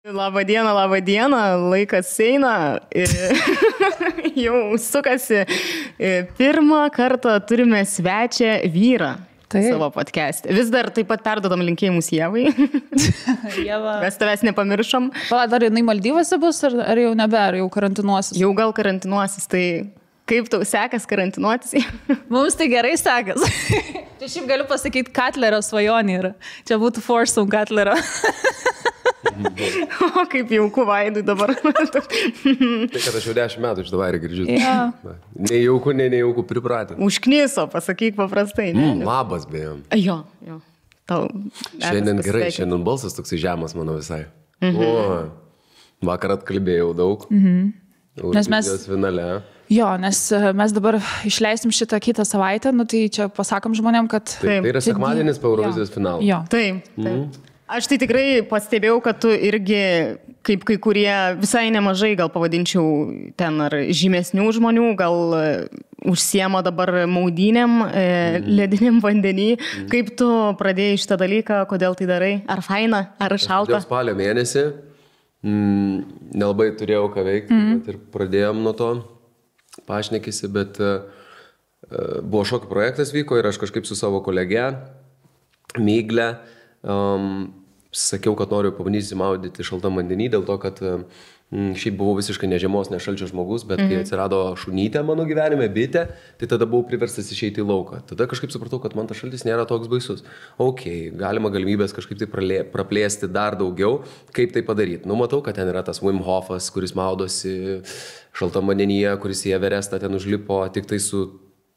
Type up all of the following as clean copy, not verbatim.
Labą dieną, laikas eina, jau sukasi. Pirmą kartą turime svečią vyrą savo podcast'e. Vis dar taip pat perdodam linkėjimus Ievai. Ieva. Mes tavęs nepamiršom. Pala, dar jinai Maldyvose bus, ar jau nebe, ar jau karantinuosis? Jau gal karantinuosis, tai kaip tau sekas karantinuotis? Mums tai gerai sekas. Čia šiaip galiu pasakyti, Katlerio svajonė yra. Čia būtų Forsum Katlerio. O kaip jauku Vaidui dabar. Tai kad aš jau 10 metų iš davarį girdžiu. Ja. Nejauku pripratę. Užkniso, pasakyk paprastai. Labas, beje. Jo. Tau Šiandien gerai, šiandien balsas toksai žemas mano visai. O, vakar atkalbėjau daug. Nes mes... finale. Jo, nes mes dabar išleisim šitą kitą savaitę, nu tai čia pasakom žmonėm, kad... Tai yra sekmadienis po Eurovizijos finalo. Jo. Taip. Aš tai tikrai pastebėjau, kad tu irgi, kaip kai kurie visai nemažai, gal pavadinčiau ten ar žymesnių žmonių, gal užsiema dabar maudynėm, lediniam vandenį. Kaip tu pradėjai šitą dalyką, kodėl tai darai? Ar faina, ar šalta? Dėl spalio mėnesį nelabai turėjau ką veikti, bet ir pradėjom nuo to pašnekėsi, bet buvo šokių projektas vyko ir aš kažkaip su savo kolege Migle sakiau, kad noriu pabandyti maudyti šaltam vandenį, dėl to, kad šiaip buvau visiškai ne žiemos, ne šalčio žmogus, bet kai atsirado šunytė mano gyvenime, bitė, tai tada buvau priverstas išeiti į lauką. Tada kažkaip supratau, kad man tas šaltis nėra toks baisus. Galima galimybės kažkaip tai praplėsti dar daugiau, kaip tai padaryti. Matau, kad ten yra tas Wim Hofas, kuris maudosi šaltam vandenyje, kuris į Everestą ten užlipo tik tai su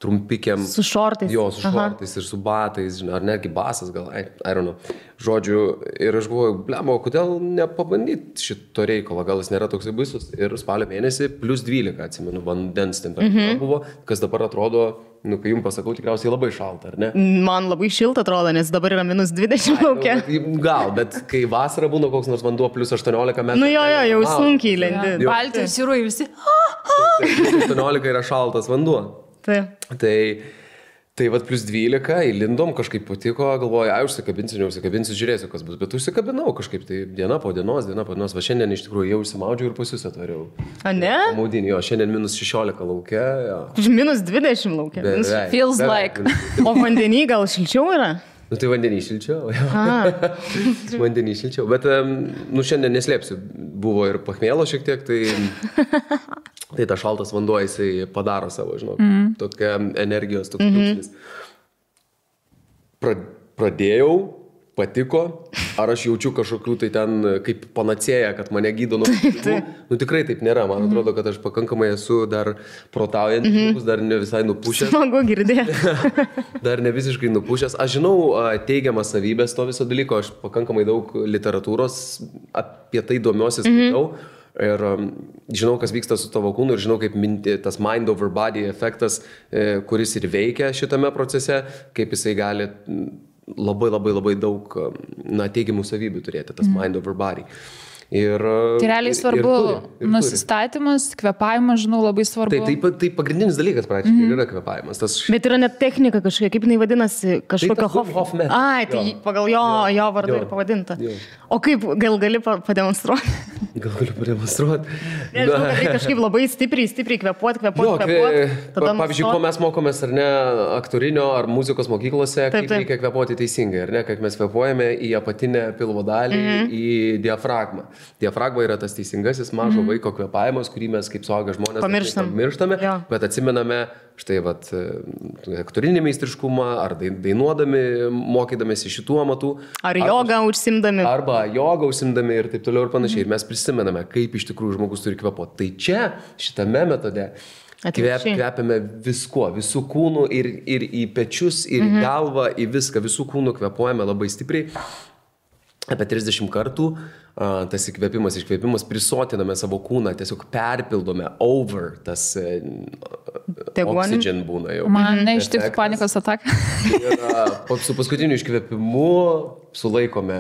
trumpikiam. Su šortais. Jo, su šortais ir su batais, ar netgi basas gal, I don't know. Žodžiu, ir aš galvoju, blemo, kodėl nepabandyti šito reikalo, gal jis nėra toksai baisus. Ir spalio mėnesį plus 12, atsimenu, vandens temperatūra buvo, kas dabar atrodo, kai jums pasakau, tikriausiai labai šalta, ar ne? Man labai šilta atrodo, nes dabar yra minus 20 laukia. Gal, bet kai vasara būna koks nors vanduo plus 18 metrų. Jau sunkiai lendi. Baltijos jūroje visi. 18 yra šaltas vanduo. Tai vat plus 12, įlindom, kažkaip patiko, galvoju, užsikabinsiu, žiūrėsiu, kas bus, bet užsikabinau kažkaip, tai diena po dienos, va šiandien iš tikrųjų jau užsimaudžiau ir pas jūs atvariau. A ne? Maudinį, jo, šiandien minus 16 laukia. Minus 20 laukia. Feels like. O vandenį gal šilčiau yra? Tai vandenį šilčiau. Vandenį šilčiau, bet šiandien neslėpsiu, buvo ir pachmėlo šiek tiek, tai ta šaltas vanduo jisai padaro savo, žinok, tokia energijos, toks kliūksnis. Pradėjau, patiko, ar aš jaučiu kažkokių tai ten kaip panacėja, kad mane gydo nuo pinigų. Tikrai taip nėra, man atrodo, kad aš pakankamai esu dar protaujantis žmogus, dar ne visai nupušęs. Smagu girdėti. Dar ne visiškai nupušęs. Aš žinau teigiamas savybės to viso dalyko, aš pakankamai daug literatūros apie tai domiuosi, skaitau. Ir žinau, kas vyksta su tavo kūnu ir žinau, kaip tas mind over body efektas, kuris ir veikia šitame procese, kaip jisai gali labai daug teigiamų savybių turėti, tas mind over body. Tai realiai svarbu nusistatymas, kvėpavimas, žinau, labai svarbu. Tai pagrindinis dalykas praktiškai yra kvėpavimas. Bet yra net technika kažkokia, kaip jinai vadinasi, kažkokia Hoffman. Tai pagal jo vardą ir pavadinta. O kaip, gal gali pademonstruoti? Gal galiu pademonstruoti? Nežinau, kad tai kažkaip labai stipriai kvėpuoti. Pavyzdžiui, ko mes mokomės, ar ne, aktorinio ar muzikos mokyklose, kaip reikia kvėpuoti teisingai, ar ne, kad mes kvėpuojame į apatinę pilvo dalį, į diafragmą. Diafragma yra tas teisingasis mažo vaiko kvėpavimas, kurį mes kaip suaugę žmonės pamirštame, bet atsimename štai aktorinį meistriškumą, ar dainuodami, mokydamėsi šitų amatų. Ar jogą užsimdami. Arba jogą užsimdami ir taip toliau ir panašiai. Ir mes prisimename, kaip iš tikrųjų žmogus turi kvėpuoti. Tai čia, šitame metode, kvepiame viskuo, visų kūnų ir į pečius, ir į galvą, į viską, visų kūnų kvepuojame labai stipriai. Apie 30 kartų tas įkvėpimas, iškvėpimas, prisotiname savo kūną, tiesiog perpildome over, tas oxygen būna jau. Man neištiktų panikos ataka. Ir su paskutiniu iškvėpimu sulaikome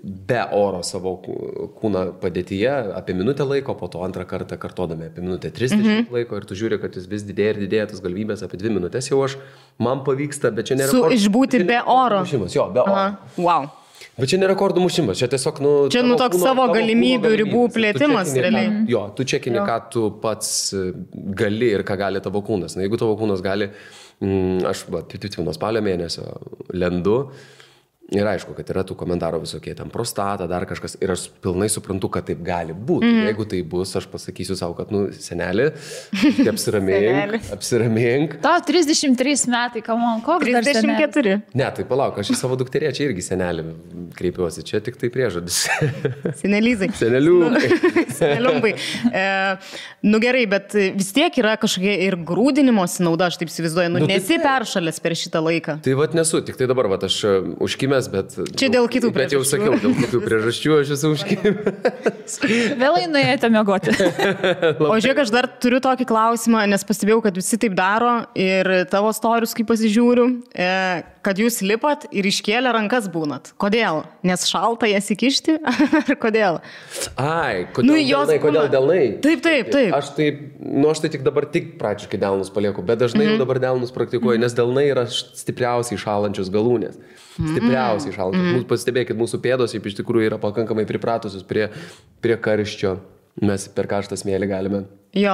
be oro savo kūną padėtyje apie minutę laiko, po to antrą kartą kartodame apie minutę 30 laiko ir tu žiūri, kad jis vis didėja ir didėja tas galimybės, apie 2 minutės jau man pavyksta, bet čia nėra... Išbūti be oro. Jo, be oro. Wow. Bet čia ne rekordų mušimas, čia tiesiog, Čia, toks savo galimybių ribų plėtimas, realiai. Jo, tu čekini, ką tu pats gali ir ką gali tavo kūnas. Na, jeigu tavo kūnas gali, aš, nuo spalio mėnesio lendu, ir aišku, kad yra tų komentarų visokie, ten prostata, dar kažkas, ir aš pilnai suprantu, kad taip gali būti. Jeigu tai bus, aš pasakysiu savo, kad, senelį, apsiramink. Tau 33 metai, kamon, koks dar 34. Ne, tai palauk, aš į savo dukterį čia irgi senelį kreipiuosi, čia tik tai priežodis. Senelizai. Seneliumbai. Gerai, bet vis tiek yra kažkokia ir grūdinimosi nauda, aš taip įsivaizduoju, nesi peršalęs per šitą laiką. Tai nesu, tik tai dabar, aš užkimęs, bet... Čia dėl kitų priežasčių. Bet jau sakiau, dėl kitų priežasčių aš esu užkimęs. Vėlai nuėjote miegoti. O žiūrėk, aš dar turiu tokį klausimą, nes pastebėjau, kad visi taip daro ir tavo storius, kai pasižiūriu, kad jūs lipat ir iškėlę rankas būnat. Kodėl? Nes šalta jas įkišti? Ar kodėl? Ai, kodėl delnai? Taip. Aš tai tik dabar praktiškai delnus palieku, bet dažnai jau dabar delnus praktikuoju, nes delnai yra stipriausiai šalančios galūnės. Stipriausiai šalančios. Pastebėkit, mūsų pėdos iš tikrųjų yra pakankamai pripratusios prie karščio. Mes per karštą smėlį galime. Jo,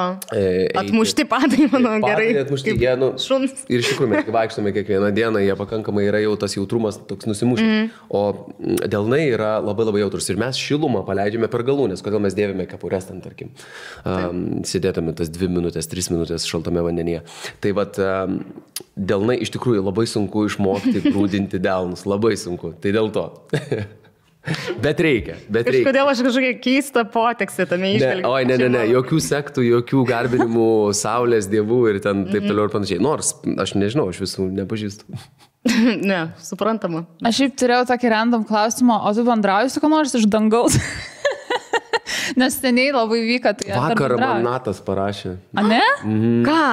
atmušti padai, manau, gerai. Atmušti, šuns. Ir iš tikrųjų, mes vaikštome kiekvieną dieną, jie pakankamai yra jau tas jautrumas toks nusimušęs. O delnai yra labai labai jautrus. Ir mes šilumą paleidžiame per galūnės. Kodėl mes dėvime kepures ten, tarkim. Sėdėtume tas 2 minutės, 3 minutės šaltame vandenyje. Tai delnai iš tikrųjų labai sunku išmokti grūdinti delnus. Labai sunku. Tai dėl to. Bet reikia. Kažkodėl aš kažkokią keistą poteksį tame išvelgiu. Oi, ne, jokių sektų, jokių garbinimų saulės dievų ir ten taip toliau ir panašiai. Nors, aš nežinau, aš visų nepažįstu. Ne, suprantama. Aš šiaip turėjau tokį random klausimą, o tu bendrauji su ko nors iš dangaus? Nes seniai labai vyka. Tai vakar man Natas parašė. A ne? Ką,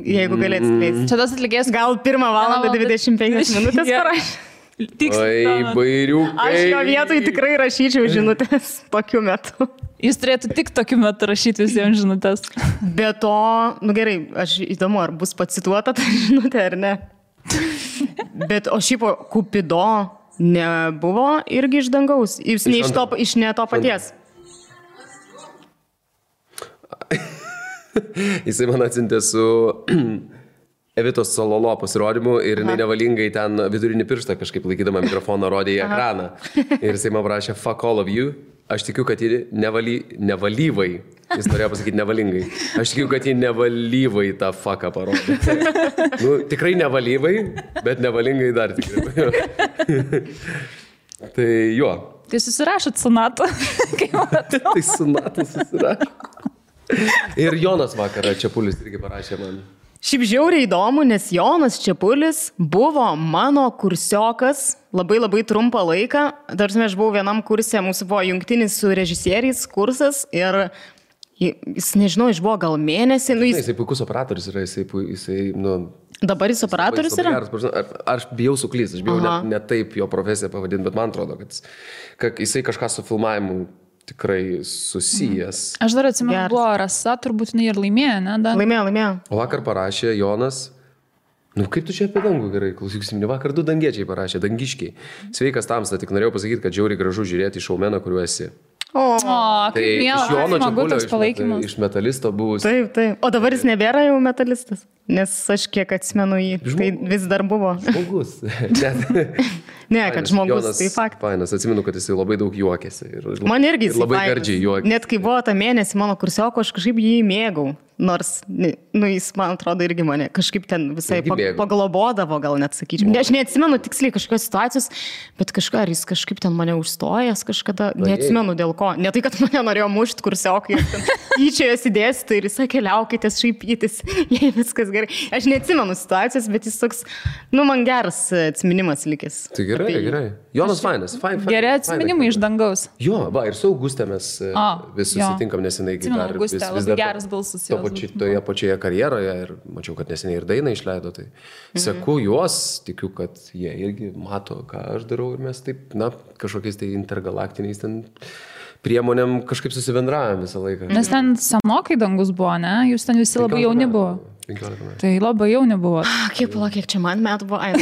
jeigu galėt skleisti? Čia tas atlikėjas. Gal 1 valandą 25 minutės parašė? Oi, bairiukai. Aš jo vietoj tikrai rašyčiau žinutės tokiu metu. Jis turėtų tik tokiu metu rašyti visiems žinutės. Be to, gerai, aš įdomu, ar bus pacituota ta žinutė ar ne. Bet o šiaip Kupido nebuvo irgi iš dangaus. Jūs iš ne to paties. Jisai man atsintė su Evitos Sololo pasirodymu ir jinai nevalingai ten vidurinį pirštą kažkaip laikydama mikrofoną rodė į ekraną. Ir jisai man prašė fuck all of you. Aš tikiu, kad ji nevalyvai. Jis norėjo pasakyti nevalingai. Aš tikiu, kad ji nevalyvai tą fucką parodė. Tikrai nevalyvai, bet nevalingai dar tikrai. Tai jo. Tai susirašot su NATO. Tai su NATO susirašot. Ir Jonas vakarą Čepulis irgi parašė man. Šiaip žiauriai įdomu, nes Jonas Čepulis buvo mano kursiokas labai labai trumpą laiką. Tarsi aš buvau vienam kurse, mūsų buvo jungtinis su režisieriais kursas ir jis, nežinau, buvo gal mėnesį. Jisai puikus operatorius yra, jisai Dabar jis operatorius yra? Aš bijau suklysti, aš bijau ne taip jo profesiją pavadinti, bet man atrodo, kad jisai kažką su filmavimu tikrai susijęs. Aš dar atsimenu, buvo Rasa, turbūt jinai ir laimėjo, ne? Laimėjo. O vakar parašė Jonas, kaip tu čia apie dangų gerai, klausysim, vakar 2 dangiečiai parašė, dangiškiai. Sveikas Tamsta, tik norėjau pasakyti, kad žiauriai gražu žiūrėti šaumeną, kuriuo esi. Tai iš Jono Čepulio, iš metalisto buvus. Taip. O dabar jis nebėra jau metalistas, nes aš kiek atsimenu jį, tai vis dar buvo. Žmogus. Ne, kad žmogus, tai fakt. Fainas, atsimenu, kad jis labai daug juokėsi. Man irgi jis labai gardžiai juokėsi. Net kai buvo tą mėnesį mano kursioko, aš kažkaip jį mėgau. Nors, jis, man atrodo, irgi mane kažkaip ten visai paglobodavo, gal net sakyčiau. Aš neatsimenu tiksliai kažkokios situacijos, bet ar jis kažkaip ten mane užstojęs kažkada, neatsimenu dėl ko. Ne tai, kad mane norėjo mušti kursiokai, tyčiojosi dėstyti ir jis sakė, liaukitės šaipytis, jei viskas gerai. Aš neatsimenu situacijos, bet jis toks, man geras atsiminimas likęs. Tai gerai. Jonas fainas. Geri atsiminimai iš dangaus. Jo, ir su Augustė mes vis susitinkam nesenai. Augustė, labai geras balsas. Toje pačioje karjeroje ir mačiau, kad neseniai ir dainą išleido, tai seku juos, tikiu, kad jie irgi mato, ką aš darau ir mes taip, kažkokiais tai intergalaktiniais ten priemonėm kažkaip susibendravome visą laiką. Nes ten senokai dangus buvo, ne? Jūs ten visi labai jauni buvo. 15 metų. Tai labai jauni buvo. Kiek čia man metų buvo? Ai,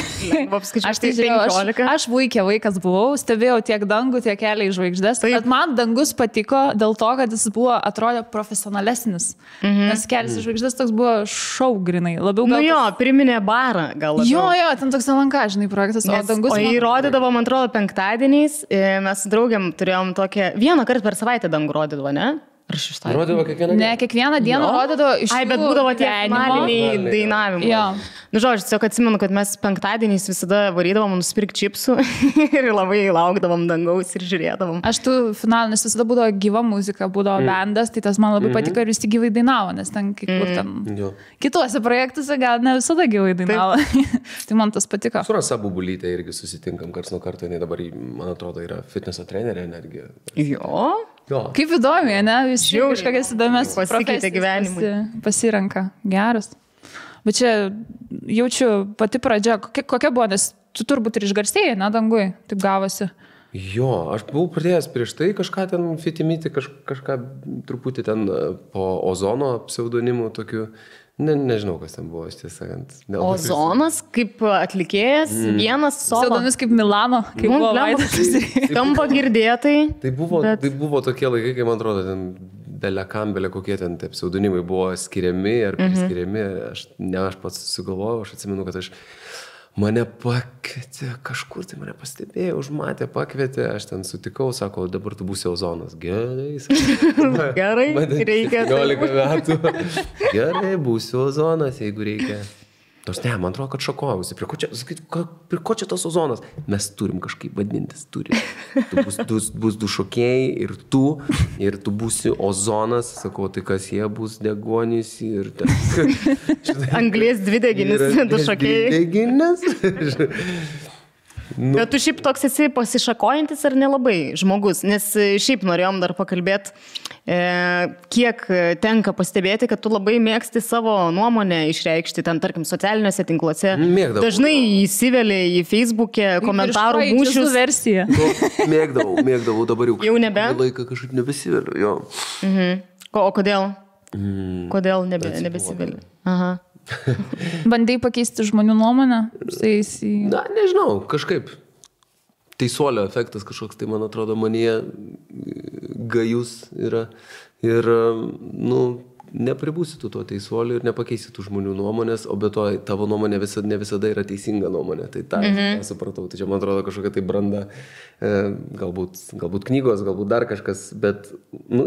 Aš tai žiūrėjau, aš vaikė vaikas buvau, stebėjau tiek dangų, tiek kelią į žvaigždės. Bet man dangus patiko dėl to, kad jis buvo, atrodė profesionalesnis. Nes kelias į žvaigždės toks buvo šou grinai. Labiau gal... Nu jo, priminė barą gal labiau. Jo, ten toks LNK, žinai, projektas. O dangus... O jį rodydavo, man atrodo, penktadieniais. Mes su draugiam turėjom tokią... Vieną kartą per savaitę dangų rodydavo, ne? Rodydavo kiekvieną dieną? Ne, kiekvieną dieną rodydavo iš... Ai, bet būdavo tie finaliniai dainavimai. Jo. Nu, žodžiu, tiesiog atsimenu, kad mes penktadieniais visada varydavom nusipirkti čipsų ir labai laukdavom dangaus ir žiūrėdavom. Aš tų finalinis visada būdavo gyva muzika, būdavo bandas, tai tas man labai patiko ir visi gyvai dainavo, nes ten kai kur ten... Kituose projektuose gal ne visada gyvai dainavo. Tai man tas patiko. Su Rasa Bubulytė irgi susitinkam karts nuo karto, jinai dabar, man atrodo, yra fitneso trenerė energija. Jo. Kaip įdomi, ne? Visi kažkokias įdomias pasikeitė gyvenimui. Pasirenka. Geras. Bet čia jaučiu pati pradžia. Kokia buvo, nes tu turbūt ir išgarsėjai, ne, dangui? Taip gavosi. Jo, aš buvau pradėjęs prieš tai kažką ten fitimyti, kažką truputį ten po Ozono pseudonimu tokiu. Nežinau, kas ten buvo, tiesą sakant. Ozonas kaip atlikėjas, vienas solo. Pseudonimis kaip Milano, kaip buvo Vaidas. Skamba girdėtai. Tai buvo tokie laikai, kai man atrodo, ten belekambelė, kokie ten tie pseudonimai buvo skiriami ar priskiriami. Aš pats sugalvojau, aš atsimenu, kad mane pakvietė kažkur, tai mane pastebėjo, užmatė, pakvietė, aš ten sutikau, sako, dabar tu būsi Ozonas. Gerai, gerai, reikia. 15 metų. Gerai, būsiu Ozonas, jeigu reikia. Tos ne, man atrodo, kad šokojausi. Prie ko čia tas Ozonas? Mes turim kažkaip vadintis, turim. Bus du šokėjai ir tu būsi Ozonas. Sakau, tai kas jie bus degonys ir... Anglies dvideginis, du šokėjai. Dvideginis. Bet tu šiaip toks esi pasišakojantis ar nelabai žmogus, nes šiaip norėjom dar pakalbėti, kiek tenka pastebėti, kad tu labai mėgsti savo nuomonę išreikšti, ten tarkim socialiniuose tinkluose. Mėgdavau. Dažnai įsiveli į Facebook'e komentarų mūšius. Mėgdavau, dabar jau nebe? Laiką kažkaip nebesiveliu, jo. O kodėl? Kodėl nebesiveli? Aha. Bandai pakeisti žmonių nuomonę? Na, nežinau, kažkaip. Teisuolio efektas kažkoks, tai man atrodo, manyje gajus yra. Ir, nepribūsi tu tuo teisuoliu ir nepakeisi tų žmonių nuomonės, o be to tavo nuomonė ne visada yra teisinga nuomonė. Tai tą supratau. Tai čia, man atrodo, kažkokia tai branda, galbūt knygos, galbūt dar kažkas, bet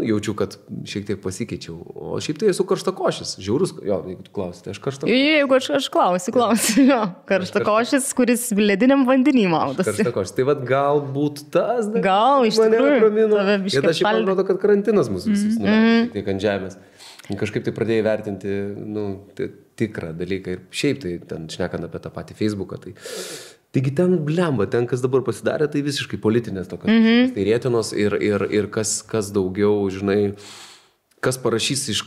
jaučiu, kad šiek tiek pasikeičiau. O šiaip tai esu karštakošis. Žiaurus, jeigu tu klausi, tai aš karštakošis. Jeigu aš klausiu, jo. Karštakošis, kuris lediniam vandenį maudosi. Karštakošis. Tai vat galbūt tas... Gal, iš tikrųjų. Ir aš šiaip man atrodo, kad karantinas mūsų visus šiek tiek ant žemės. Kažkaip tai pradėjai vertinti tikrą dalyką ir šiaip tai ten šnekant apie tą patį Facebooką. Taigi ten blemba, ten kas dabar pasidarė, tai visiškai politinės tokios tai rėtinos ir kas daugiau, žinai, kas parašys iš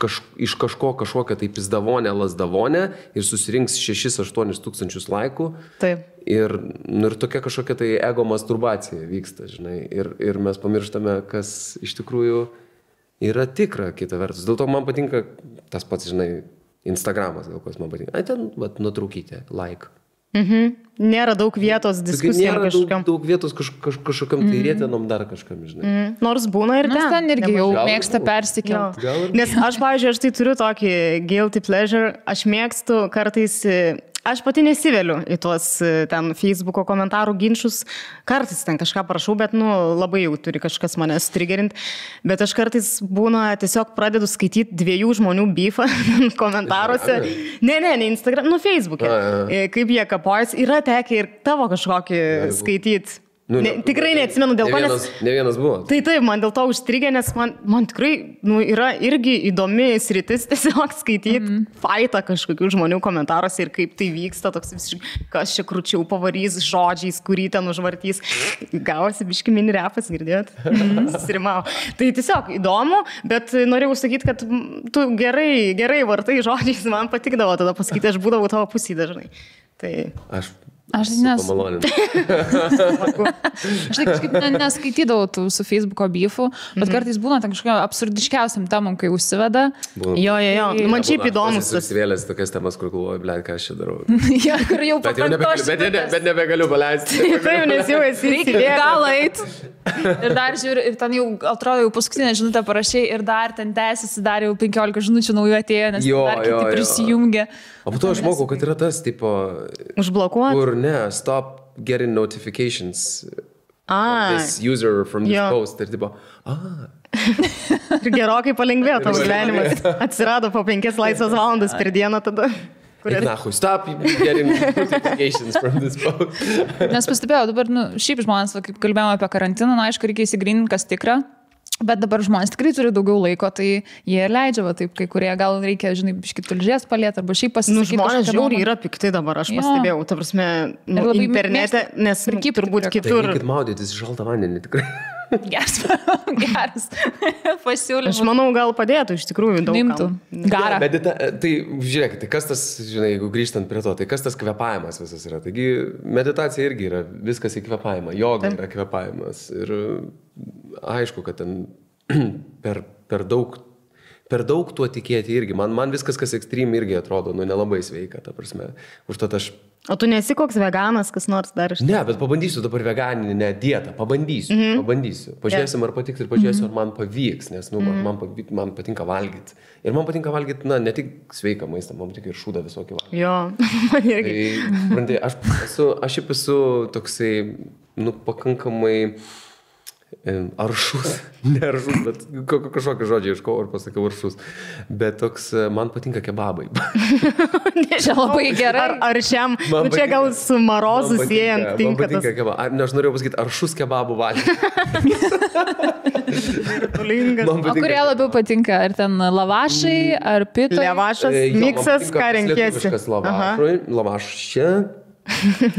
kažkokią tai pizdavonę, lasdavonę ir susirinks 6-8 tūkstančius laikų. Taip. Ir tokia kažkokia tai ego masturbacija vyksta, žinai. Ir mes pamirštame, kas iš tikrųjų yra tikra, kita vertus. Dėl to man patinka tas pats, žinai, Instagramas, dėl ko man patinka. Ten, nutraukite, like. Nėra daug vietos diskusijom kažkokiam. Nėra daug vietos kažkokiam tai rėtenom dar kažkam, žinai. Nors būna ir ten. Nors ten irgi jau mėgsta persikelti. Nes aš, pavyzdžiui, aš tai turiu tokį guilty pleasure. Aš mėgstu kartais... Aš pati nesiveliu į tuos ten Facebooko komentarų ginčius. Kartais ten kažką parašau, bet labai jau turi kažkas mane strigerint. Bet aš kartais būna tiesiog pradedu skaityti 2 žmonių beefą komentaruose. Ne, Instagram, Facebook'e. Kaip jie kapojasi. Yra tekę ir tavo kažkokį skaityti. Tikrai neatsimenu dėl ko, nes... Ne vienas buvo. Tai taip, man dėl to užstrigė, nes man tikrai yra irgi įdomi sritis tiesiog skaityti faitą kažkokių žmonių komentaruose ir kaip tai vyksta, toks visiškai, kas čia krūčiau pavarys žodžiais, kurį ten užvartys. Gavosi biški mini repas, girdėjot? Susirimau. Tai tiesiog įdomu, bet norėjau sakyti, kad tu gerai vartai žodžiais, man patikdavo tada pasakyti, aš būdavau tavo pusėje dažnai. Tai... Aš kažkaip neskaitydavau tų su Facebook'o beefų, bet kartais būna ten kažkokia absurdiškiausiam temam, kai užsiveda. Jo. Man šiaip įdomus. Susivėlės tokias temas, kur galvoju, blėt, ką aš čia darau. Ja, kur jau bet nebegaliu paleisti. Taip, nes jau esi įsidėjęs. Gal eit. Ir dar žiūri, ir ten jau, atrodo, jau paskutinę žinutę parašai ir dar ten tęsiasi, dar jau 15 žinučių naujų atėjo, nes dar kiti prisijungia. O po to aš mokau, kad yra tas, tipo... Užblokuoti? Kur ne, stop getting notifications from this user from this post. Ir tipo, Ir gerokai palengvėjo tavo gyvenimas. Atsirado po 5 laisvas valandas per dieną tada. Nahui, stop getting notifications from this post. Nes pastebėjau, dabar, šiaip žmonės, kaip kalbėjome apie karantiną, aišku, reikia įsigryninti, kas tikra. Bet dabar žmonės tikrai turi daugiau laiko, tai jie ir leidžia, taip, kai kurie gal reikia, žinai, biškit tulžės palėti, arba šiaip pasisakyti. Žmonės žiauriai yra pikti dabar, aš pastebėjau, ta prasme, internete, nes turbūt kitur. Reikit maudytis šaltą vandenį, tikrai. Geras pasiūlymas. Aš manau, gal padėtų iš tikrųjų daug. Nimtų. Garą. Tai žiūrėkit, tai kas tas, žinai, jeigu grįžtant prie to, tai kas tas kvėpavimas visas yra. Taigi meditacija irgi yra viskas į kvėpavimą, joga yra kvėpavimas. Ir aišku, kad ten per daug tuo tikėti irgi. Man viskas, kas ekstrem irgi atrodo, nelabai sveika, ta prasme. Užtat aš... O tu nesi koks veganas, kas nors dar iš... Ne, bet pabandysiu dabar veganinę dietą. Pabandysiu. Pažiūrėsim, ar patiks ir pažiūrėsiu, ar man pavyks, nes man patinka valgyti. Ir man patinka valgyti, ne tik sveiką maistą, man patinka ir šūdą visokį valgyti. Jo, man irgi. Tai, aš esu toksai, pakankamai... aršus, ne aršus, bet kažkokį žodžią iškau ir pasakiau aršus, bet toks, man patinka kebabai. Čia labai gerai. Ar šiam, čia gal su marozu siejant tinka tas. Kebabai. Aš norėjau pasakyti aršus kebabų valgyti. O kurie labiau patinka? Ar ten lavašai, ar pito? Lavašas, miksas, ką renkiesi? Lavašė.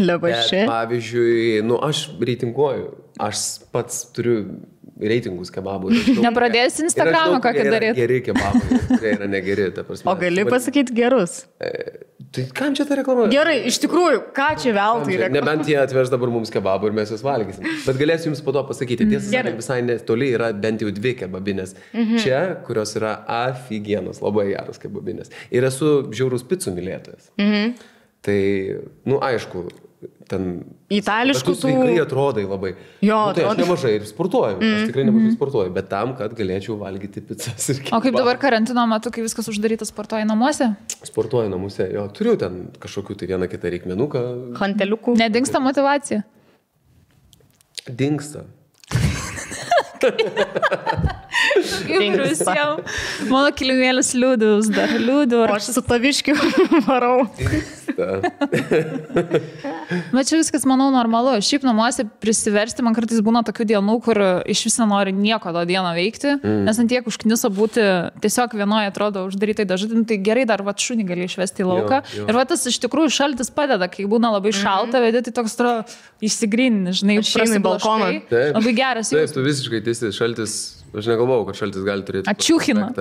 Lavašė. Pavyzdžiui, aš reitinguoju. Aš pats turiu reitingus kebabų. Nepradėsi Instagramą kokį daryti. Geri kebabai, kurie yra negeri. O gali pasakyti gerus? Tai kam čia ta reklama? Gerai, iš tikrųjų, ką čia veltui reklama? Nebent jie atveš dabar mums kebabų ir mes juos valgysim. Bet galėsiu jums po to pasakyti. Tiesą sakant, visai netoli yra bent jau 2 kebabinės. Čia, kurios yra afigienos, labai geros kebabinės. Ir esu žiaurus picų mylėtojas. Tai, aišku, ten... Itališkų tų... Sveikai atrodai labai. Jo, tai aš nemažai ir sportuoju. Aš tikrai nemažai sportuoju, bet tam, kad galėčiau valgyti pizzas ir kebabą. O kaip dabar karantino metu, kai viskas uždaryta, sportuoji namuose? Sportuoju namuose, jo. Turiu ten kažkokių tai vieną kitą reikmenuką. Hanteliukų. Nedingsta motyvacija? Dingsta. Mano kilimėlis liūdus, dar liūdų. O aš su taviškiu varau. Bet čia viskas, manau, normalu. Šiaip namuose prisiversti, man kartais būna tokių dienų, kur iš vis nenori nieko tą dieną veikti, nes ant tiek užkniso būti tiesiog vienoje, atrodo, uždarytai dažadin, tai gerai dar šunį gali išvesti į lauką. Jo. Ir tas iš tikrųjų šaltis padeda, kai būna labai šalta, vedi, tai toks atrodo išsigryni, žinai, balkoną. Labai geras jausmas. Taip, tu visiškai teisi, šaltis, aš negalvojau, kad šaltis gali turėti. Ačiūchina.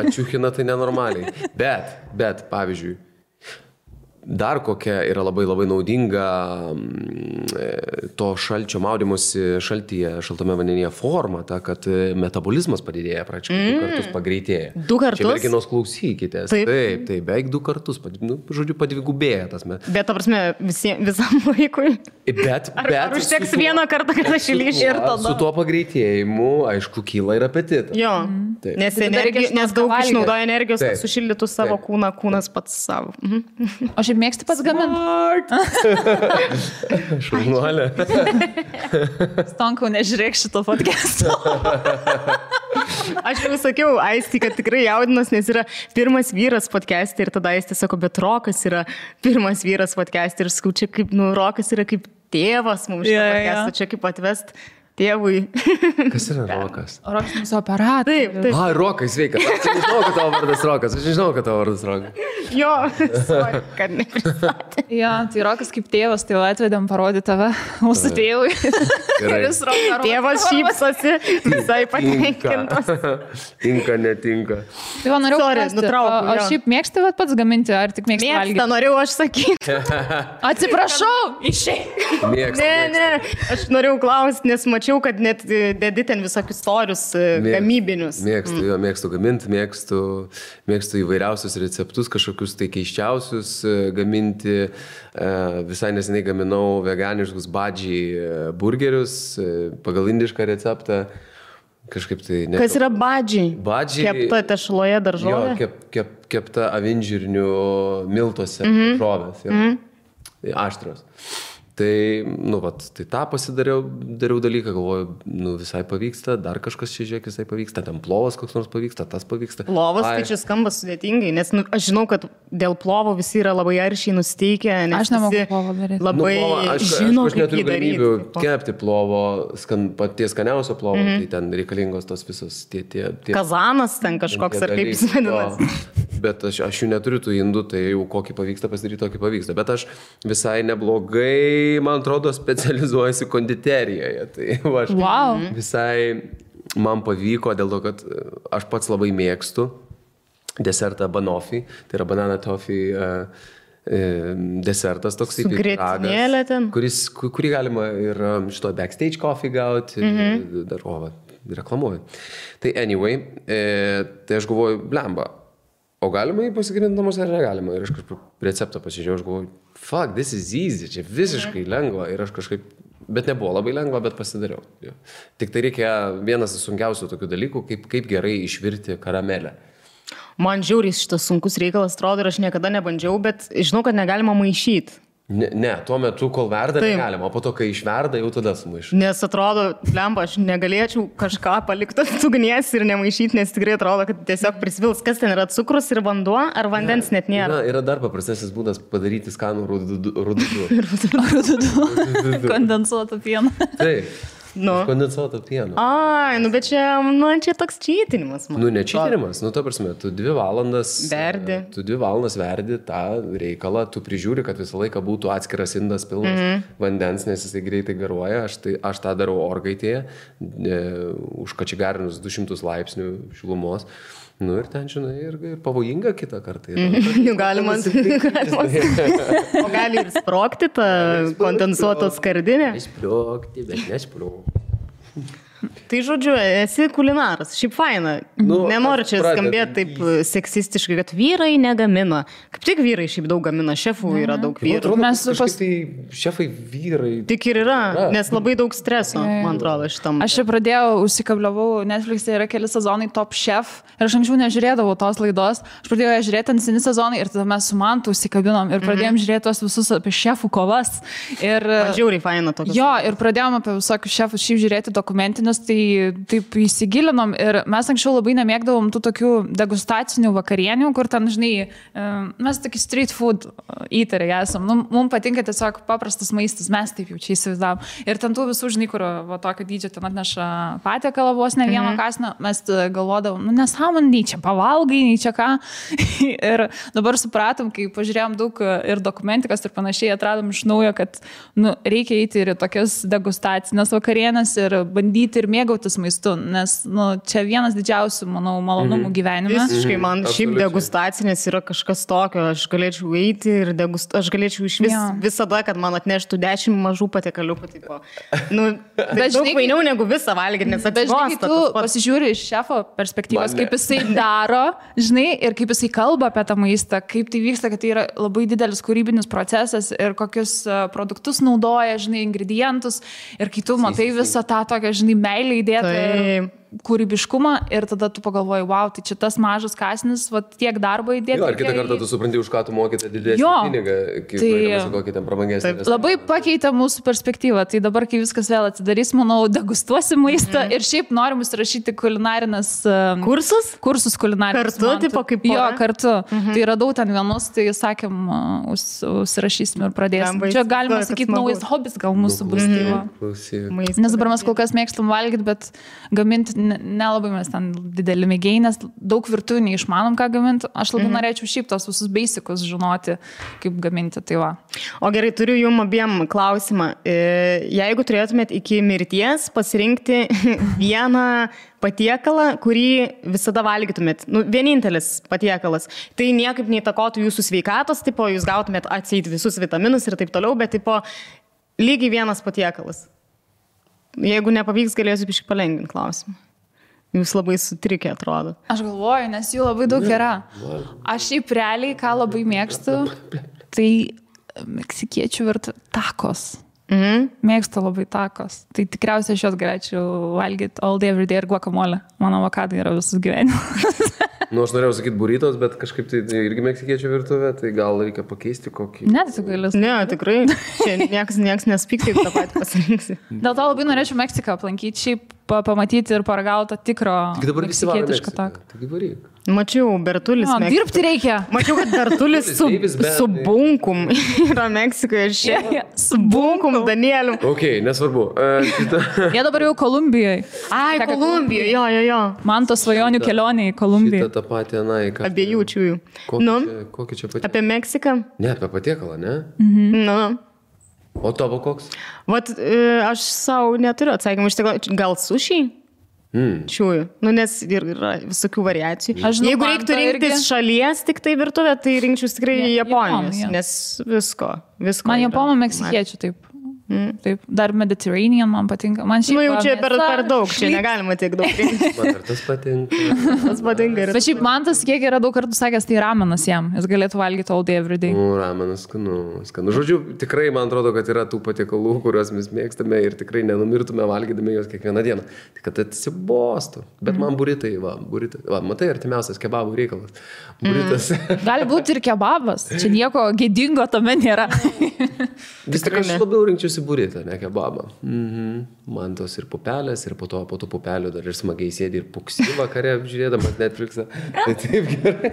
Ačiūchina tai nenormaliai. Bet, pavyzdžiui, dar kokia yra labai labai naudinga to šalčio maudymosi šaltame vandenyje forma, ta, kad metabolizmas padidėja, praktiškai 2 kartus pagreitėja. 2 kartus? Čia merginos klausykitės. Taip, beveik 2 kartus, žodžiu, padvigubėja tas. Bet, ta prasme, visam laikui? Ar užteks vieną kartą, kad aš įlyšiu ir tada? Su tuo pagreitėjimu, aišku, kyla ir apetitas. Jo, nes daug išnaudoja energijos, kad sušildytų savo kūną, kūnas pats savo. O šiaip mėgsti pats gaminti? Šaunuolė. Stonkau, nežiūrėk šito podcast'o. Aš jau sakiau, Aisti, kad tikrai jaudinas, nes yra pirmas vyras podcast'e ir tada Aisti sako, bet Rokas yra pirmas vyras podcast'e ir sakau, čia kaip, Rokas yra kaip tėvas mums šitą podcast'ą, čia kaip atvest. Tėvui. Kas yra Rokas? Rokas mūsų operatorius. Taip. Ai, Rokai, sveika. Aš nežinau, kad tavo vardas Rokas. Aš nežinau, kad tavo vardas Rokas. Jo, kad nepristatė. Jo, tai Rokas kaip tėvas, tai atvedėm parodyti tave mūsų tėvui. Tėvas šypsosi, visai patenkintas. Tinka, netinka. Tai va, norėjau nutraukti. O šiaip mėgsti pats gaminti, ar tik mėgsti valgyti? Mėgsta, norėjau aš sakyti. Atsiprašau, išeik. Ne, aš norėjau klausti, nes mačiau, kad net dedi ten visokius storius gamybinius. Mėgstu gaminti, mėgstu įvairiausius receptus, kažkokius tai keiščiausius gaminti. Visai neseniai gaminau veganiškus badžiai burgerius pagal indišką receptą. Kažkaip tai... Kas yra badžiai? Badžiai... Kepta tešloje daržovė? Jo, kepta avinžirnių miltuose daržovės. Aštrios. Tai, tai tą pasidariau dalyką, galvoju, visai pavyksta, dar kažkas čia žiūrėk, visai pavyksta, ten plovas koks nors pavyksta, tas pavyksta. Plovas tai čia skamba sudėtingai, nes aš žinau, kad dėl plovo visi yra labai aršiai nusteikę, nes aš nemoku plovo daryti. Labai žinau, aš neturiu galimybių kepti plovo, paties skaniausio plovo, tai ten reikalingos tos visos tie kazanas ten kažkoks ar kaip jis vadinasi. Bet aš jų neturiu tų indų, tai jau kokį pavyksta pasidaryti, tokį pavyksta. Bet aš visai neblogai, man atrodo, specializuojasi konditerijoje. Tai aš visai man pavyko dėl to, kad aš pats labai mėgstu desertą banoffee, tai yra banana toffee desertas toks kaip grietinėlė ten, kurį galima ir šito backstage coffee gauti, dar reklamuoju. Tai anyway, tai aš galvoju, blemba. O galima jį pasigaminti namuose ar negalima? Ir aš kažkaip receptą pasižiūrėjau, aš galvoju, fuck, this is easy, čia visiškai lengva. Ir aš kažkaip, bet nebuvo labai lengva, bet pasidariau. Jo. Tik tai reikia vienas sunkiausių tokių dalykų, kaip gerai išvirti karamelę. Man žiauriai šitas sunkus reikalas atrodo ir aš niekada nebandžiau, bet žinau, kad negalima maišyti. Ne, tuo metu, kol verda, negalima, o po to, kai išverda, jau tada sumaišau. Nes atrodo, lemba, aš negalėčiau kažką palikti ant ugnies ir nemaišyti, nes tikrai atrodo, kad tiesiog prisvils. Kas ten yra, cukrus ir vanduo, ar vandens net nėra? Yra dar paprastesnis būdas padaryti skanų rududu. Kondensuotą pieną. Taip. Kondensuoto pieno. Ai, bet čia toks čytinimas. Ne čytinimas, ta prasme, tu 2 valandas verdi tą reikalą, tu prižiūri, kad visą laiką būtų atskiras indas pilnas vandens, nes jisai greitai garuoja, aš tą darau orkaitėje, užkačigarinus 200 laipsnių šilumos. Ir ten, žinai, ir pavojinga kitą kartą. Galima. O gali ir sprogti tą kondensuotą skardinę? Nesprogti, bet nesprogti. Tai žodžiu, esi kulinaras, šiaip faina. Nenoriu čia skambėti taip seksistiškai, kad vyrai negamina. Kaip tik vyrai šiaip daug gamina, šefų yra daug vyrų. Šefai vyrai. Tik ir yra, nes labai daug streso, man atrodo, šitam. Aš čia pradėjau, užsikabliavau, Netflix'e yra keli sezonai Top Chef ir aš anksčiau nežiūrėdavau tos laidos. Aš pradėjau ją žiūrėti ant seni sezonai ir tada mes su Mantu užsikabinom ir pradėjom žiūrėti tos visus apie šefų kovas. Man žiauriai faina tokios. Jo, ir pradėjom apie visokius šefus šiaip žiūrėti dokumentinius. Tai taip įsigilinom ir mes anksčiau labai nemėgdavom tų tokių degustacinių vakarienių, kur ten, žinai, mes tokį street food eateriai esam. Mums patinka tiesiog paprastas maistas, mes taip jau čia įsivaizdavom. Ir ten tų visų, žinai, kur tokio dydžio ten atneša patiekalą vos ne vieno kasno, mes galvodavom, nesąmonė, nei čia pavalgai, nei čia ką. Ir dabar supratom, kai pažiūrėjom daug ir dokumentikos ir panašiai, atradom iš naujo, kad reikia eiti ir tokias degustacinės vakarienės ir bandyti ir mėgautis maistu, nes čia vienas didžiausių, manau, malonumų gyvenime. Visiškai, man šiaip degustacinės yra kažkas tokio, aš galėčiau eiti ir aš galėčiau iš visada, kad man atneštų 10 mažų patiekaliukų. Tai daug vainiau negu visą valgyti, nes atsibosta. Tu pasižiūri iš šefo perspektyvos, kaip jisai daro, žinai, ir kaip jisai kalba apie tą maistą, kaip tai vyksta, kad tai yra labai didelis kūrybinis procesas ir kokius produktus naudoja, žinai, ingredientus ir kai tu matai visą tą tokią, žinai, meilę įdėtą. kūrybiškumą ir tada tu pagalvoji, wow, tai čia tas mažas kąsnis, va, tiek darbo įdėti. Jo, ir kitą kartą tu supranti, už ką tu mokėte didesnį pinigą, kaip kokį ten prabangesnį. Labai pakeitė mūsų perspektyvą, tai dabar, kai viskas vėl atsidarys, manau, degustuosim maistą ir šiaip norim įsirašyti kulinarinės kursus kulinarinės. Kartu, tipo kaip pora? Jo, kartu. Tai radau ten vienus, tai sakėm, užsirašysim ir pradėsim. Čia galima sakyti, naujas hobis gal mūsų bus. Nes dabar mes kol kas mėgstam valgyti, bet gaminti nelabai mes ten didelį mėgėjai, nes daug virtuvių neišmanom, ką gaminti. Aš labai norėčiau šiaip tos visus basicus žinoti, kaip gaminti. Tai va. O gerai, turiu jums abiem klausimą. Jeigu turėtumėt iki mirties pasirinkti vieną patiekalą, kurį visada valgytumėt, vienintelis patiekalas, tai niekaip neįtakotų jūsų sveikatos, tipo, jūs gautumėt atseit visus vitaminus ir taip toliau, bet tipo, lygiai vienas patiekalas. Jeigu nepavyks, galėsiu biškai palengvinti klausimą. Jūs labai sutrikę atrodo. Aš galvoju, nes jų labai daug yra. Aš šiaip realiai, ką labai mėgstu, tai meksikiečių takos. Mėgstu labai takos. Tai tikriausiai aš jos galėčiau valgyti all day, every day ir guacamole. Mano avokadai yra visus gyvenimus. Aš norėjau sakyti burritos, bet kažkaip tai irgi meksikiečių virtuvė, tai gal reikia pakeisti kokį. Ne, tai galės. Ne, tikrai. Čia nieks nespyk, taip tą patį pasirinksi. Dėl to labai norėčiau Meksiką aplankyti, šiaip pamatyti ir paragautą tikro meksikietišką taką. Taigi varyk. Mačiau, Bertulis. Dirbti reikia. Mačiau, kad Bertulis su bunkum yra Meksikoje. Su bunkum, Danieliu. Ok, nesvarbu. Jie dabar jau Kolumbijoje. Ai, Kolumbijoje, jo. Man to svajonių kelionė į Kolumbiją. Šitą tą patį, abiejų čiųjų. Kokį čia patiekalą? Apie Meksiką? Ne, apie patiekalą, ne? Nu. O tavo koks? Vat, aš savo neturiu atsakymų. Gal sušiai? Čiųjų. Nes yra visokių variacijų. Jeigu reiktų rinktis šalies tik tai virtuvę, tai rinkčiau tikrai Japonijos. Nes visko. Man japonų meksikiečių taip. Taip, dar Mediterranean man patinka. Man šiaip jau čia per daug, čia negalima tiek daug rinkti. Man ir tas patinka. Tas patinka. Bet šiaip man tas kiek yra daug kartų sakęs, tai ramenas jam. Jis galėtų valgyti all day, every day. Ramenas skanu. Žodžiu, tikrai man atrodo, kad yra tų patiekalų, kuriuos mes mėgstame ir tikrai nenumirtume valgydami juos kiekvieną dieną. Tik kad atsibostų. Bet man buritai. Matai, artimiausias kebabų reikalas. Buritas. Gali būti ir kebabas. Čia nieko gėdingo tame nėra. Vis tik aš labiau rinkčiausi buritą, ne kebabą. Man tos ir pupelės, ir po tų pupelių dar ir smagiai sėdi ir puksi vakare apžiūrėdamas Netflixą. Tai taip gerai.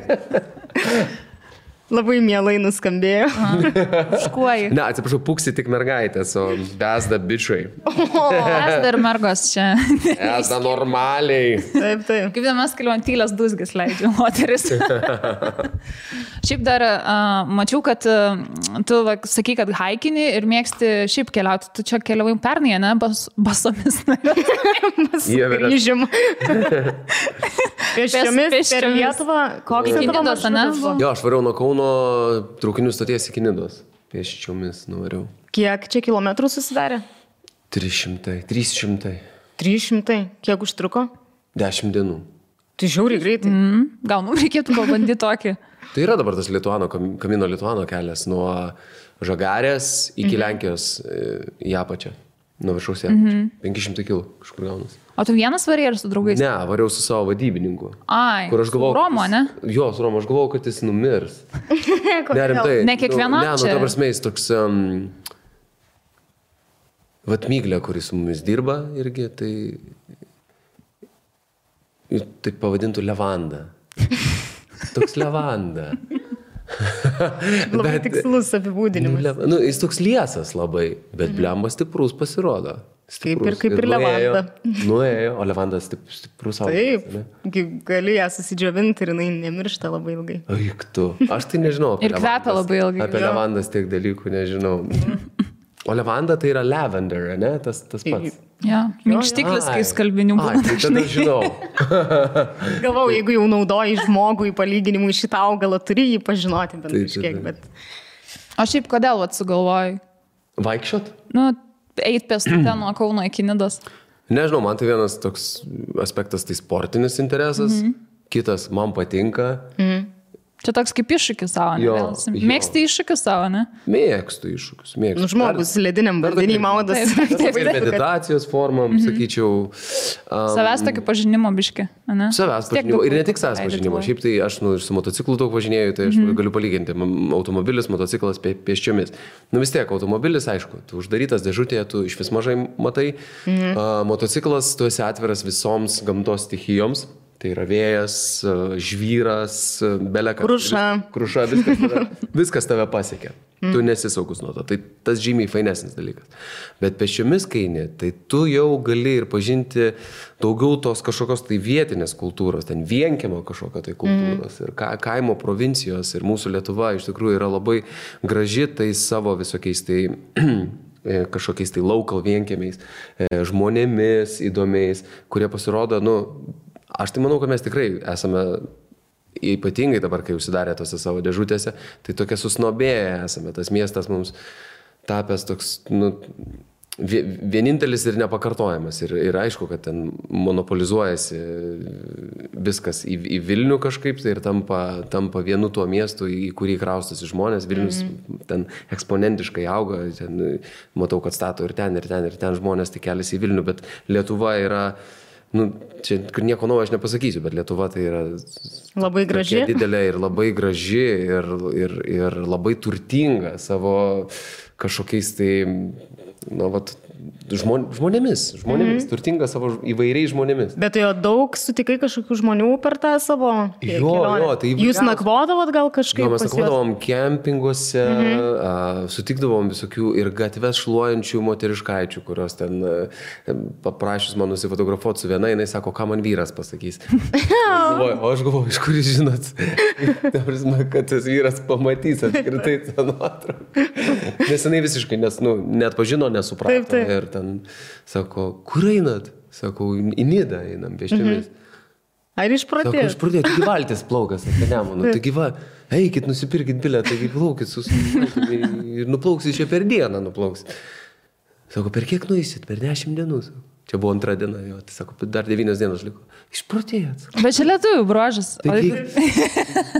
Labai mielai nuskambėjo. Škuoji. Ne, atsiprašau, puksi tik mergaitės, o besda bičiai. Besda ir mergos čia. Besda normaliai. Taip. Kaip vienas kliuontylės dusgis leidžia moteris. Šiaip dar mačiau, kad tu sakai, kad haikini ir mėgsti šiaip keliauti. Tu čia keliavai pernai, ne? Basomis. Grįžim. Pėsčiomis per Lietuvą. Koks tai tavo maršrutas? Jo, aš variau nuo Kauno traukinių stoties iki Nidos. Pėsčiomis nuvariau. Kiek čia kilometrų susidarė? 300. 300? Kiek užtruko? 10 dienų. Tai žiauriai greitai. Gal mums reikėtų pabandyti tokį. Tai yra dabar tas Kamino Lituano kelias nuo Žagarės iki Lenkijos į apačią. Nuo viršaus 500 kg kažkur gaunas. O tu vienas varėjai ar su draugais? Ne, variau su savo vadybininku. Ai, su Romo, ne? Jo, su Romo, aš galvojau, kad jis numirs. Ne kiekvienam čia? Ne, ta prasme, jis toks Vatmyglė, kuris su mumis dirba irgi, tai pavadintų Levanda. Toks Levanda. Labai tikslus apibūdinimas. Jis toks liesas labai, bet blemba stiprus pasirodo. Kaip ir Levanda. Nuėjo, o Levandas stiprus augalas. Taip, gali ją susidžiovinti ir jinai nemiršta labai ilgai. Aik tu, aš tai nežinau. Ir kvepia labai ilgai. Apie Levandas tiek dalykų nežinau. O Levanda tai yra lavender, ne? Tas pats. Ja, minkštiklis, kai skalbinių būna. Tai tada žinau. Galvau, jeigu jau naudoji žmogui palyginimui šitą augalą, turi jį pažinoti bent kažkiek, bet... O šiaip kodėl sugalvojai? Vaikščiot? Eit pėstute nuo Kauno iki Nidos. Nežinau, man tai vienas toks aspektas, tai sportinis interesas. Kitas, man patinka. Čia toks kaip iššūkis savo, ne? Mėgsti iššūkius savo, ne? Mėgstu iššūkius, mėgstu. Nu, žmogus lediniam vandenį maudas. Ir meditacijos formam, sakyčiau. Savęs tokį pažinimo biškį, ne? Savęs pažinimo. Ir ne tik savęs pažinimo. Šiaip tai aš su motociklu daug važinėjau, tai aš galiu palyginti. Automobilis, motociklas pėsčiomis. Nu vis tiek, automobilis, aišku, tu uždarytas dėžutėje, tu iš vis mažai matai. Motociklas, tu esi atviras visoms gamtos stichijoms. Tai yra vėjas, žvyras, belekas. Kruša, viskas tave pasiekia. Tu nesi saugus nuo to. Tai tas žymiai fainesnis dalykas. Bet pėsčiomis kaini, tai tu jau gali ir pažinti daugiau tos kažkokios tai vietinės kultūros, ten vienkiemo kažkokio tai kultūros ir kaimo provincijos. Ir mūsų Lietuva iš tikrųjų yra labai graži tai savo visokiais tai kažkokiais tai local vienkiemiais, žmonėmis įdomiais, kurie pasirodo, aš tai manau, kad mes tikrai esame, ypatingai dabar, kai užsidarė tose savo dėžutėse, tai tokie susnobėję esame. Tas miestas mums tapęs toks, vienintelis ir nepakartojamas. Ir aišku, kad ten monopolizuojasi viskas į Vilnių kažkaip, tai ir tampa vienu tuo miestu, į kurį kraustosi žmonės. Vilnius ten eksponentiškai auga, ten, matau, kad stato ir ten žmonės tik keliasi į Vilnių, bet Lietuva yra... čia nieko naujo aš nepasakysiu, bet Lietuva tai yra labai graži, didelė ir labai graži ir labai turtinga savo kažkokiais tai, žmonėmis, turtinga savo įvairiais žmonėmis. Bet jo daug sutikai kažkokių žmonių per tą savo kelionę? Tai jūs nakvodavot gal kažkaip? Mes nakvodavom kempinguose, sutikdavom visokių ir gatves šluojančių moteriškaičių, kurios ten paprašys man nusifotografuoti su viena, jinai sako, ką man vyras pasakys. O aš galvoju, iš kur jūs žinot, kad tas vyras pamatys apskritai tą nuotrauką. Nes jinai visiškai net pažino, nesuprato. Taip. Ir ten sako, kur einat? Sakau, į Nidą einam pėsčiomis. Ar išprotėjot? Sako, išprotėjot, taigi valtis plaukas apie Nemuną. Taigi eikit, nusipirkit bilietą, taigi plaukit ir nuplauksit čia per dieną nuplauksit. Sako, per kiek nueisit? Per 10 dienų. Čia buvo 2 diena, jo. Tai sako, dar 9 dienos liko. Išprotėjot. Bet čia lietuvių bruožas.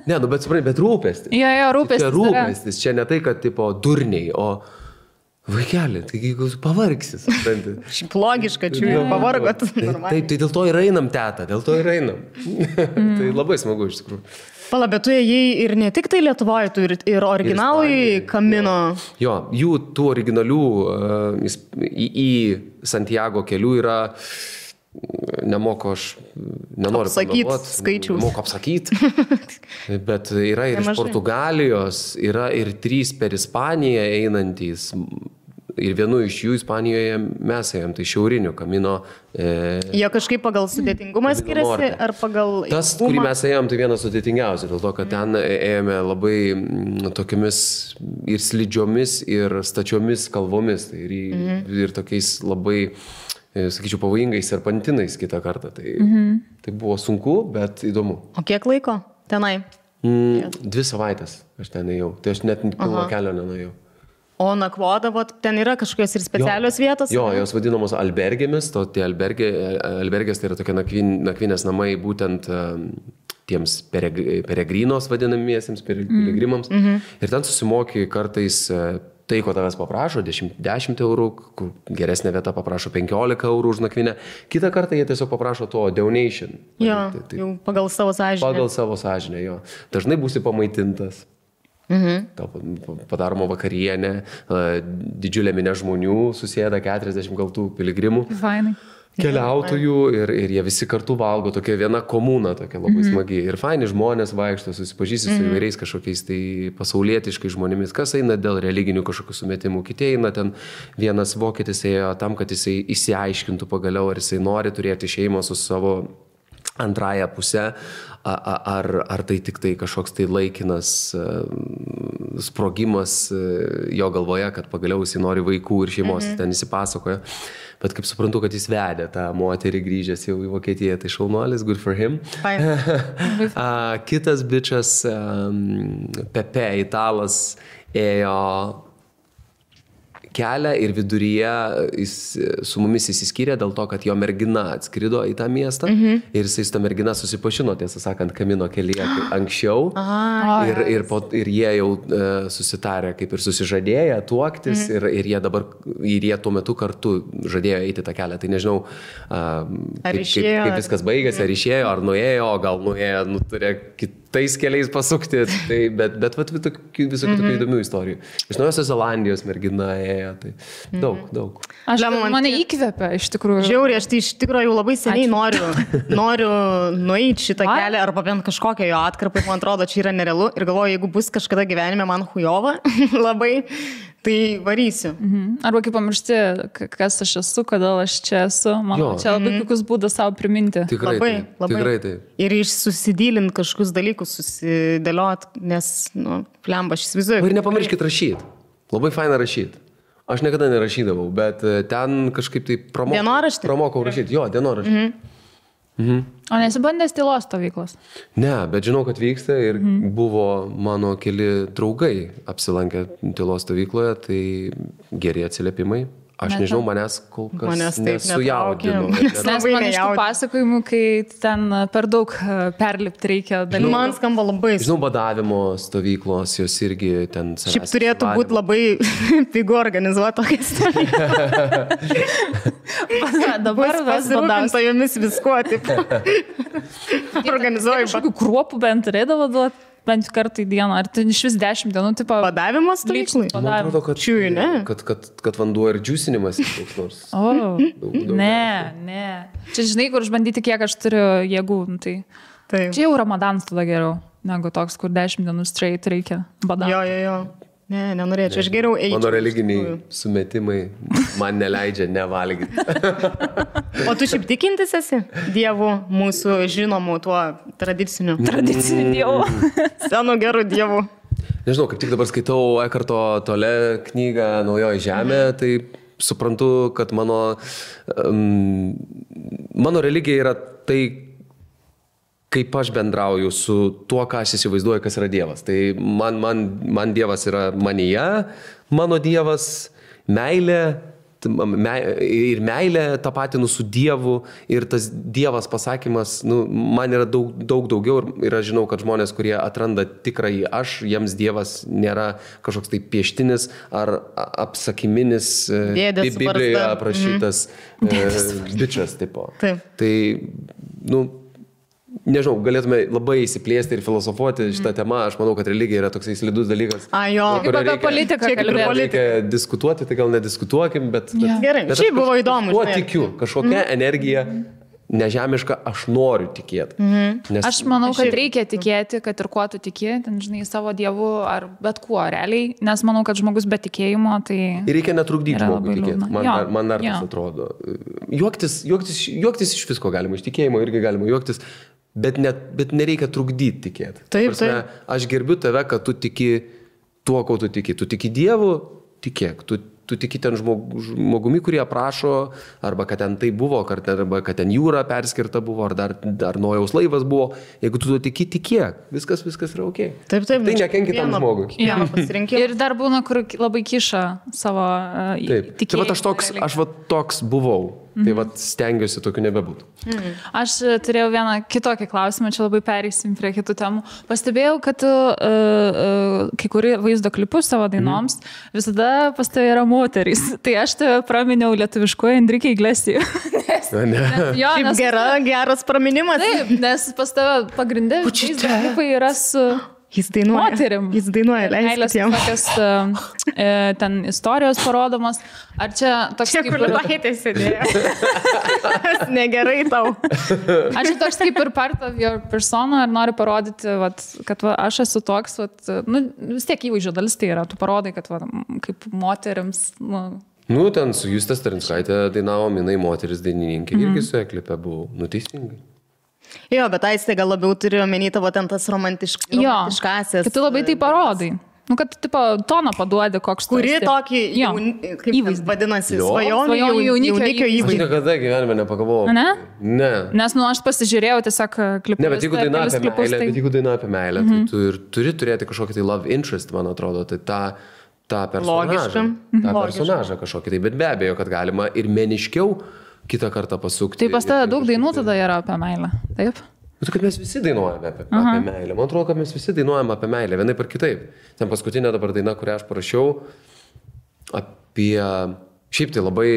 Ne, bet supranti, bet rūpestis. Jo, rūpestis. Čia rūpestis, čia ne tai, kad tipo durniai, o vaikelį, taigi pavargsis. Šiaip logiška, čia jau pavargot. Tai dėl to ir einam, teta, dėl to ir einam. Tai labai smagu iš tikrųjų. Pala, bet tu ėjai ir ne tik tai Lietuvoje, tu ir originalai Kamino. Jo, jų tų originalių į Santiago kelių yra, nemoku aš, nenoriu apsakyti skaičius. Nemoku apsakyti, bet yra ir iš Portugalijos, yra ir 3 per Ispaniją einantys. Ir vienu iš jų Ispanijoje mes ėjom, tai šiaurinių Kamino. Jie kažkaip pagal sudėtingumą skiriasi ar pagal... Tas, kurį mes ėjom, tai vienas sudėtingiausias, dėl to, kad ten ėjome labai tokiamis ir slidžiomis, ir stačiomis kalvomis. Tai ir tokiais labai, sakyčiau, pavojingais serpantinais kitą kartą. Tai buvo sunku, bet įdomu. O kiek laiko tenai? 2 savaitės aš ten ėjau. Tai aš net pilno kelio nenuėjau. O nakvodavot, ten yra kažkokios ir specialios vietos? Jo, jos vadinamos albergėmis, tie albergės tai yra tokie nakvynės namai būtent tiems peregrinos vadinamiesiems, piligrimams. Ir ten susimoki kartais tai, ko tavęs paprašo, 10 eurų, kur geresnė vieta paprašo 15 eurų už nakvynę. Kitą kartą jie tiesiog paprašo to donation. Jo, jau pagal savo sąžinę. Pagal savo sąžinę, jo. Dažnai būsi pamaitintas. Padaroma vakarienė, didžiulė minė žmonių, susėda 40 gal tų piligrimų, keliautojų ir jie visi kartu valgo, tokia viena komuna, tokia labai smagi. Ir faini žmonės vaikšto, susipažįsti su įvairiais kažkokiais tai pasaulietiškai žmonėmis, kas eina dėl religinių kažkokių sumetimų, kiti eina ten, vienas vokietis ėjo tam, kad jisai išsiaiškintų pagaliau, ar jisai nori turėti šeimą su savo antrąją pusę, ar tai tik tai kažkoks tai laikinas sprogimas jo galvoje, kad pagaliau jis nori vaikų ir šeimos, ten įsipasakoja. Bet kaip suprantu, kad jis vedė tą moterį grįžęs jau į Vokietiją, tai šaunuolis, good for him. Kitas bičas, Pepe, italas, ėjo kelią ir viduryje jis su mumis įsiskyrė dėl to, kad jo mergina atskrido į tą miestą ir jisai su ta mergina susipažino, tiesą sakant, Kamino kelyje anksčiau ir jie jau susitarė, kaip ir susižadėję tuoktis ir jie tuo metu kartu žadėjo eiti tą kelią. Tai nežinau, kaip viskas baigėsi, ar išėjo, ar nuėjo, gal nuėjo, turėjo kitais keliais pasukti, bet visokių tokių įdomių istorijų. Iš Naujosios Zelandijos mergina ėjo, tai daug. Mane įkvepia, iš tikrųjų. Žiauriai, aš tai iš tikrųjų jau labai seniai noriu nueiti šitą kelią, arba bent kažkokią jo atkarpą, man atrodo, čia yra nerealu ir galvoju, jeigu bus kažkada gyvenime man hujova labai, tai varysiu. Arba kaip pamiršti, kas aš esu, kodėl aš čia esu. Man čia labai puikus būdas savo priminti. Tikrai taip. Ir susidylint kažkokius dalykus, susidėliot, nes, plemba, aš įsivaizduoju. Ir nepamirškit rašyti. Labai faina rašyti. Aš niekada nerašydavau, bet ten kažkaip tai pramokau rašyti. Jo, dienoraštį. O nesibandęs tylos stovyklos? Ne, bet žinau, kad vyksta ir buvo mano keli draugai apsilankę tylos stovykloje, tai geri atsiliepimai. Aš nežinau, manęs kol kas nesujaudino. Nes man iš tų pasakojimų, kai ten per daug perlipti reikia dalykų. Man skamba labai. Žinau, badavimo stovyklos, jos irgi ten... Šiaip turėtų būti labai pigu organizuoti tokią stovyklą. Dabar pasirūpinta jomis viskuo, taip. Organizuoju. Kažkokių kruopų bent turėdavo duoti. Bent kartą į dieną, ar tai iš vis 10 dienų, tipo... Badavimo stovyklai? Man atrodo, kad vanduo ir džiusinimas koks nors. Ne. Čia žinai, kur išbandyti, kiek aš turiu jėgų, tai... Čia jau Ramadanas tada geriau, negu toks, kur 10 dienų straight reikia badavimo. Jo. Ne, nenorėčiau, aš geriau eičiau. Mano religiniai sumetimai man neleidžia nevalgyti. O tu šiaip tikintis esi Dievu, mūsų žinomų tuo tradiciniu Dievu? Senu geru Dievu. Nežinau, kaip tik dabar skaitau Ekarto Tole knygą Naujoji žemė, tai suprantu, kad mano religija yra tai, kaip aš bendrauju su tuo, ką aš įsivaizduoju, kas yra Dievas. Tai man Dievas yra manyje, mano Dievas, meilė, ir meilė tapatinu su Dievu, ir tas Dievas pasakymas, man yra daug daugiau, ir aš žinau, kad žmonės, kurie atranda tikrąjį aš, jiems Dievas nėra kažkoks tai pieštinis ar apsakiminis, Biblijoje aprašytas bičas tipo. Taip. Tai, nežinau, galėtume labai įsiplėsti ir filosofuoti šitą temą. Aš manau, kad religija yra toksai slidus dalykas. Kaip apie politiką kalbėti. Reikia diskutuoti, tai gal nediskutuokim, bet... Gerai, šiaip buvo įdomu. Kuo tikiu, kažkokia energija nežemiška, aš noriu tikėti. Aš manau, kad reikia tikėti, kad ir kuo tu tiki, ten, žinai, savo Dievu ar bet kuo realiai, nes manau, kad žmogus be tikėjimo, tai... Ir reikia netrukdyti žmogui tikėti. Man dar tas atrodo. Juoktis iš visko galima, iš tikėjimo irgi galima juoktis. Bet nereikia trukdyti tikėti. Taip. Aš gerbiu tave, kad tu tiki tuo, ko tu tiki. Tu tiki Dievu, tikėk. Tu tiki ten žmogumi, kurie aprašo, arba kad ten tai buvo, arba kad ten jūra perskirta buvo, ar dar Nojaus laivas buvo. Jeigu tu tiki, tikėk. Viskas yra ok. Taip. Tai nekenki tam žmogui. Ir dar būna, kur labai kiša savo tikėjimą. Tai aš toks buvau. Tai stengiuosi tokiu nebebūtų. Aš turėjau vieną kitokį klausimą, čia labai pereisim prie kitų temų. Pastebėjau, kad kai kurie vaizdo klipus savo dainoms visada pas tave yra moterys. Tai aš tave praminiau lietuviškuoju Enrique Iglesias. Geras praminimas. Taip, nes pas tave pagrindė vaizdo klipai yra su... Jis dainuoja. Moterim. Jis dainuoja, leiskit jam. Tokios ten istorijos parodomos. Ar čia toks čia, kaip... Čia, kur laitė sėdėjo. Negerai tau. Aš toks kaip ir part of your persona, ar nori parodyti, kad aš esu toks, vis tiek įvaizdžio dalis tai yra. Tu parodai, kad kaip moterims... ten su Juste Starinskaitė dainavom, jinai moteris dainininkė. Irgi su klipe buvau. Teisingai. Jo, bet Aistė gal labiau turiu omeny tavo ten tas romantiškasis. Kad tu labai tai parodai. Kad toną paduodi koks tu. Kuri tokį įvaizdį vadinasi, svajonių jaunikio įvaizdį. Aš niekada gyvenime nepagalvojau. Ne. Nes aš pasižiūrėjau tiesiog klipus. Ne, bet jeigu daina apie meilę, tai tu ir turi turėti kažkokį tai love interest, man atrodo. Tai tą personažą kažkokį. Tai, bet be abejo, kad galima ir meniškiau kitą kartą pasukti. Tai pas tave daug dainų tada yra apie meilę, taip? Tai kad mes visi dainuojame apie meilę. Man atrodo, kad mes visi dainuojame apie meilę, vienaip ar kitaip. Ten paskutinė dabar daina, kurią aš parašiau, apie... Šiaip tai labai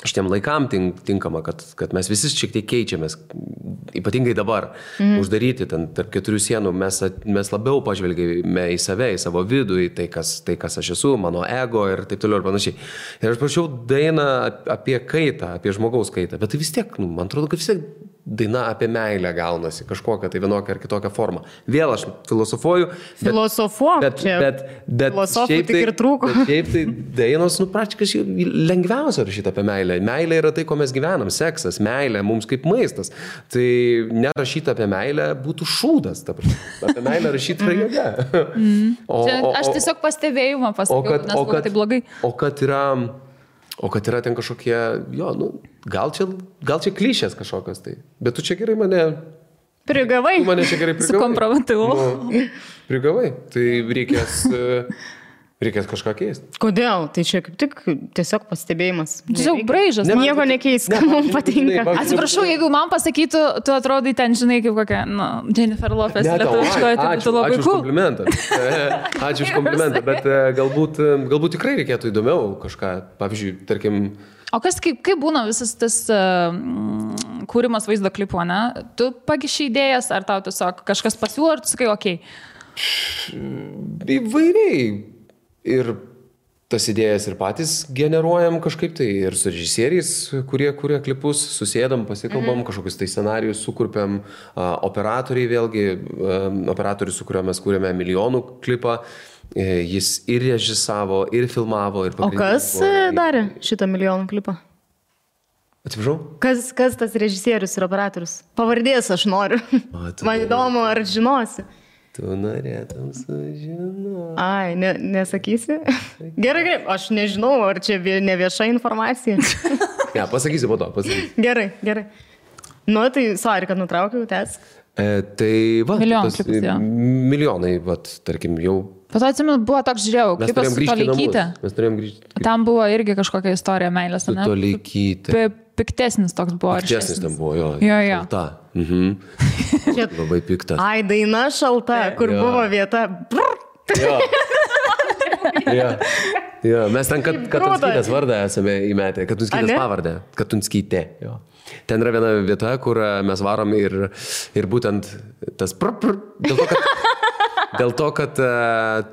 šitiem laikam tinkama, kad mes visi šiek tiek keičiamės, ypatingai dabar, uždaryti ten tarp 4 sienų, mes labiau pažvelgėme į save, į savo vidų, į tai, kas aš esu, mano ego ir taip toliau ir panašiai. Ir aš prašiau dainą apie kaitą, apie žmogaus kaitą, bet tai vis tiek, man atrodo, kad vis tiek daina apie meilę gaunasi, kažkokią tai vienokią ar kitokią formą. Vėl aš filosofuoju. Bet filosofų tik ir trūko. Bet šiaip tai dainos, praktiškai lengviausia rašyti apie meilę. Meilė yra tai, ko mes gyvenam, seksas, meilė, mums kaip maistas. Tai nerašyti apie meilę būtų šūdas. Apie meilę rašyti yra jėga. Aš tiesiog pastebėjimą pasakiau, nes buvo tai blogai. O kad yra ten kažkokie, gal čia klišės kažkokios tai. Bet tu čia gerai mane... Prigavai. Tu mane čia gerai prigavai. Sukompromatavau. Prigavai. Tai reikės kažką keisti. Kodėl? Tai čia kaip tik tiesiog pastebėjimas. Tiesiog braižas. Nieko nekeis, ką mums patinka. Atsiprašau, jeigu man pasakytų, tu atrodai ten, žinai, kaip kokia, Jennifer Lopez lietuviškoje, tai būtų labai cool. Ačiū už komplimentą, bet galbūt tikrai reikėtų įdomiau kažką, pavyzdžiui, tarkim... O kaip būna visas tas kūrimas vaizdo klipo, ne? Tu pagiši idėjas, ar tau tiesiog kažkas pasiūlo, ar tu sakai, okei? Įvairiai. Ir tas idėjas ir patys generuojam kažkaip tai, ir su režisieriais, kurie kuria klipus, susėdam, pasikalbam, kažkokius tai scenarijus sukurpiam, operatoriai vėlgi, operatorius, su kuriuo mes kūrėme milijonų klipą, jis ir režisavo, ir filmavo, ir pagrindinį. O kas darė šitą milijonų klipą? Atsiprašau? Kas tas režisierius ir operatorius? Pavardės aš noriu. Man įdomu, ar žinosi. Tu norėtum sužinoti. Ai, nesakysi? Gerai, aš nežinau, ar čia ne vieša informacija. Ne, pasakysiu po to, pasakysiu. Gerai. Nu, tai sorry, kad nutraukiau, tęsk. Tai va, milijonai, tarkim, jau... Bet atsimenu, buvo toks, žiūrėjau, klipas su Toleikyte. Mes turėjom grįžti. Tam buvo irgi kažkokia istorija meilės, ne? Su Toleikyte. Piktesnis toks buvo. Piktesnis ten buvo, jo. Šalta. Labai piktas. Ai, daina šalta, kur buvo vieta. Jo, mes ten Katunskytės vardą esame įmetę, Katunskytės pavardę. Katunskytė, jo. Ten yra viena vieta, kur mes varom ir būtent tas dėl to, kad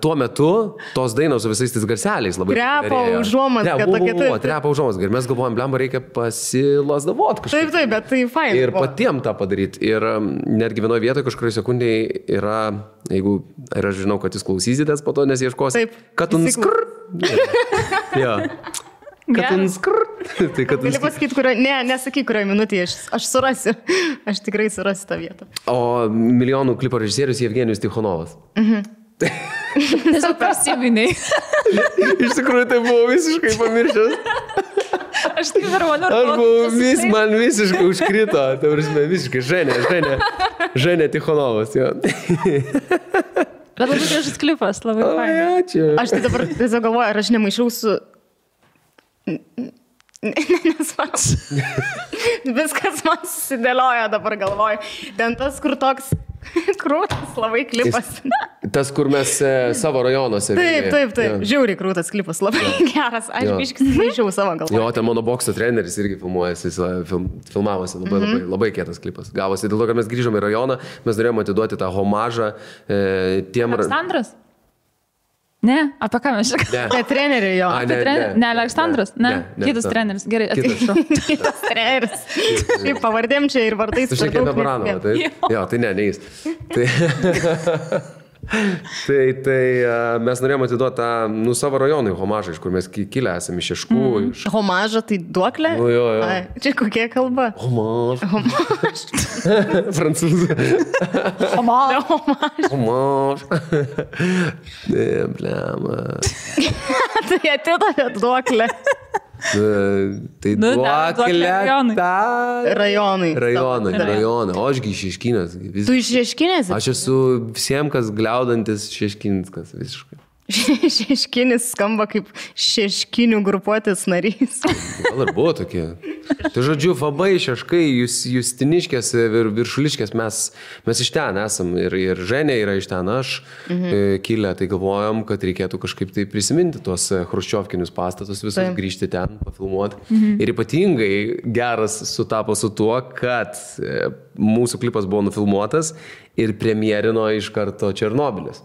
tuo metu tos dainos su visais tais garseliais labai trepa užuomazga tokia. Trepa užuomazga. Ir mes galvojam, blemba, reikia pasilasdavot kažkaip. Taip, bet tai fain. Ir patiem tą padaryti. Ir netgi vienoje vietoje kažkurioje sekundėje yra, jeigu, ir aš žinau, kad jūs klausysitės po to, nes ieškosi. Taip. Katunskrr. Jo. Katunskrr. Gali pasakyti, nesakyk, kurioje minutėje aš surasiu. Aš tikrai surasiu tą vietą. O milijonų klipo režisierius Jevgenijus Tichonovas. Tiesiog prisiminiai. Iš tikrųjų, tai buvo visiškai pamiršęs. Aš taip ir man visiškai užkrito. Tai visiškai Ženė Tichonovas. Bet labai gražus klipas, labai fain. Ačiū. Aš tai dabar tiesiog galvoju, ar aš nemaišau su... Nesvarbu. Viskas man susidėlioja dabar galvoju. Ten tas, kur toks krūtas labai klipas. Tas, kur mes savo rajonuose. Taip. Žiauriai krūtas klipas, labai geras. Aš biškis maišiau savo galvoje. Jo, ten mano bokso treneris irgi filmuojasi, filmavosi. Labai kietas klipas. Gavosi dėl to, kad mes grįžome į rajoną, mes norėjome atiduoti tą homažą tiem... Aleksandras? Ne, apie ką mes šiek? Ne, treneriai jo. Ne, Aleksandras? Ne, kitas treneris. Gerai, atsiprašau. Kitas treneris. Šiaip pavardėm čia ir vardais. Tu šiek tiek Baranova, taip? Jo, tai ne jis. Tai mes norėjome atiduoti tą savo rajonui homažą, iš kur mes kilę esame iš Šeškų. Homažą tai duoklė? Jo. Čia kokia kalba? Homaž. Prancūzų. Homaž. Ne, blema. Tai atidavė duoklę. Tai duoklė rajonai. O ašgi iš Šeškinės. Tu iš Šeškinės? Aš esu visiems, kas gliaudantis Šeškinskas visiškai. Šeškinis skamba kaip šeškinių grupuotės narys. Gal ir buvo tokie. Tai žodžiu, Fabai, Šeškai, Justiniškės ir Viršuliškės, mes iš ten esam. Ir Ženė yra iš ten, aš kilę, tai galvojom, kad reikėtų kažkaip tai prisiminti tuos chruščiovkinius pastatus, visus grįžti ten, pafilmuoti. Ir ypatingai geras sutapo su tuo, kad mūsų klipas buvo nufilmuotas ir premjerino iš karto Černobylis.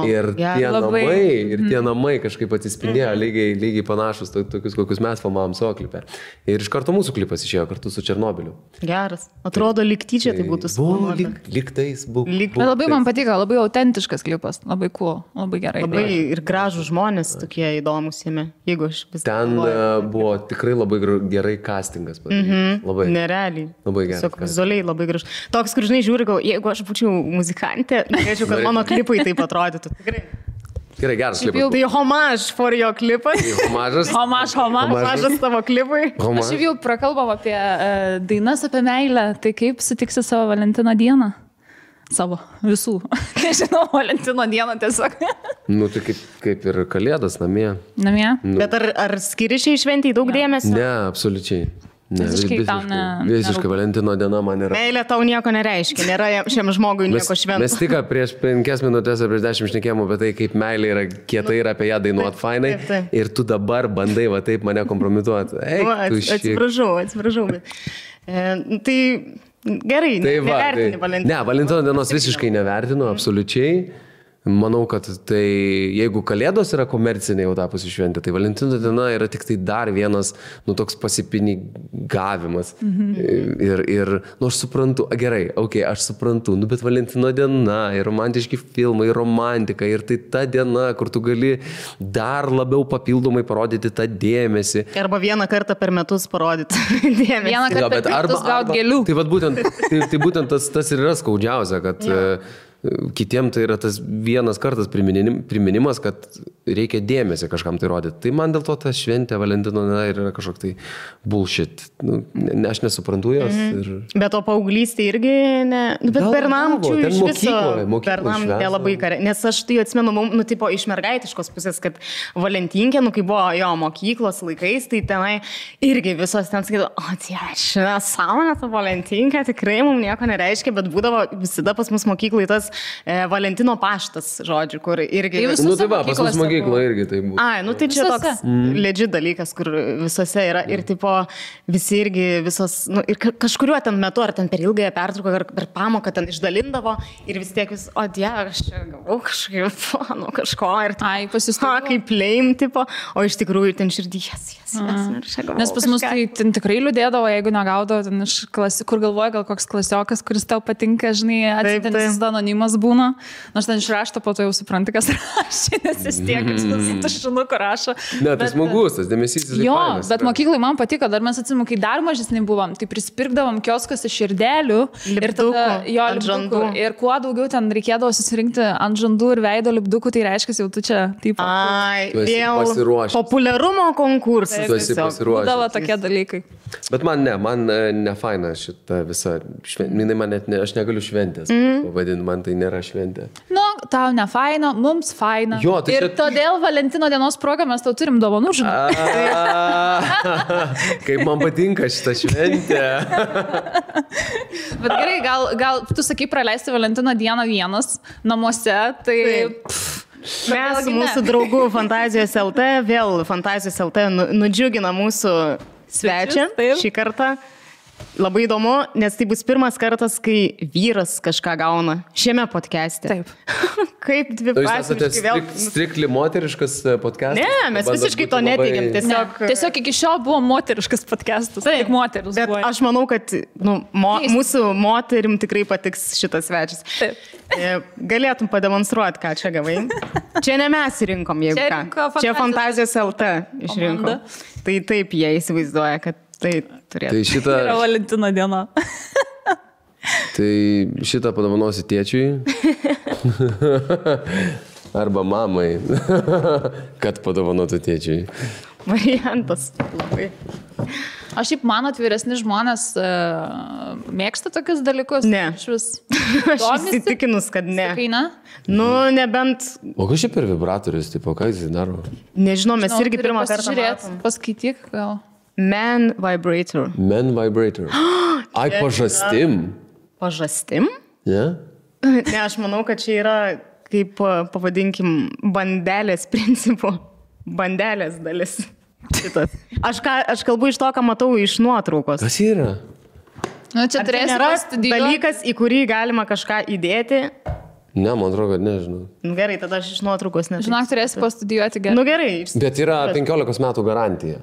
Ir tie namai kažkaip atsispindėjo lygiai panašus, tokius, kokius mes filmavom savo klipę. Ir iš karto mūsų klipas išėjo kartu su Černobyliu. Geras. Atrodo, lyg tyčia tai būtų suplanuota. Lyg tais buvo. Bet labai man patiko, labai autentiškas klipas, labai cool, labai gerai. Labai ir gražų žmonės tokie įdomus jame, jeigu aš vis... Ten buvo tikrai labai gerai castingas. Labai. Nerealiai. Labai gerai. Tiesiog vizualiai labai gražu. Toks, kur žinai, žiūri, jeigu aš būčiau muzikantė, norėčiau, kad mano klipai taip atrodytų. Tikrai. Gerai, geras klipas. Tai homaž for jo klipas. Homažas tavo klipui. Aš jau prakalbam apie dainas apie meilę. Tai kaip sutiksi savo Valentino dieną? Savo visų. Nežinau, Valentino dieną tiesiog. Tai kaip ir Kalėdas namie. Namie? Bet ar skiri šiai šventijai daug dėmesio? Ne, absoliučiai. Visiškai Valentino diena man yra. Meilė tau nieko nereiškia, nėra šiam žmogui nieko švento. Mes tik prieš 5 minutės ar prieš 10 šnekėjom apie tai, kaip meilė yra kietai ir apie ją dainuot fainai. Ir tu dabar bandai va taip mane kompromituoti. Atsiprašau. Tai gerai, nevertini Valentino. Ne, Valentino dienos visiškai nevertinu, absoliučiai. Manau, kad tai, jeigu Kalėdos yra komercinė jau tapusi šventė, tai Valentino diena yra tik tai dar vienas, toks pasipinigavimas. Ir, aš suprantu, gerai, aš suprantu, bet Valentino diena, ir romantiški filmai, ir romantika, ir tai ta diena, kur tu gali dar labiau papildomai parodyti tą dėmesį. Arba vieną kartą per metus parodyti dėmesį. Vieną kartą per metus gauti gėlių. Tai būtent tas ir yra skaudžiausia, kad... Kitiem tai yra tas vienas kartas priminimas, kad reikia dėmesį kažkam tai rodyti. Tai man dėl to ta šventė Valentino yra kažkoks tai bullshit. Aš nesuprantu jos. Bet o paauglystė irgi ne... Bet Bernamčių iš viso... Bernam nelabai kare. Nes aš tai atsimenu, tipo iš mergaitiškos pusės, kad Valentinkė, kai buvo jo mokyklos laikais, tai tenai irgi visos ten sakydavo, sąmonė ta Valentinkė, tikrai mums nieko nereiškia, bet būdavo visada pas mus mokyklai tas Valentino paštas, žodžiu, kur irgi... Tai va, pas mus mokyklo irgi tai būtų. Tai čia toks legit dalykas, kur visose yra ir tipo visi irgi visos, ir kažkuriuo ten metu, ar ten per ilgąją pertrauką, ar per pamoką ten išdalindavo ir vis tiek vis, aš čia gavau kažkaip, kažko ir kaip lame, tipo, o iš tikrųjų ten širdį, Nes pas mus tai ten tikrai liūdėdavo, jeigu negaudavo, ten iš kur galvoja, gal koks klasiokas, kuris tau patinka, žinai, atsitintis anonimas būna, nors ten išrašto, po to jau supranti, kas rašė, nes jis tiek, kaip tušinuku rašo. Ne, tai smagus, tas dėmesys. Jo, bet mokyklai man patiko, dar mes atsimu, kai dar mažesni buvom, tai prispirkdavom kioskose širdelių ir tada jo lipdukų. Ir kuo daugiau ten reikėdavo susirinkti ant žandų ir veido lipdukų, tai reiškia, jau tu čia taip. Pasiruošęs. Populiarumo konkursas. Tu esi pasiruošęs. Būdavo tokie dalykai. Bet man ne faina šita visa šventė. Aš negaliu šventės pavadinti, man tai nėra šventė. Tau ne faina, mums faina. Jo, tai ir todėl Valentino dienos progą mes tau turim dovanų, žinai. Kaip man patinka šita šventė. Bet gerai, gal tu sakai praleisti Valentino dieną vienas namuose, tai... Mes mūsų draugų Fantazijos LT, vėl Fantazijos LT nudžiugina mūsų svečią šį kartą. Labai įdomu, nes tai bus pirmas kartas, kai vyras kažką gauna šiame podcast'e. Taip. Kaip dviprasmiškai vėl... Strikli moteriškas podcastas? Ne, mes visiškai to neteigiam. Tiesiog iki šiol buvo moteriškas podcastas. Tik moteris buvo. Bet aš manau, kad mūsų moterim tikrai patiks šitas svečias. Taip. Galėtum pademonstruoti, ką čia gavai. Čia ne mes rinkom, jeigu ką. Čia Fantazijos LT išrinko. Tai taip jie įsivaizduoja, kad tai turėtų. Tai šitą... yra Valentino diena. Tai šitą padovanosi tėčiui. Arba mamai. Kad padovanotų tėčiui. Variantas labai. Aš šiaip mano atviresni žmonės mėgsta tokius dalykus. Ne. Aš įsitikinus, kad ne. Sakai, ne? Nu, nebent... O kas čia per vibratorius, tipo, ką jis daro? Nežinau, mes irgi pirmą kartą matom. Paskaityk gal. Man vibrator. Man vibrator. Ai, pažastim. Pažastim? Ne? Ne, aš manau, kad čia yra, kaip pavadinkim, bandelės principų. Bandelės dalis. Šitas. Aš kalbu iš to, ką matau iš nuotraukos. Kas yra? Nu, čia turėsi pastudijuoti. Dalykas, į kurį galima kažką įdėti. Ne, man atrodo, kad nežinau. Nu, gerai, tada aš iš nuotraukos nežinau. Žinok, turėsi pastudijuoti gerai. Nu, gerai. Bet yra 15 metų garantija.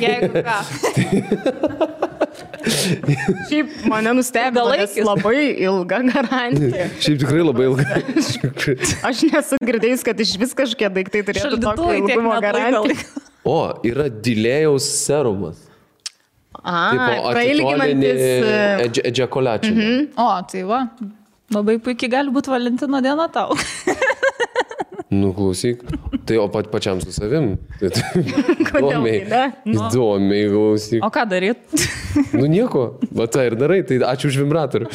Jeigu ką. Šiaip mane nustebino, nes labai ilga garantija. Šiaip tikrai labai ilga. Aš nesu girdėjus, kad iš vis kažkie daiktai turėtų tokio ilgumo garantiją. O, yra delėjaus serumas. Prailginantis ejakulačių. O, tai va. Labai puikiai gali būti Valentino diena tau. Nu, klausyk. Tai o pačiam su savim. Kodėl tai, ne? Įdomiai, klausyk. O ką daryt? Nu, nieko. Va, tai ir darai. Tai ačiū už vibratorių.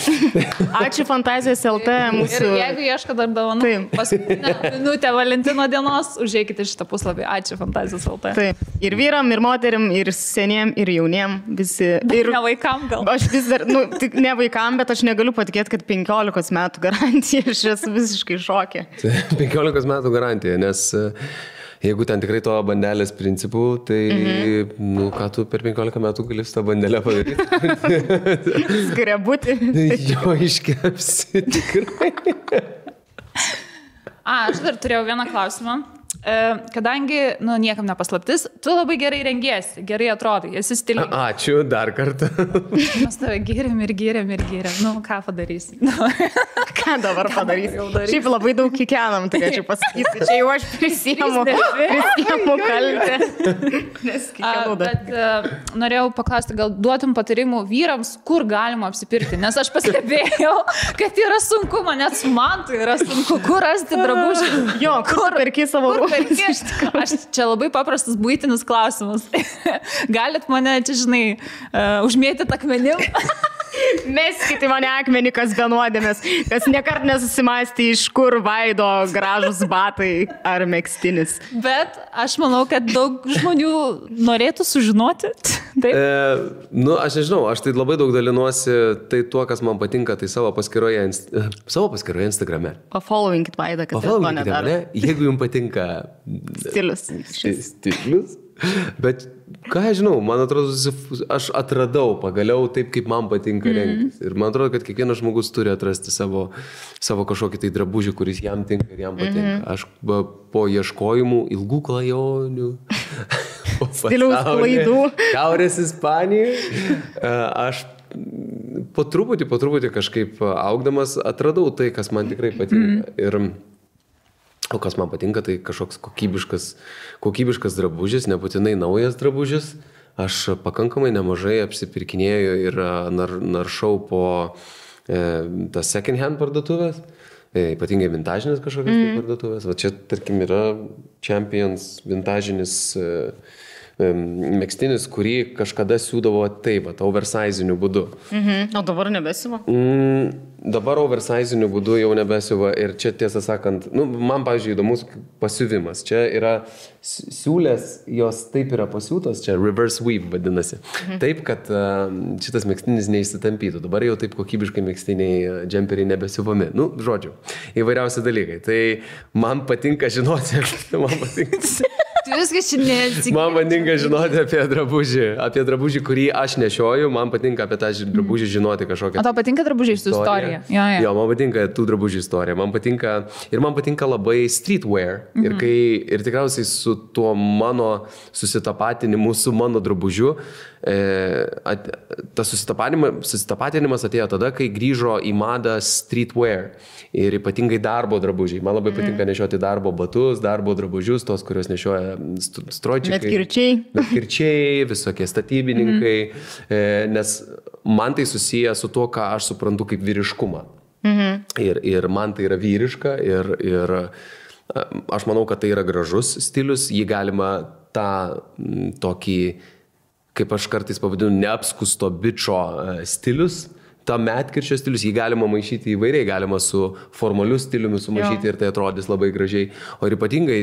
Ačiū Fantazijos LT mūsų. Ir jeigu ieško dar dovanų, paskutinę minutę Valentino dienos, užeikite šitą puslapį. Ačiū Fantazijos LT. Taip. Ir vyram, ir moterim, ir seniem, ir jauniem. Visi. Ir ne vaikam gal. Aš vis dar, nu, tik ne vaikam, bet aš negaliu patikėti, kad 15 metų garantija. Aš esu visiškai šokė. 15 metų garantija, nes jeigu ten tikrai to bandelės principų, tai, nu, ką tu per 15 metų gali su tą bandelę padaryti? Skrebutį. Jo, iškepsi tikrai. Aš dar turėjau vieną klausimą. Kadangi, nu, niekam nepaslaptis, tu labai gerai rengiesi, gerai atrodai, esi stilingas. Ačiū dar kartą. Mes tave gėrėm. Nu, ką padarysi? Ką dabar padarysi? Šiaip labai daug kikenam, turėčiau pasakyti. Čia jau aš prisiemu kaltę. Nes kikenau dar. Bet norėjau paklausti, gal duotum patarimų vyrams, kur galima apsipirkti, nes aš pastebėjau, kad yra sunku, net man tai yra sunku, kur rasti drabužį. Jo, kur perki savo rūbus. Aš čia labai paprastas buitinis klausimas. Galit mane čia, žinai, užmėtyti akmenim? Meskite mane akmenį, kas be nuodėmės, kas nekart nesusimąstė, iš kur vaido gražus batai ar megztinis. Bet aš manau, kad daug žmonių norėtų sužinoti. Taip? Nu, aš nežinau, aš tai labai daug dalinuosi tai tuo, kas man patinka, tai savo paskyroje Instagrame. Pafollowinkit Vaidą, kad tai to nedaro. Jeigu jums patinka stilius. Bet ką aš žinau, man atrodo, aš atradau pagaliau taip, kaip man patinka rengtis. Ir man atrodo, kad kiekvienas žmogus turi atrasti savo kažkokį tai drabužį, kuris jam tinka ir jam patinka. Aš po ieškojimų ilgų klajonių, stiliaus klaidų, Šiaurės Ispanijoje, aš po truputį kažkaip augdamas atradau tai, kas man tikrai patinka. O kas man patinka, tai kažkoks kokybiškas drabužis, nebūtinai naujas drabužis. Aš pakankamai nemažai apsipirkinėjau ir naršau po tas second hand parduotuvės, ypatingai vintažinės kažkokias parduotuvės. Va čia, tarkim, yra Champions vintažinis megztinis, kurį kažkada siūdavo taip, oversiziniu būdu. O dabar nebesiuva? Dabar oversiziniu būdu jau nebesiuva ir čia, tiesą sakant, nu, man, pavyzdžiui, įdomus pasiuvimas. Čia yra siūlės, jos taip yra pasiūtos, čia reverse weave vadinasi. Taip, kad šitas megztinis neišsitampytų. Dabar jau taip kokybiškai megztiniai džemperiai nebesiuvami. Nu, žodžiu, įvairiausi dalykai. Tai man patinka žinoti, man patinka žinoti apie drabužį, kurį aš nešioju, man patinka apie tą drabužį žinoti kažkokią. O tau patinka drabužiai su istorija? Jo, man patinka tų drabužių istorija, man patinka labai streetwear ir tikriausiai su tuo mano susitapatinimu su mano drabužiu, tas susitapatinimas atėjo tada, kai grįžo į madą streetwear ir ypatingai darbo drabužiai. Man labai patinka nešioti darbo batus, darbo drabužius, tos, kurios nešioja stroičikai, medkirčiai, visokie statybininkai, nes man tai susiję su tuo, ką aš suprantu kaip vyriškumą. Ir man tai yra vyriška ir aš manau, kad tai yra gražus stilius, jį galima tą tokį kaip aš kartais pavadinu, neapskusto bičo stilius. Ta medkirčio stilius, jį galima maišyti įvairiai, galima su formaliu stiliumi sumaišyti ir tai atrodys labai gražiai. O ir ypatingai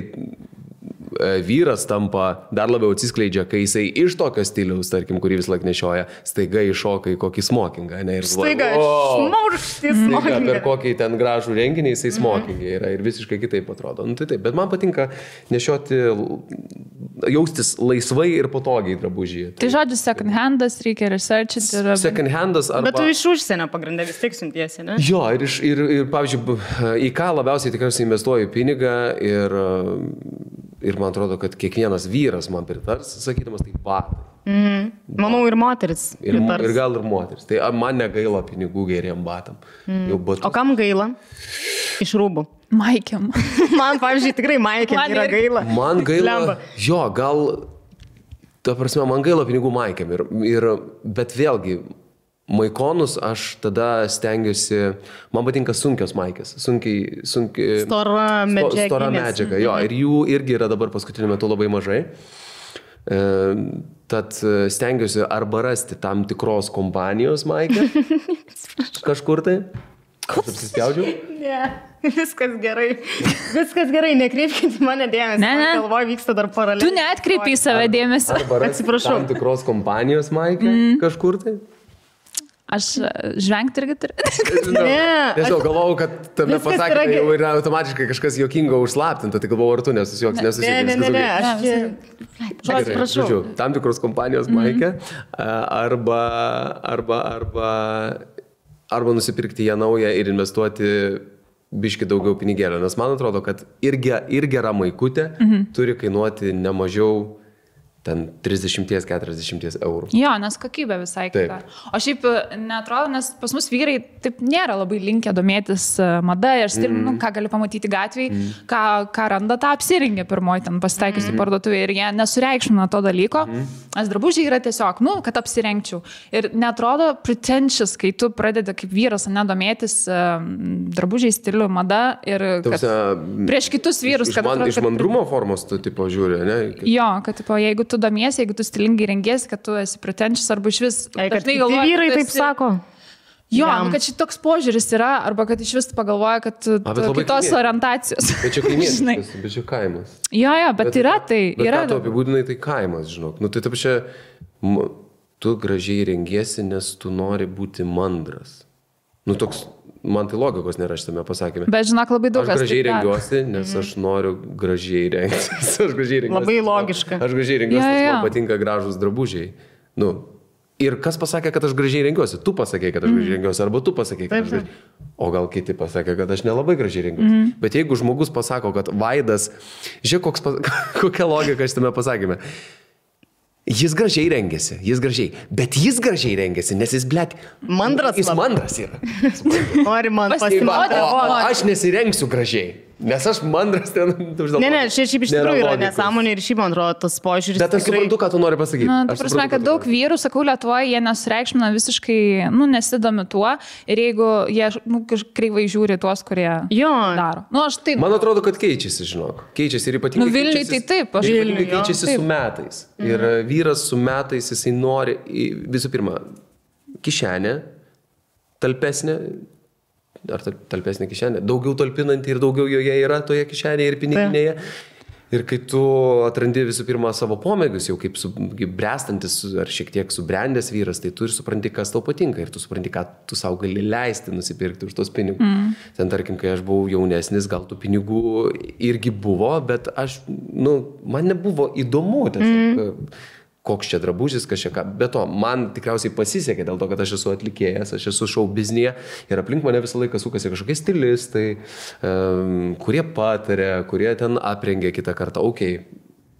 vyras tampa dar labiau atsiskleidžia, kai jisai iš tokio stiliaus, tarkim, kurį vis laik nešioja, staiga iššoka į kokį smokingą. Ne, ir staiga šmaurštis smokingą. Per kokį ten gražų renginį jisai smokingai yra ir visiškai kitaip atrodo. Nu, tai taip, bet man patinka nešioti, jaustis laisvai ir patogiai drabužyje. Tai žodžiu, second handas reikia researchiti. Second handas arba... Bet tu iš užsienio pagrindę vis tiek siuntiesi, ne? Jo, ir pavyzdžiui, į ką labiausiai tikriausiai investuoju pinigą ir man atrodo, kad kiekvienas vyras man pritars, sakydamas, tai batai. Manau, ir moteris pritars. Ir gal ir moteris. Tai man negaila pinigų geriem batam. O kam gaila? Iš rūbų. Maikiam. Man, pavyzdžiui, tikrai maikiam yra gaila. Man gaila. Jo, gal, ta prasme, man gaila pinigų maikiam. Bet vėlgi, maikonus aš tada stengiuosi, man patinka sunkios maikės, stora medžiaga, jo, ir jų irgi yra dabar paskutiniu metu labai mažai. Tad stengiuosi arba rasti tam tikros kompanijos maikę kažkur tai. Aš apsispjaudžiau? Ne, viskas gerai, nekreipkite į mane dėmesį. Ne. Galvoju, vyksta dar paraleliai. Tu neatkreipi į save dėmesį. Atsiprašau. Tam tikros kompanijos maikę kažkur tai. Aš žvengti irgi turiu. Nežinau, galvojau, kad tame pasakymai jau yra automatiškai kažkas juokingo užslaptinta, tai galvojau, ar tu nesusijokis. Ne, Žodžiu, tam tikros kompanijos maikę arba nusipirkti ją naują ir investuoti biški daugiau pinigėlio, nes man atrodo, kad ir gera maikutė turi kainuoti nemažiau ten 30-40 eurų. Jo, nes kokybė visai kita. O šiaip neatrodo, nes pas mus vyrai taip nėra labai linkę domėtis mada ir stiliumi, ką gali pamatyti gatvėje, ką randa, tą apsirengia pirmoji ten pasitaikiusi parduotuvė ir jie nesureikšmina to dalyko, nes drabužiai yra tiesiog, kad apsirengčiau. Ir neatrodo pretentious, kai tu pradedi kaip vyras nedomėtis drabužiai, stilių, mada ir prieš kitus vyrus. Iš mandrumo formos tu tipo žiūri, ne? Jo, kad tipo, jeigu tu domiesi, jeigu tu stilingai rengiesi, kad tu esi pretentious arba iš vis. Kad vyrai taip sako. Jo, kad šitoks požiūris yra, arba kad iš vis pagalvoja, kad kitos orientacijos. Bet čia kaimietis, bet čia kaimas. Jo, bet yra tai. Bet ką tu apibūdinai, tai kaimas, žinok. Tai taip čia, tu gražiai rengiesi, nes tu nori būti mandras. Toks, man tai logikos nėra šitame pasakymė. Bet žinok, labai daug kas. Aš gražiai rengiuosi, nes aš noriu gražiai rengtis. Labai logiška. Aš gražiai rengiuosi, nes man patinka gražus drabužiai. Ir kas pasakė, kad aš gražiai rengiuosi? Tu pasakė, kad aš gražiai rengiuosi, arba tu pasakė, kad aš gražiai. O gal kiti pasakė, kad aš nelabai gražiai rengiuosi. Bet jeigu žmogus pasako, kad Vaidas, žiūrėk, kokia logika šitame pasakymė. Jis gražiai rengiasi, bet jis gražiai rengiasi, nes jis, mandras. Jis mandras yra. Nori man pasirodyti. Aš nesirengsiu gražiai. Nes aš mandras ten... Ne, šiaip iš tikrųjų yra nesąmonė ir šiaip man atrodo tas požiūris. Bet aš suprantu, ką tu nori pasakyti. Ta prasme, kad daug vyrų, sakau, Lietuvoje, jie nesureikšmina visiškai, nesidomi tuo ir jeigu jie kreivai žiūri tuos, kurie daro. Man atrodo, kad keičiasi, žinok. Keičiasi ir ypatingai Vilniui tai taip. Vilniui keičiasi su metais. Ir vyras su metais, jisai nori, visų pirma, kišenę, talpesnę, ar talpesnė kišenė, daugiau talpinanti ir daugiau joje yra toje kišenėje ir piniginėje. Ir kai tu atrandi visų pirma savo pomėgius, jau kaip brestantis ar šiek tiek subrendęs vyras, tai tu ir supranti, kas tau patinka ir tu supranti, ką tu savo gali leisti nusipirkti už tos pinigus. Ten tarkim, kai aš buvau jaunesnis, gal tų pinigų irgi buvo, bet man nebuvo įdomu tiesiog. Koks čia drabužis, kas čia ką. Be to, man tikriausiai pasisekė dėl to, kad aš esu atlikėjas, aš esu šou biznyje ir aplink mane visą laiką sukasi kažkokie stilistai, kurie patarė, kurie ten aprengia kitą kartą.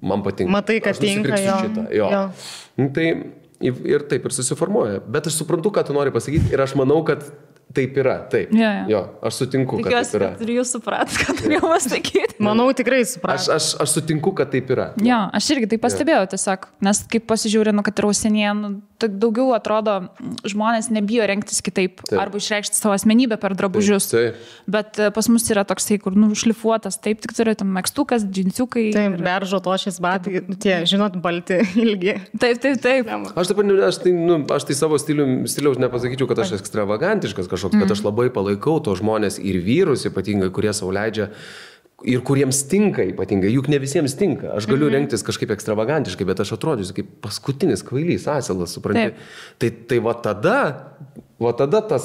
Man patinka. Matai, kad tinka jo. Tai ir taip ir susiformuoja. Bet aš suprantu, ką tu nori pasakyti ir aš manau, kad taip yra, taip. Jo, aš sutinku, kad taip yra. Tikiuosi, kad ir jūs suprat, ką turėjau pasakyti. Manau, tikrai suprantu. Aš sutinku, kad taip yra. Jo, aš irgi tai pastebėjau tiesiog, nes kaip pasižiūrinu, kad ir užsienyje, daugiau atrodo, žmonės nebijo rengtis kitaip, arba išreikšti savo asmenybę per drabužius. Taip. Bet pas mus yra toksai, kur šlifuotas, taip tik turi tam megztukas, džinsiukai. Taip, beržo tošės batai, tie, žinot, balti, ilgi. Taip. Aš tai savo stiliaus nepasakyčiau, kad aš ekstravagantiškas kažkoks, bet aš labai palaikau to žmonės ir vyrus ypatingai, kurie sau leidžia ir kuriems tinka ypatingai, juk ne visiems tinka. Aš galiu rengtis kažkaip ekstravagantiškai, bet aš atrodysiu kaip paskutinis kvailys, asilas, supranti. Tai va tada tas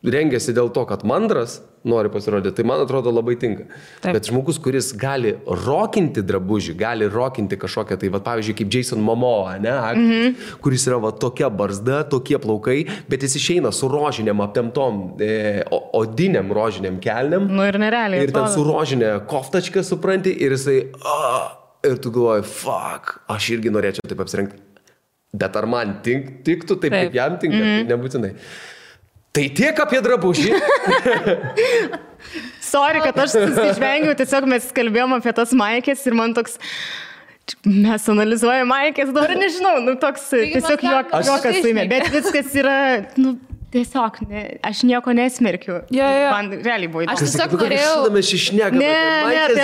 rengiasi dėl to, kad mandras nori pasirodyti, tai man atrodo labai tinka. Taip. Bet žmogus, kuris gali rokinti drabužį, gali rokinti kažkokią, tai va, pavyzdžiui, kaip Jason Momoa, ne, aktorius, kuris yra va tokia barzda, tokie plaukai, bet jis išeina su rožiniam aptemtom, odiniam rožiniam kelniam. Nu ir nerealiai. Ir ten su rožinė koftačka, supranti, ir jisai, ir tu galvoji, fuck, aš irgi norėčiau taip apsirengti. Bet ar man tiktų taip, kaip jam tinka, tai nebūtinai. Tai tiek apie drabužį. Sorry, kad aš susižvengiau, tiesiog mes kalbėjom apie tas maikės ir man toks, mes analizuojame maikės, dabar nežinau, toks tiesiog juokas suimė, bet viskas yra, tiesiog, aš nieko nesmerkiu. Man realiai buvo įdomu. Aš tiesiog norėjau...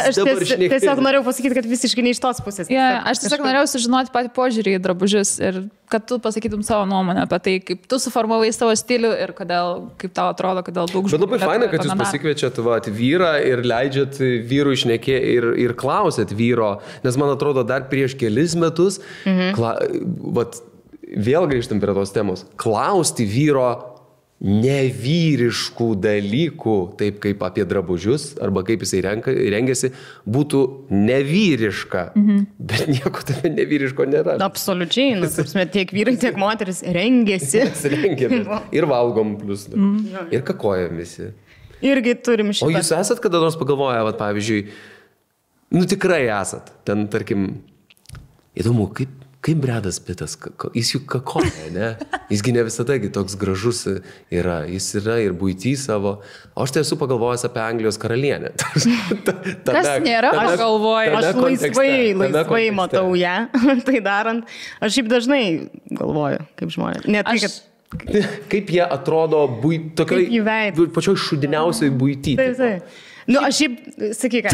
Aš tiesiog norėjau pasakyti, kad visiškai ne iš tos pusės. Aš tiesiog norėjau sužinoti patį požiūrį į drabužius ir kad tu pasakytum savo nuomonę apie tai, kaip tu suformavai savo stilių ir kodėl, kaip tau atrodo, kodėl daug žmonių. Bet labai faina, kad jūs pasikviečiat vyrą ir leidžiat vyrų išnekė ir klausėt vyro, nes man atrodo dar prieš kelis metus, vėl grįžtam prie tos temos, klausti vyro nevyriškų dalykų, taip kaip apie drabužius, arba kaip jisai rengiasi, būtų nevyriška. Bet nieko tame nevyriško nėra. Absoliučiai, tiek vyrai, tiek moteris rengiasi. Ir valgom plus. Ir kakojam visi. Irgi turim šitą. O jūs esat kada nors pagalvoję, pavyzdžiui, tikrai esat, ten, tarkim, įdomu, kaip Bredas Pittas, jis juk kakoja, ne? Jisgi ne visada toks gražus yra, jis yra ir buitį savo. O aš tai esu pagalvojęs apie Anglijos karalienę. Kas nėra, aš galvoju. Aš laisvai matau ją, tai darant. Aš šiaip dažnai galvoju, kaip žmonės. Ne tai, kad... Kaip jie atrodo pačioj šudiniausiai buitį. Taip. Aš šiaip, sakyk,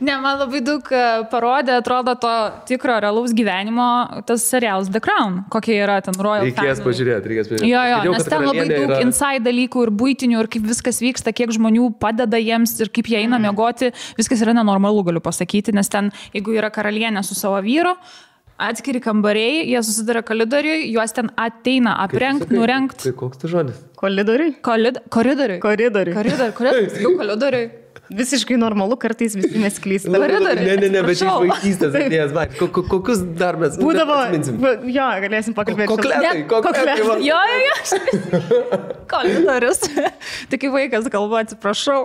Ne, man labai daug parodė, atrodo, to tikro realaus gyvenimo, tas serialas The Crown, kokie yra ten Royal Family. Reikės pažiūrėti. Jo, nes ten labai daug inside dalykų ir buitinių, ir kaip viskas vyksta, kiek žmonių padeda jiems ir kaip jie eina miegoti, viskas yra nenormalu, galiu pasakyti, nes ten, jeigu yra karalienė su savo vyru, atskiri kambariai, jie susiduria koridoriui, juos ten ateina aprengt, nurengt. Tai koks tai žodis? Koridoriui? Koridoriui. Visiškai normalu, kartais visi mes klystam. Ne, bet iš vaikystės atėjęs, kokius dar mes atminsim? Jo, galėsim pakalbėti. Kokletai. Jo. Koridorius. Tai kai vaikas galvoja, atsiprašau.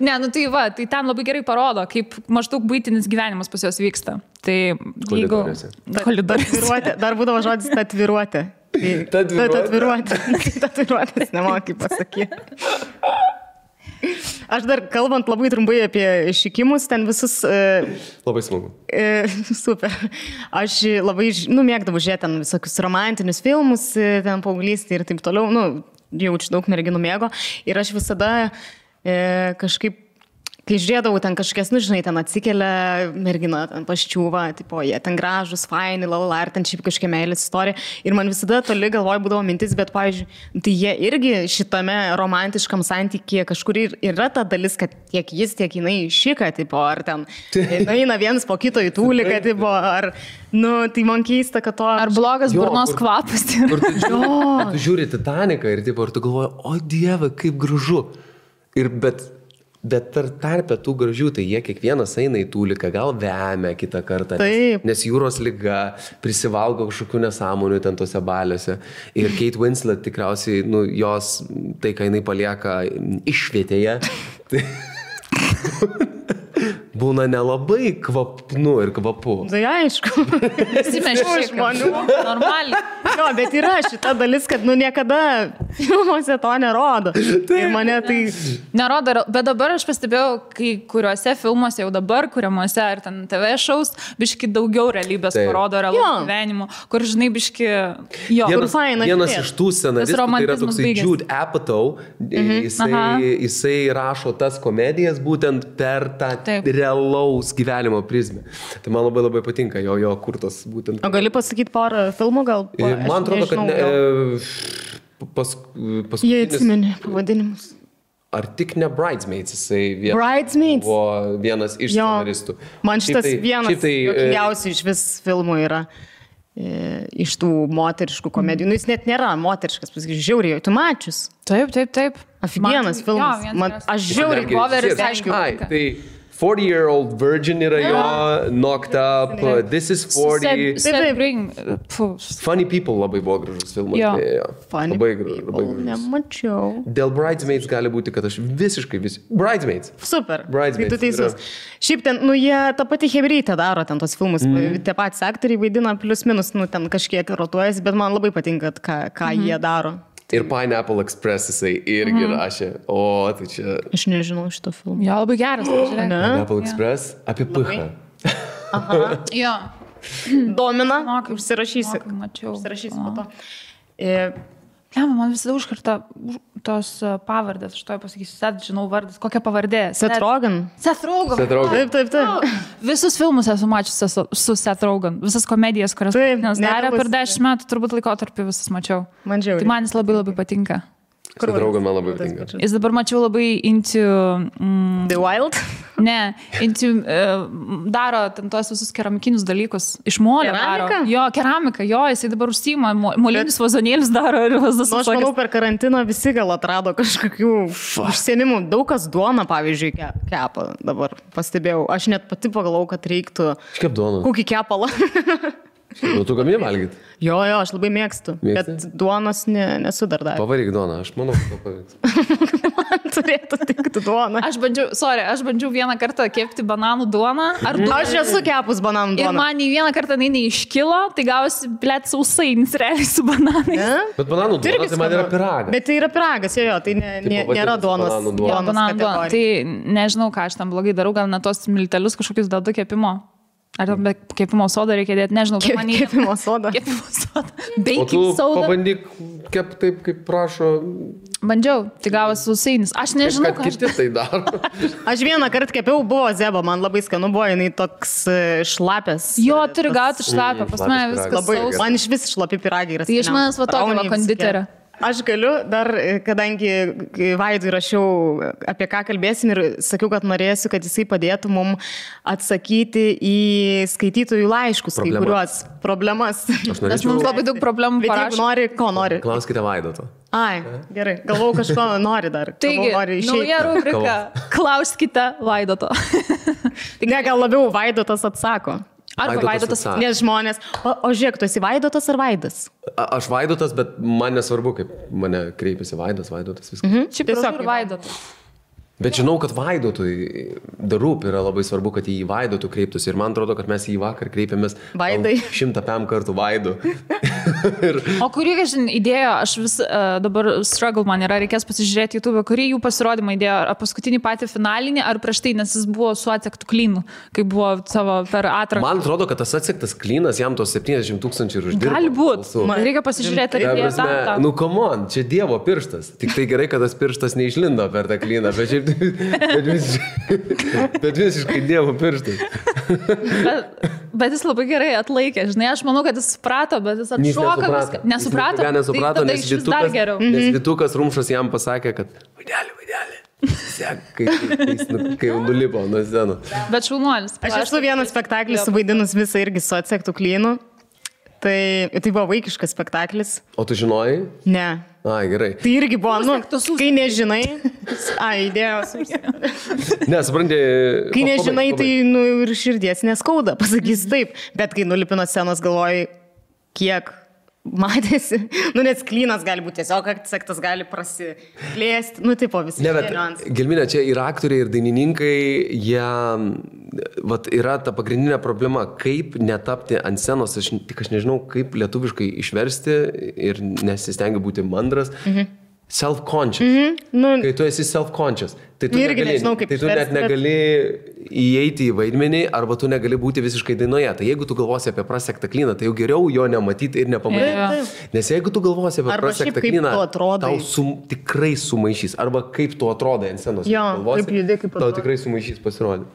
Ne, tai ten labai gerai parodo, kaip maždaug buitinis gyvenimas pas juos vyksta. Tai jeigu... Koridoriuose. Dar būdavo žodis tatviruotė. Tatviruotės, nemokai pasakyti. Aš dar kalbant labai trumpai apie šikimus, ten visus... Labai smagu. Super. Aš labai, mėgdavau žiūrėti ten visokius romantinius filmus, ten paauglystė ir taip toliau, jaučiu daug merginų mėgo. Ir aš visada kažkaip, kai žiūrėdavau ten kažkokias, ten atsikelia mergina, ten paščiūva, tipo, jie ten gražus, faini, lalala, ar ten šiaip kažkokia meilės istorija. Ir man visada toli galvoj būdavo mintis, bet, pavyzdžiui, tai jie irgi šitame romantiškam santykėje kažkur yra ta dalis, kad tiek jis, tiek jinai šika, tipo, ar ten eina vienas po kito į tūliką, tipo, ar, tai man keista, kad to... Ar blogas burnos kvapas. Tu žiūri Titaniką ir, tipo, ar tu galvoji, o Dieve, kaip gražu. Bet tarp tų gražių, tai jie kiekvienas eina į tūliką, gal vemia kitą kartą, nes jūros liga, prisivalgo kažkokių nesąmonių ten tose baliuose. Ir Kate Winslet tikriausiai, jos, tai ką jinai palieka išvietėje, tai būna nelabai kvapnu ir kvapu. Tai aišku. Visi mes žmonių, normaliai. Jo, bet yra šita dalis, kad niekada filmuose to nerodo. Ir mane tai... Nerodo, bet dabar aš pastebėjau, kai kuriuose filmuose jau dabar, kuriamuose ar ten TV šaus, biški daugiau realybės parodo realaus gyvenimo, kur žinai biški... Jo, vienas iš tų scenaristų, tai yra toksai Jude Apatow, jisai rašo tas komedijas būtent per tą realaus gyvenimo prizmę. Tai man labai labai patinka jo kurtos būtent. O gali pasakyti porą filmų gal? Man atrodo, kad jie atsimeni pavadinimus. Ar tik ne Bridesmaids, jisai buvo vienas iš scenaristų. Man šitas vienas juokingiausių iš vis filmų yra iš tų moteriškų komedijų. Nu, jis net nėra moteriškas, pasakysiu, žiauriai, tu mačius. Taip. Aфиgenas filmas. Aš žiauriai Boveris, aišku. Tai 40-year-old virgin yra jo, knocked up, this is 40. Funny People labai buvo gražus filmas. Funny People, nemačiau. Dėl Bridesmaids gali būti, kad aš visiškai Bridesmaids. Super, Bridesmaids, tu teisus. Šiaip ten, jie tą patį hebrytę daro, ten tos filmus, tie patys aktoriai vaidina plius minus, ten kažkiek rotuojasi, bet man labai patinka, ką jie daro. Ir Pineapple Express jisai irgi rašė. O, tai čia... Aš nežinau šito filmą. Jo, labai geras. Pineapple Express apie Pichą. Aha. Jo. Domina. Užsirašysi. Užsirašysi po to. Man visada užkarta tos pavardės, aš to pasakysiu, žinau vardas, kokia pavardė? Seth Rogen. Seth Rogen. Taip. Visus filmus esu mačiusi su Seth Rogen, visas komedijas, kurias darė per 10 metų, turbūt laikotarpį visas mačiau. Man žiauriai. Tai man jis labai labai patinka. Seth Rogen man labai patinka. Jis dabar mačiau labai into... The Wild? Ne, into... daro ten tos visus keramikinius dalykus. Iš molio daro. Jo, keramika, jisai dabar užsiima, molinius vazonėlius daro ir vazas. Aš manau, per karantiną visi gal atrado kažkokių užsienimų. Daug kas duoną, pavyzdžiui, kepa dabar pastebėjau. Aš net pati pagalvojau, kad reiktų... Kaip duoną? Kokį kepalą. Tu gamini valgyti? Jo, aš labai mėgstu. Bet duonos nesu dar davęs. Pavaryk duoną, aš manau, kad pavyks. Man turėtų tikti duoną. Aš bandžiau vieną kartą kepti bananų duoną. Aš esu kepus bananų duoną. Ir man į vieną kartą neiškilo, tai gausi, blėt, sausainis realiai su bananais. Bet bananų duona, tai man yra piragas. Bet tai yra piragas, jo, tai nėra duonos. Bananų duona. Tai nežinau, ką aš tam blogai darau, gal net tos miltelius kažkokius dedu kepimo. Ar be kepimo sodą reikia dėti, nežinau. Kepimo sodą. Baking soda. Pabandyk kep taip, kaip prašo. Bandžiau, tai gavosi sausainis. Aš nežinau, kad kiti tai daro. Aš vieną kartą kepiau, buvo zeba, man labai skanu buvo, jinai toks šlapės. Jo, turi gauti šlapę, pas mane viskas sausas. Man iš vis šlapi piragai yra. Tai iš manęs va tokio konditerio. Aš galiu dar, kadangi Vaidui rašiau, apie ką kalbėsim ir sakiau, kad norėsiu, kad jisai padėtų mums atsakyti į skaitytojų laiškus, kai kuriuos problemas. Nes mums labai daug problemų parašo. Bet jeigu nori, ko nori? Klauskite Vaidoto. Ai, gerai. Galvau, kažko nori dar. Taigi, nauja rubrika. Klauskite Vaidoto. Ne, gal labiau Vaidotas atsako. Arba Vaidotas. Nes žmonės. O žiūrėk, tu esi Vaidotas ar Vaidas? Aš Vaidotas, bet man nesvarbu, kaip mane kreipiasi Vaidotas, viskas. Šiaip tiesiog Vaidotas. Bet žinau, kad Vaidotui darūp yra labai svarbu, kad į Vaidotų kreiptųsi. Ir man atrodo, kad mes į vakar kreipėmės 100 kartų Vaidu. O kurį, įdėjo, aš vis dabar struggle man yra, reikės pasižiūrėti YouTube, kurį jų pasirodymą įdėjo, ar paskutinį patį finalinį, ar prieš tai, nes jis buvo su atsektų klinu, kai buvo savo per atranką. Man atrodo, kad tas atsektas klinas jam tos 70 000 ir uždirbo. Gali būt. Reikia pasižiūrėti, ar įdėjo tą. Nu, come on, čia Dievo pirštas. Tik tai gerai, kad tas pirštas neišlindo per tą kliną, bet visiškai Dievo pirštas. Bet jis labai gerai atlaikė, žinai, aš manau, kad jis suprato, bet jis atšoka viską. Nesuprato? Nesuprato, tai nes Vytukas Rumšas jam pasakė, kad Vaidelį. Kai nulipo nuo scenos. Bet šaunuolis. Aš esu vieną spektaklį suvaidinus visą irgi su atsektų klynu. Tai buvo vaikiškas spektaklis. O tu žinojai? Ne. Ai, gerai. Tai irgi buvo, kai nežinai. Idėjos. Ne, supranti. Kai nežinai, tai ir širdies neskauda, pasakysiu taip. Bet kai nulipino scenos, galvoji, kiek matėsi, net sklynas gali būti tiesiog, sektas gali prasiplėsti, tipo visi. Ne, bet Gelminė, čia ir aktoriai, ir dainininkai, jie, yra ta pagrindinė problema, kaip netapti ant scenos, aš nežinau, kaip lietuviškai išversti ir nesistengiu būti mandras. Self-conscious. Kai tu esi self-conscious, tai tu, net negali įeiti į vaidmenį arba tu negali būti visiškai dainoje. Tai jeigu tu galvosi apie prasektą klyną, tai jau geriau jo nematyti ir nepamatyti. Nes jeigu tu galvosi apie prasektą klyną, tau tikrai sumaišys. Arba kaip tu atrodai ant scenos. Tau tikrai sumaišys pasirodyti.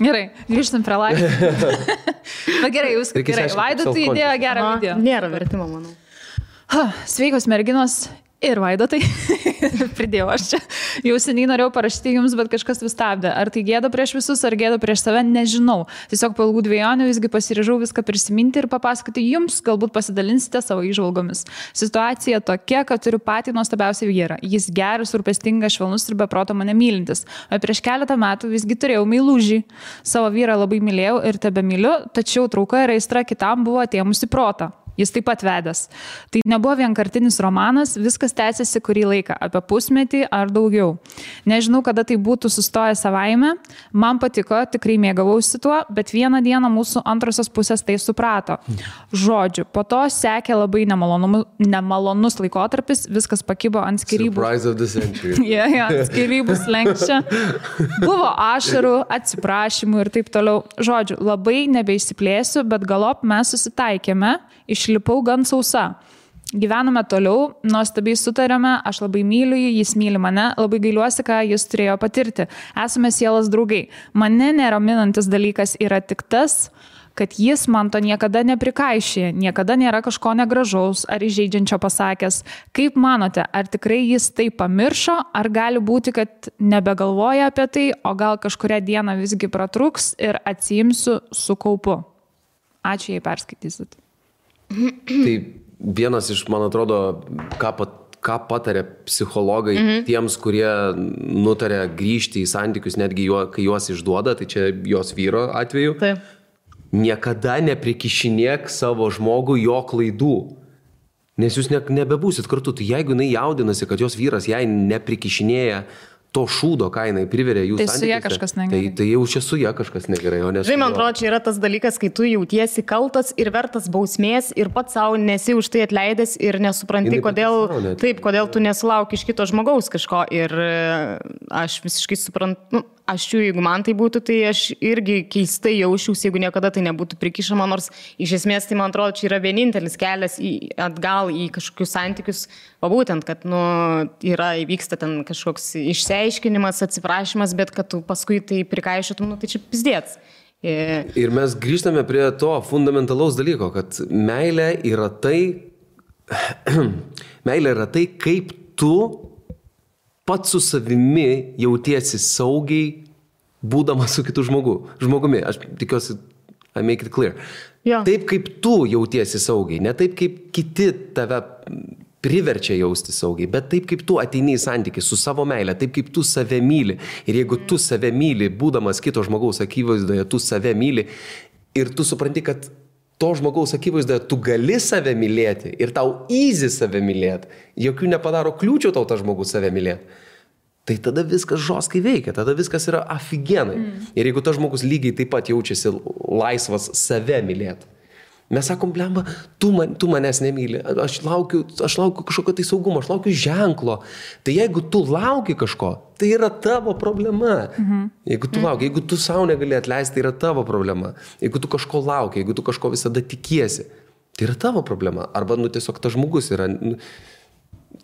Gerai, grįžtam prie laiko. Na gerai, jūs gerai. Vaidotai įdėjo gerą video. Nėra vertimo, manau. Sveikos merginos. Ir Vaidotai, pridėjau aš čia, jau seniai norėjau parašyti jums, bet kažkas vis stabdė. Ar tai gėda prieš visus, ar gėda prieš save, nežinau. Tiesiog po ilgų dvejonių visgi pasiryžau viską prisiminti ir papasakoti jums, galbūt pasidalinsite savo įžvalgomis. Situacija tokia, kad turiu patį nuostabiausią vyrą. Jis geras, rūpestingas, švelnus ir be proto mane mylintis. O prieš keletą metų visgi turėjau meilužį. Savo vyrą labai mylėjau ir tebemyliu, tačiau trauka ir aistra kitam buvo atėmusi protą. Jis taip pat vedęs. Tai nebuvo vienkartinis romanas, viskas tęsiasi kurį laiką, apie pusmetį ar daugiau. Nežinau, kada tai būtų sustoję savaime, man patiko, tikrai mėgavausi tuo, bet vieną dieną mūsų antrosios pusės tai suprato. Žodžiu, po to sekė labai nemalonus laikotarpis, viskas pakibo ant skyrybų. Surprise of the century. Skyrybų slenkščia. Buvo ašarų, atsiprašymų ir taip toliau. Žodžiu, labai nebeišsiplėsiu, bet galop mes susitaikėme. Išlipau gan sausa. Gyvename toliau, nuostabiai sutarėme, aš labai myliu jį, jis myli mane, labai gailiuosi, ką jis turėjo patirti. Esame sielos draugai. Mane neraminantis dalykas yra tik tas, kad jis man to niekada neprikaišė, niekada nėra kažko negražaus ar įžeidžiančio pasakęs. Kaip manote, ar tikrai jis tai pamiršo, ar gali būti, kad nebegalvoja apie tai, o gal kažkurią dieną visgi pratrūks ir atsiimsiu su kaupu? Ačiū, jei perskaitysit. Tai vienas iš, man atrodo, ką patarė psichologai tiems, kurie nutarė grįžti į santykius, netgi kai juos išduoda, tai čia jos vyro atveju. Taip. Niekada neprikišinėk savo žmogų jo klaidų, nes jūs nebebūsit kartu. Tai jeigu jinai jaudinasi, kad jos vyras jai neprikišinėja to šūdo, ką jinai priverė jų santykiuose. Tai su ja kažkas negerai. Tai jau čia su ja kažkas negerai, o ne su Žinai, man atrodo, čia yra tas dalykas, kai tu jautiesi kaltas ir vertas bausmės ir pats savo nesi už tai atleidęs ir nesupranti, kodėl tu nesulauki iš kito žmogaus kažko. Ir aš visiškai suprantu, jeigu man tai būtų, tai aš irgi keistai jausčiausi, jeigu niekada tai nebūtų prikišama, nors iš esmės tai, man atrodo, čia yra vienintelis kelias atgal į kažkokius santykius, o būtent, kad įvyksta ten kažkoks išsiaiškinimas, atsiprašymas, bet kad tu paskui tai prikaišytum, tai čia pizdėts. Ir mes grįžtame prie to fundamentalaus dalyko, kad meilė yra tai, kaip tu pats su savimi jautiesi saugiai, būdamas su kitu žmogumi. Aš tikiuosi, I make it clear. Ja. Taip, kaip tu jautiesi saugiai, ne taip, kaip kiti tave priverčia jausti saugiai, bet taip, kaip tu ateini į santykį su savo meile, taip, kaip tu save myli. Ir jeigu tu save myli, būdamas kito žmogaus akivaizdoje, tu save myli ir tu supranti, kad to žmogaus akivaizdoje tu gali save mylėti ir tau easy save mylėti, jokių nepadaro kliūčių tau tas žmogus save mylėti, tai tada viskas žoskai veikia, tada viskas yra afigenai. Ir jeigu tas žmogus lygiai taip pat jaučiasi laisvas save mylėti, mes sakom, blemba, tu manęs nemyli, aš laukiu kažkokio tai saugumo, aš laukiu ženklo. Tai jeigu tu lauki kažko, tai yra tavo problema. Jeigu tu lauki, jeigu tu savo negali atleisti, tai yra tavo problema. Jeigu tu kažko lauki, jeigu tu kažko visada tikiesi, tai yra tavo problema. Arba, tiesiog tas žmogus yra...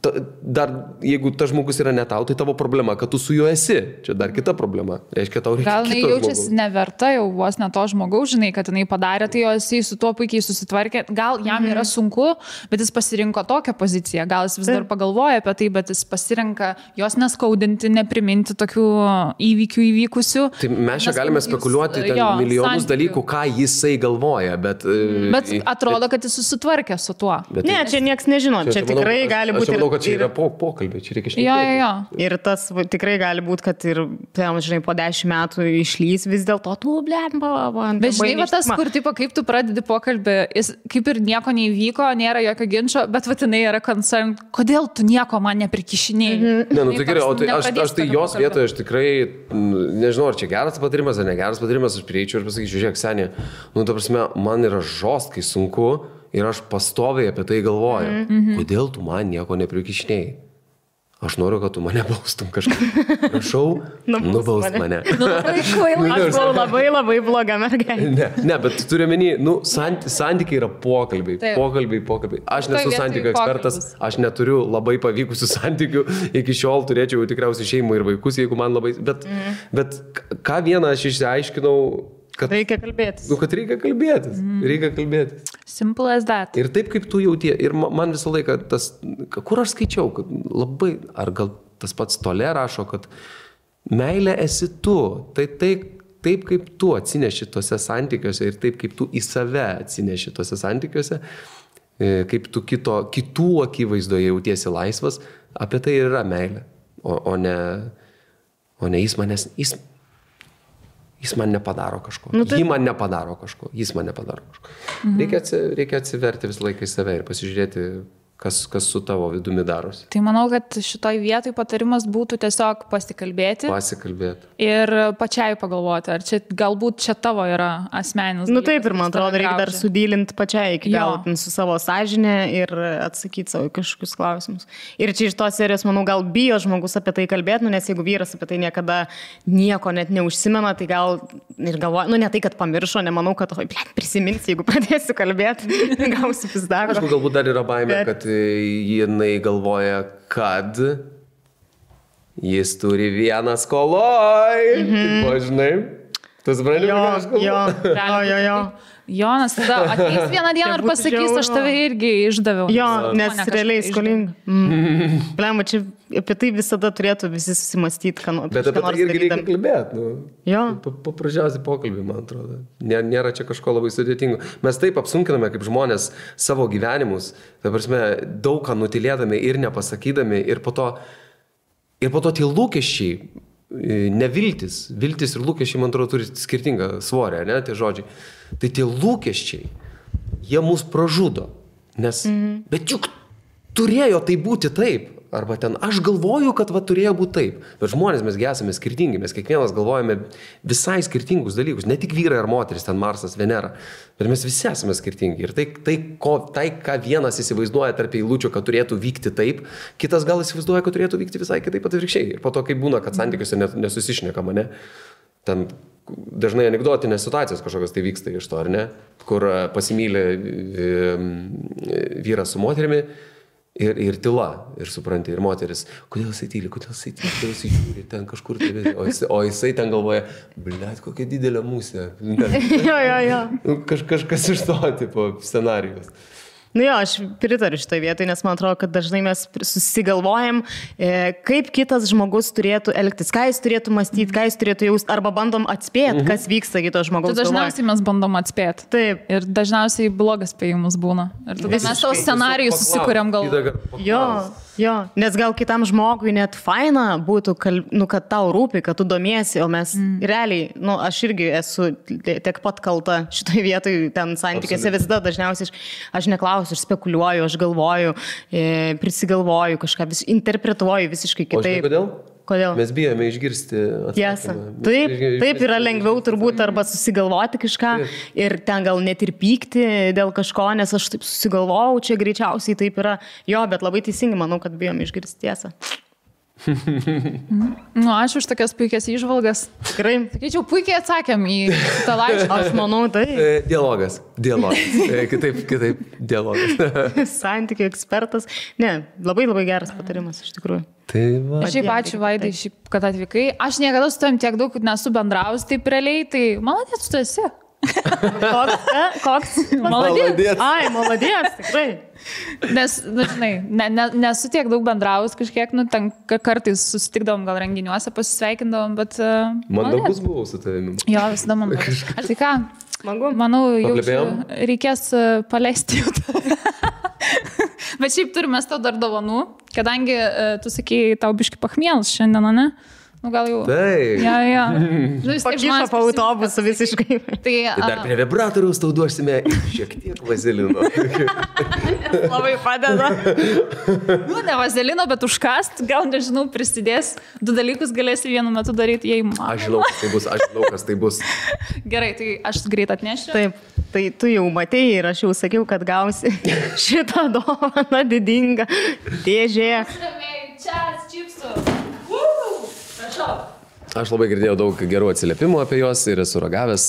Dar, jeigu tas žmogus yra ne tau, tai tavo problema, kad tu su juo esi. Čia dar kita problema. Reiškia, tau reikia kito žmogaus. Gal jaučiasi neverta jau vos ne to žmogaus, žinai, kad jinai padarė, tai jisai su tuo puikiai susitvarkė. Gal jam yra sunku, bet jis pasirinko tokią poziciją. Gal jis vis dar pagalvoja apie tai, bet jis pasirinka jos neskaudinti, nepriminti tokių įvykių įvykusių. Tai mes čia galime spekuliuoti milijonus dalykų, ką jisai galvoja, bet atrodo, kad jis susitvarkė su tuo. Ne, čia nieks nežino. Čia tikrai gali būti... Aš manau, kad čia yra pokalbė, čia reikia šnekėti. Jo. Ir tas tikrai gali būti, kad ir, žinai, po 10 metų išlys vis dėlto, tu, blemba. Bet žinai, tas, kur, tipo, kaip tu pradedi pokalbį, jis kaip ir nieko neįvyko, nėra jokio ginčio, bet vatinai yra concern, kodėl tu nieko man neprikišinėjai. Ne, nu tai gerai, o tai aš tai jos vietoje, aš tikrai, nežinau, ar čia geras patarimas ar negeras patarimas, aš prieičiau ir pasakyčiau, žiūrėk, Senė, nu, ta prasme, man yra žostkai sunku ir aš pastoviai apie tai galvoju. Kodėl tu man nieko neprikišinėjai? Aš noriu, kad tu mane baustum kažkaip. Prašau, nubaust mane. Aš buvau labai bloga mergaitė. Ne, bet turiu menį, santykiai yra pokalbiai. Pokalbiai. Aš nesu santykių ekspertas, aš neturiu labai pavykusių santykių. Iki šiol turėčiau tikriausiai šeimą ir vaikus, jeigu man labai... Bet ką vieną aš išsiaiškinau, kad reikia kalbėtis. Nu, kad reikia kalbėtis. Simple as that. Ir taip, kaip tu jautie. Ir man visą laiką tas, kur aš skaičiau, kad labai, ar gal tas pats Tolė rašo, kad meilė esi tu. Tai taip, kaip tu atsineši tose santykiuose ir taip, kaip tu į save atsineši tose santykiuose, kaip tu kitų akivaizdoje jautiesi laisvas, apie tai ir yra meilė. O ne jis man nepadaro kažko. Ji man nepadaro kažko. Jis man nepadaro kažko. Reikia atsiverti visą laiką į save ir pasižiūrėti, kas su tavo vidumi darosi. Tai manau, kad šitoj vietoj patarimas būtų tiesiog pasikalbėti. Ir pačiai pagalvoti, ar čia galbūt čia tavo yra asmeninis. Nu taip, ir man atrodo, reikia dar sudylinti pačiai iki galo su savo sąžinė ir atsakyti savo kažkokius klausimus. Ir čia iš tos serijos, manau, gal bijo žmogus apie tai kalbėti, nes jeigu vyras apie tai niekada nieko net neužsimena, tai gal ir galvoja, ne tai, kad pamiršo, nemanau, kad prisimins, jeigu pradėsiu kalbėti, gausiu pizdavę. Aišku, galbūt dar yra baimė, kad jinai galvoja, kad jis turi vieną skoloj. Tipo, žinai, tu supranti, ką aš kalbu? Jo. Jonas tada ateis vieną dieną ir pasakys, aš tave irgi išdaviau. Jo, nes realiai skolinga. Blema, čia apie tai visada turėtų visi susimastyti, ką nors. Bet apie tai irgi reikia kalbėti. Jo. Paprasčiausiai pokalbį, man atrodo. Nėra čia kažko labai sudėtingo. Mes taip apsunkiname kaip žmonės savo gyvenimus, ta prasme, daug ką nutilėdami ir nepasakydami, ir po to tie lūkesčiai, neviltis. Viltis ir lūkesčiai, man atrodo, turi skirtingą svorę, ne, tie žodžiai. Tai tie lūkesčiai, jie mus pražudo. Bet juk turėjo tai būti taip. Arba ten, aš galvoju, kad turėjo būti taip. Bet žmonės mesgi esame skirtingi. Mes kiekvienas galvojame visai skirtingus dalykus. Ne tik vyrai ar moteris, ten Marsas, Venera. Bet mes visi esame skirtingi. Ir tai, ką vienas įsivaizduoja tarp eilučių, kad turėtų vykti taip, kitas gal įsivaizduoja, kad turėtų vykti visai kitaip atvirkščiai. Ir po to, kai būna, kad santykiuose nesusišnekama, ne? Ten dažnai anekdotinės situacijos kažkokios tai vyksta iš to, ar ne? Kur pasimylė vyras su moterimi ir tyla, ir supranti, ir moteris, kodėl jisai tyli, kodėl jisai žiūri ten kažkur, o jisai ten galvoja, blet, kokia didelė musė. Jo. Kažkas iš to tipo scenarijos. Nu jo, aš pritariu šitoj vietoj, nes man atrodo, kad dažnai mes susigalvojam, kaip kitas žmogus turėtų elgtis, ką jis turėtų mąstyti, ką jis turėtų jausti, arba bandom atspėti, kas vyksta kito žmogaus galvoje. Dažniausiai mes bandom atspėti. Taip. Ir dažniausiai blogas spėjimas būna. Ir tada mes savo scenarijus susikuriam galvoje. Jo, nes gal kitam žmogui net faina būtų, kad tau rūpi, kad tu domiesi, o mes realiai, aš irgi esu tiek pat kalta šitoj vietoj, ten santykiuose visada dažniausiai aš neklausiu, aš spekuliuoju, aš galvoju, prisigalvoju kažką, interpretuoju visiškai kitaip. Kodėl? Mes bijome išgirsti atsakymą. Taip yra lengviau turbūt arba susigalvoti kažką ir ten gal net ir pykti dėl kažko, nes aš taip susigalvojau, čia greičiausiai taip yra. Jo, bet labai teisingai manau, kad bijome išgirsti tiesą. Ačiū už tokias puikias įžvalgas. Tikrai. Sakyčiau, puikiai atsakėm į tą laišką. Aš manau, tai. Dialogas. Kitaip dialogas. Santykių ekspertas. Ne, labai geras patarimas iš tikrųjų. Šiaip ačiū, Vaidai, kad atvykai. Aš niekada su tavim tiek daug nesu bendraus taip realiai, tai malonės tu esi. Koks? Maladės. Ai, maladės, tikrai. Nes, žinai, nesu tiek daug bendraus kažkiek, ten kartais susitikdavom gal renginiuose, pasisveikindavom, bet... Mandagus buvau su tavimi. Jo, visada mandagus. Ar tai ką? Manau, jau reikės paleisti jau. Bet šiaip turime tau dar dovanų, kadangi tu sakėjai, tau biški pachmielas šiandien, ne? Nu, gal jau. Taip. Ja. Pakišo po autobusu visiškai. Tai dar prie vibratoriaus tau duosime šiek tiek vazelino. Labai padeda. Nu, ne vazelino, bet užkast, gal nežinau, prisidės. 2 dalykus galėsi vienu metu daryti, jei man. Aš žinau, kas tai bus. Gerai, tai aš greit atnešiu. Taip, tai tu jau matėjai ir aš jau sakiau, kad gausi šitą dovaną didingą dėžė. Čia, čipsų. Aš labai girdėjau daug gerų atsiliepimų apie juos ir esu ragavęs.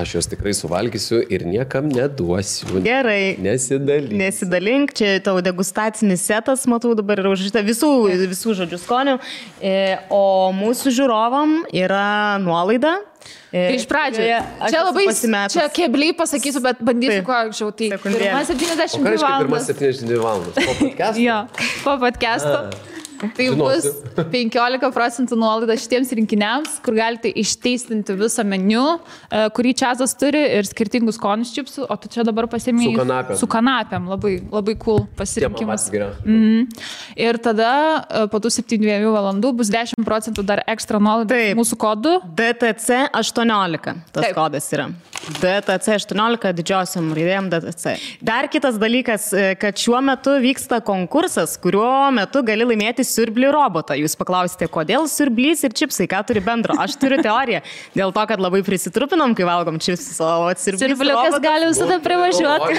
Aš juos tikrai suvalgysiu ir niekam neduosiu. Gerai. Nesidalink. Čia tavo degustacinis setas, matau, dabar yra užrašyta visų žodžių skonių. O mūsų žiūrovam yra nuolaida. Tai iš pradžio. Čia labai, čia kebliai pasakysiu, bet bandysiu kuo anksčiau. Tai 1:72 valandas. 1:72 valandas. Po podcast'o? Jo, po podcast'o. Tai bus 15% nuolaida šitiems rinkiniams, kur galite išteistinti visą meniu, kurį Čiazas turi ir skirtingus skonius čipsų, o tu čia dabar pasiėmė su kanapėm. Labai, labai cool pasirinkimas. Ir tada po tų 72 valandų bus 10% dar ekstra nuolaida mūsų kodu. DTC 18 tas kodas yra. DTC 18 didžiosiam raidėm DTC. Dar kitas dalykas, kad šiuo metu vyksta konkursas, kuriuo metu gali laimėti siurblį robotą. Jūs paklausite, kodėl siurblys ir čipsai, ką turi bendro? Aš turiu teoriją. Dėl to, kad labai prisitrupinom, kai valgom čipsus, o siurbliukas robotas gali visada privažiuoti.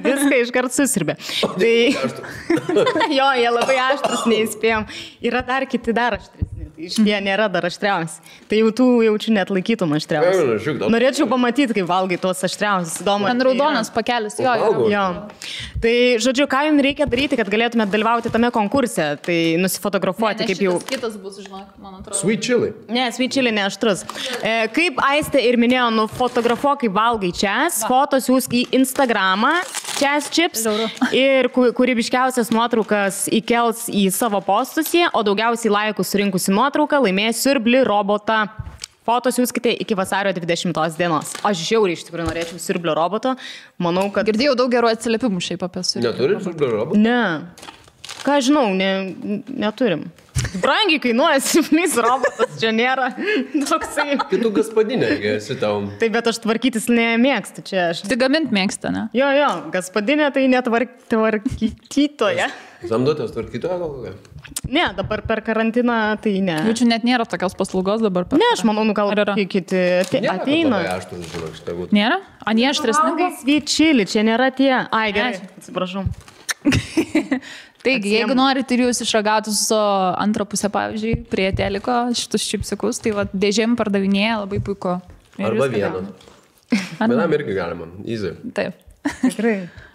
Viską iškart susirbė. Tai... jo, jie labai aštrus, neįspėjom. Yra dar kiti dar aštresni. Jie nėra dar aštriausi. Tai jau tų jaučiu net laikytum aštriausi. Norėčiau pamatyti, kaip valgai tuos aštriausius. Ten raudonas pakelis. Jo. Tai, žodžiu, ką jums reikia daryti, kad galėtumėte dalyvauti tame konkurse? Tai nusifotografuoti, kaip jau... Kitas bus, žinok, man atrodo. Sweet chili. Ne, sweet chili ne aštrus. Kaip Aistė ir minėjo, nufotografuok, kaip valgai Čiaz, fotos siūsk į Instagramą, Čiaz Chips, ir kūrybiškiausias nuotraukas įkels į savo postus, o daugiausiai laikų surinkusi nuotrauką laimės siurblį robotą. Fotos siūskite iki vasario 20 dienos. Aš žiauriai iš tikrųjų norėčiau siurblio roboto. Manau, kad... Girdėjau daug gerų atsiliepimų šiaip apie siurblį. Neturim siurblio roboto? Ne. Ką žinau, neturim. Brangiai kainuoja siurblys robotas, čia nėra toksai. Kitų gaspadinė, esi tau. Taip, bet aš tvarkytis nemėgstu čia. Tai gamint mėgsta, ne? Jo, gaspadinė tai netvarkytoje. Samdotės tvarkytoje gal kokia? Ne, dabar per karantiną tai ne. Jaučiu, net nėra tokios paslaugos dabar. Ne, aš manau, gal kiti ateina. Nėra? A, nie aštresni? Sweet chili, čia nėra tie. Ai, gerai, atsiprašau. Taigi, jeigu norite ir jūs išragauti su antrą pusę, pavyzdžiui, prie teliko šitus čipsikus, tai va, dėžėm pardavinėja labai puiku. Arba vieną. Vienam irgi galima, easy. Taip. Tikrai.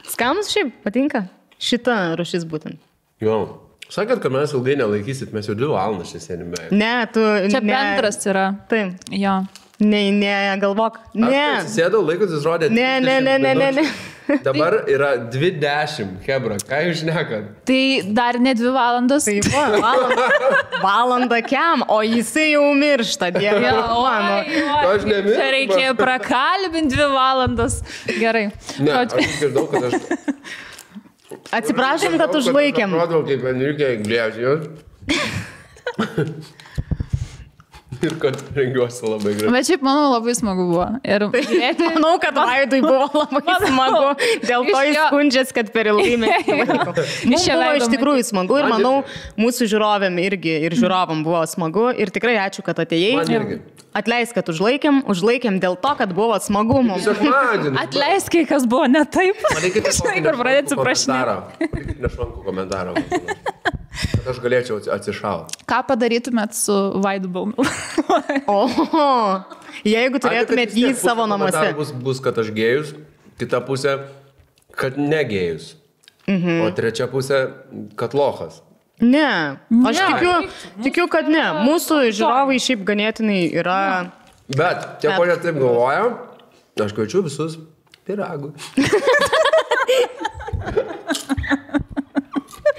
Skanus šiaip patinka šita rušis būtent. Jo. Sakėt, kad mes ilgai nelaikysit, mes jau 2 valandas čia sėdime. Ne, tu... Čia bendras yra. Taip. Jo. Ne, galvok. Ne. Aš atsisėdau, laikas rodė. Ne. Dabar yra 20, hebra, ką jūs šnekat? Tai dar ne 2 valandas. Tai valanda kiam, o jisai jau miršta, dieve. Aš nemiršta. Čia reikėjo prakalbinti 2 valandas. Gerai. Ne, aš išgirdau, kad aš... Atsiprašom, kad užlaikėm. Aš atrodau, kaip Enrique Iglesias. Ir kad rengiuosi labai gražiai. Bet šiaip, manau, labai smagu buvo. Ir manau, kad Vaidui buvo labai smagu. Dėl to jis skundžiasi, kad per ilgai mes laiko. Mums buvo iš tikrųjų smagu ir manau, mūsų žiūrovėm irgi ir žiūrovam buvo smagu. Ir tikrai ačiū, kad atėjai. Atleisk, kad užlaikėm dėl to, kad buvo smagu mums. Atleisk, kai kas buvo ne taip. Žinai, kur pradėti suprašinėti. Nešvankų komentarą. Kad aš galėčiau atsišauti. Ką padarytumėt su Vaidu Baumilu? Jeigu turėtumėt jį savo namuose. Bus, kad aš gėjus, kita pusė, kad negėjus. O trečia pusė, kad lochas. Ne, aš tikiu, kad ne. Mūsų žiūrovai šiaip ganėtinai yra... Bet, tie, kurie taip galvoja, aš kviečiu visus piragų.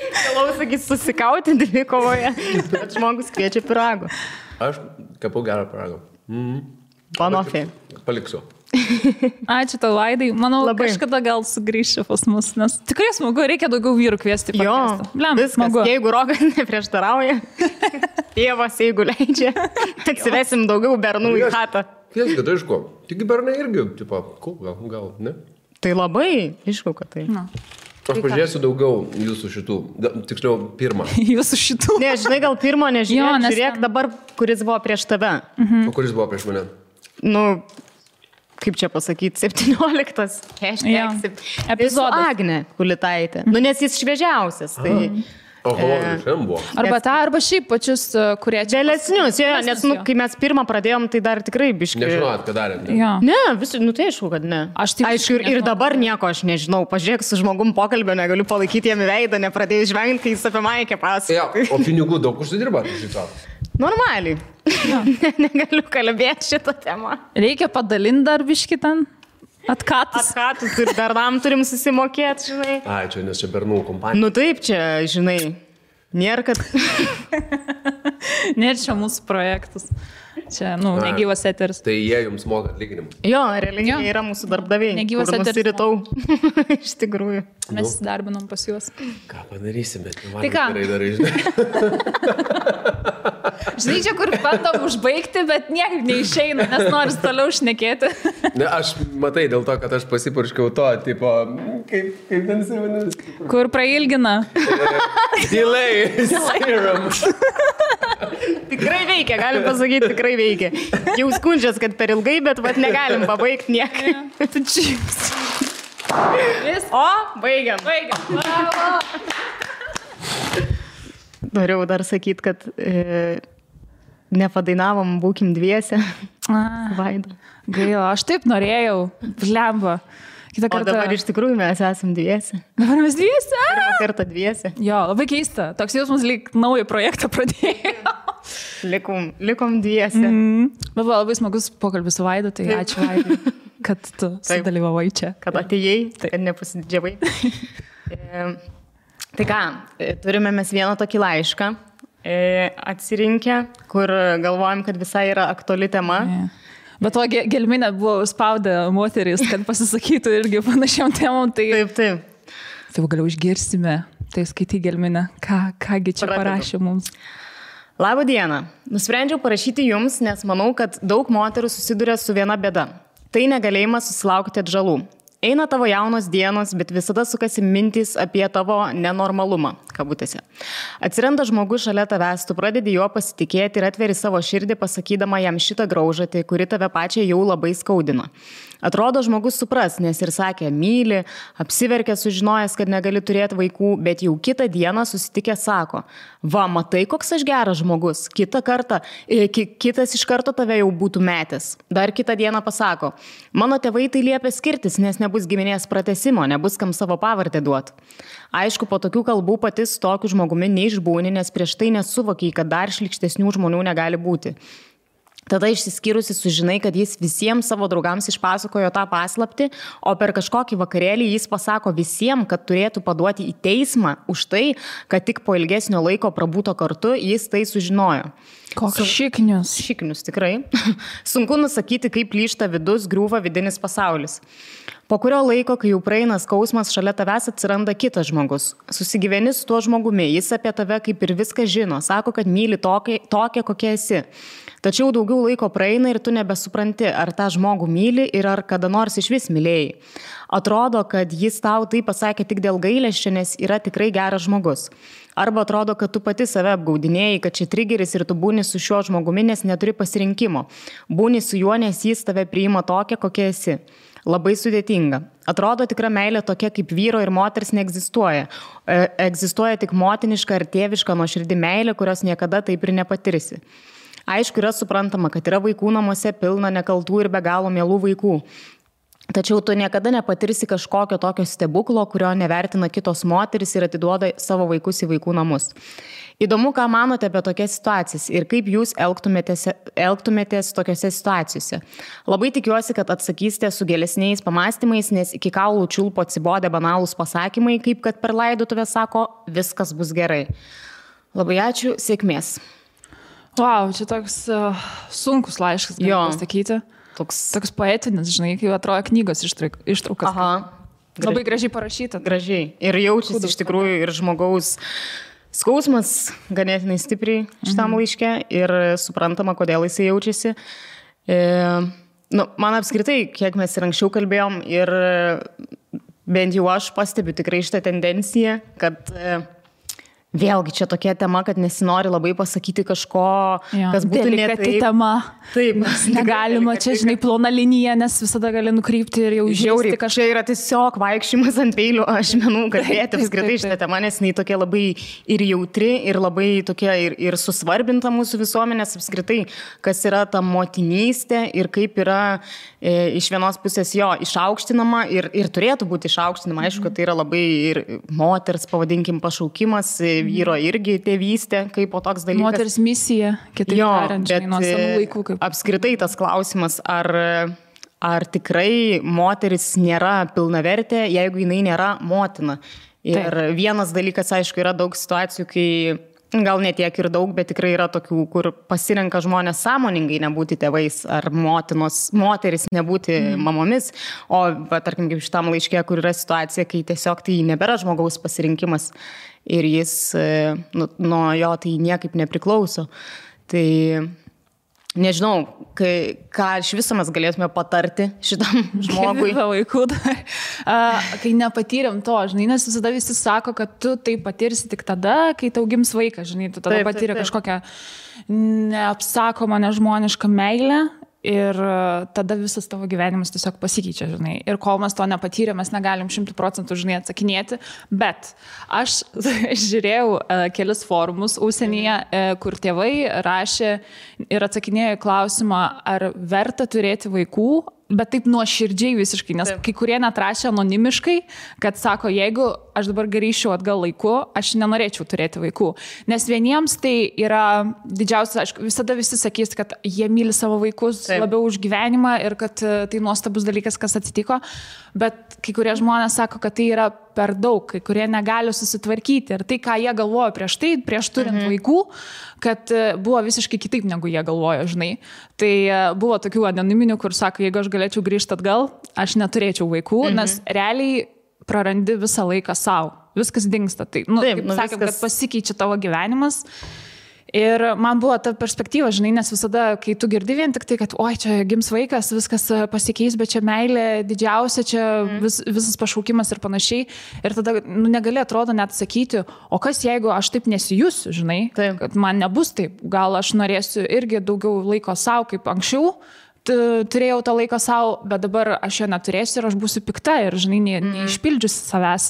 Galau, sakys, susikauti dvikovoje, bet žmogus kviečia piragų. Aš kepu gerą piragą. Panofė. Paliksiu. Ačiū tau, Vaidai. Manau, kažkada gal sugrįšiu pas mus, nes tikrai smagu, reikia daugiau vyrų kviesti. Viskas, smagu. Jeigu Rokas neprieštarauja, tėvas, jeigu leidžia, atsivesim daugiau bernų į chatą. Tiesgi, tai aišku, tik bernai irgi, tipo, gal, ne? Tai labai, aišku, kad tai. Aš pažiūrėsiu daugiau jūsų šitų, tiksliau, pirmą. Jūsų šitų. Ne, žinai, gal pirmo nežiūrėk, žiūrėk dabar, kuris buvo prieš tave. O kuris buvo prieš mane? Nu, kaip čia pasakyti, 17. Epizodas. Agnė Kulitaitė. Nu, nes jis šviežiausias, tai... Arba tą, arba šiaip pačius, kurie čia... Vėlesnius, nes kai mes pirmą pradėjom, tai dar tikrai biškai... Nežinot, ką darėm. Ne, tai aišku, kad ne. Aišku, ir dabar nieko aš nežinau. Pažiūrėk, su žmogum pokalbio negaliu palaikyti jam į veidą, nepradėjus žvengti, kai jis apie Maikę pasakoja. O pinigų daug užsidirba, šitą? Normaliai. Negaliu kalbėti šitą temą. Reikia padalinti dar biškį ten? Atkatus ir bernam turim susimokėti, žinai. Ai, čia nes čia bernų kompanija. Nu taip, čia, žinai, nėra, kad... Nėra čia mūsų projektas. Čia, negyvas eteris. Tai jie jums moka atlyginimą. Jo, realiai jie yra mūsų darbdaviai. Negyvas eteris. Nusiritau. Iš tikrųjų. Mes darbinom pas juos. Ką padarysim, bet man tai ką? Gerai darai, žinai. Žinai, čia kur bandom užbaigti, bet niekaip neišeina, nes noris toliau šnekėti. Ne, aš matai dėl to, kad aš pasipurškiau to, tipo, kaip ten vadinasi? Kur prailgina? Delay serum. Tikrai veikia, galim pasakyti, tikrai veikia. Jau skundžias, kad per ilgai, bet negalim pabaigti niekaip. O, baigiam. Bravo. Norėjau dar sakyti, kad nepadainavom, būkim dviese. Vaida. Gaila, aš taip norėjau. Blemba. O dabar iš tikrųjų mes esam dviese. Dabar mes dviese? Pirmą kartą dviese. Jo, labai keista. Toks jausmas lyg naują projektą pradėjo. Likom dviese. Bet buvo labai smagus pokalbis su Vaidu, tai ačiū Vaidai, kad tu sudalyvavai čia. Kad atėjai, kad nepasididžiavai. Tai ką, turime mes vieną tokį laišką atsirinkę, kur galvojam, kad visai yra aktuali tema. Bet to gelminę buvo spaudę moteris, kad pasisakytų irgi panašiam temom. Tai... Taip. Tai galiau išgirsime, tai skaitai gelminę, kągi čia parašė mums. Labą dieną. Nusprendžiau parašyti jums, nes manau, kad daug moterų susiduria su viena bėda. Tai negalėjimas susilaukti atžalų. Eina tavo jaunos dienos, bet visada sukasi mintys apie tavo nenormalumą, kabutėse. Atsiranda žmogus šalia tavęs, tu pradedi juo pasitikėti ir atveri savo širdį, pasakydama jam šitą graužatį, kuri tave pačią jau labai skaudina. Atrodo, žmogus supras, nes ir sakė, myli, apsiverkė sužinojęs, kad negali turėti vaikų, bet jau kitą dieną susitikę sako, va, matai, koks aš geras žmogus, kitas iš karto tave jau būtų metęs. Dar kitą dieną pasako, mano tėvai tai liepia skirtis, nes nebus giminės pratęsimo, nebus kam savo pavardę duoti. Aišku, po tokių kalbų pati su tokiu žmogumi neišbūni, nes prieš tai nesuvokiai, kad dar šlykštesnių žmonių negali būti. Tada išsiskyrusi sužinai, kad jis visiems savo draugams išpasakojo tą paslaptį, o per kažkokį vakarėlį jis pasako visiems, kad turėtų paduoti į teismą už tai, kad tik po ilgesnio laiko prabūto kartu jis tai sužinojo. Koks šiknius. Šiknius, tikrai. Sunku nusakyti, kaip plyšta vidus, griūva vidinis pasaulis. Po kurio laiko, kai jau praeina skausmas, šalia tavęs atsiranda kitas žmogus. Susigyveni su tuo žmogumi, jis apie tave kaip ir viską žino, sako, kad myli tokia, kokia esi. Tačiau daugiau laiko praeina ir tu nebesupranti, ar tą žmogų myli ir ar kada nors iš vis mylėjai. Atrodo, kad jis tau tai pasakė tik dėl gailesčio, nes yra tikrai geras žmogus. Arba atrodo, kad tu pati save apgaudinėjai, kad čia trigeris ir tu būni su šiuo žmogumi, nes neturi pasirinkimo. Būni su juo, nes jis tave priima tokia, kokia esi. Labai sudėtinga. Atrodo, tikra meilė tokia kaip vyro ir moters neegzistuoja. Egzistuoja tik motiniška ar tėviška nuoširdi meilė, kurios niekada taip ir nepatirsi. Aišku, yra suprantama, kad yra vaikų namuose pilna nekaltų ir be galo mielų vaikų. Tačiau tu niekada nepatirsi kažkokio tokio stebuklo, kurio nevertina kitos moteris ir atiduoda savo vaikus į vaikų namus. Įdomu, ką manote apie tokias situacijas ir kaip jūs elgtumėtės tokiose situacijose. Labai tikiuosi, kad atsakysite su gilesniais pamastymais, nes iki kaulų čiulpo atsibodė banalūs pasakymai, kaip kad per laidotuvę sako, viskas bus gerai. Labai ačiū, sėkmės. Wow, čia toks sunkus laiškas, galiu pasakyti. Toks poetinis, žinai, kai atrodo knygos ištraukas. Aha. Labai gražiai parašyta. Gražiai. Ir jaučiasi iš tikrųjų ir žmogaus skausmas ganėtinai stipriai šitam laiške ir suprantama, kodėl jisai jaučiasi. Man apskritai, kiek mes ir anksčiau kalbėjom ir bent jau aš pastebiu tikrai šitą tendenciją, kad vėlgi čia tokia tema, kad nesinori labai pasakyti kažko, kas būtų delikati tema. Taip. Negalima čia, žinai, plona linija, nes visada gali nukrypti ir jau žiauriai kažką. Čia yra tiesiog vaikščiamas ant peilių, aš manau, kalbėti apskritai šitą temą, nes jinai tokia labai ir jautri, ir labai tokia ir susvarbinta mūsų visuomenės apskritai, kas yra ta motinystė ir kaip yra iš vienos pusės išaukštinama ir turėtų būti išaukštinama. Aišku, kad tai yra labai ir moters, pavadinkim, pašaukimas, vyro irgi tėvystė, kaip po toks dalykas. Moters misija, kitaip tariant, nuo senų laikų. Apskritai tas klausimas, ar tikrai moteris nėra pilnavertė, jeigu jinai nėra motina. Ir vienas dalykas, aišku, yra daug situacijų, kai gal ne tiek ir daug, bet tikrai yra tokių, kur pasirenka žmonės sąmoningai nebūti tėvais ar moteris nebūti mamomis. O, tarkim, kaip šitam laiške, kur yra situacija, kai tiesiog tai nebėra žmogaus pasirinkimas ir jis nuo jo tai niekaip nepriklauso. Tai nežinau, ką iš viso mes galėtume patarti šitam žmogui. Kai nepatyrėm to, žinai, nes visada visi sako, kad tu tai patirsi tik tada, kai tau gims vaikas, žinai, tu tada patyrė kažkokią neapsakomą, nežmonišką meilę. Ir tada visas tavo gyvenimas tiesiog pasikeičia, žinai. Ir kol mes to nepatyrėm, mes negalim 100%, žinai, atsakinėti. Bet aš žiūrėjau kelis forumus užsienyje, kur tėvai rašė ir atsakinėjo į klausimą, ar verta turėti vaikų, bet taip nuoširdžiai visiškai, nes kai kurie net rašė anonimiškai, kad sako, jeigu aš dabar grįžčiau atgal laiku, aš nenorėčiau turėti vaikų. Nes vieniems tai yra didžiausias, aišku, visada visi sakys, kad jie myli savo vaikus labiau už gyvenimą ir kad tai nuostabus dalykas, kas atsitiko, bet kai kurie žmonės sako, kad tai yra per daug, kai kurie negali susitvarkyti ir tai, ką jie galvojo prieš turint vaikų, kad buvo visiškai kitaip, negu jie galvojo, žinai. Tai buvo tokių anoniminių, kur sako, jeigu aš galėčiau grįžti atgal, aš neturėčiau vaikų, nes realiai prarandi visą laiką savo. Viskas dingsta. Tai, kaip sakėm, kad pasikeičia tavo gyvenimas. Ir man buvo ta perspektyva, žinai, nes visada, kai tu girdi vien tik tai, kad oi, čia gims vaikas, viskas pasikeis, bet čia meilė didžiausia, čia visas pašaukimas ir panašiai. Ir tada negali atrodo net sakyti, o kas jeigu aš taip nesijusiu, žinai, kad man nebus taip, gal aš norėsiu irgi daugiau laiko savo kaip anksčiau. Turėjau tą laiką savo, bet dabar aš jo neturėsiu ir aš būsiu pikta ir, žinai, neišpildžiusi savęs.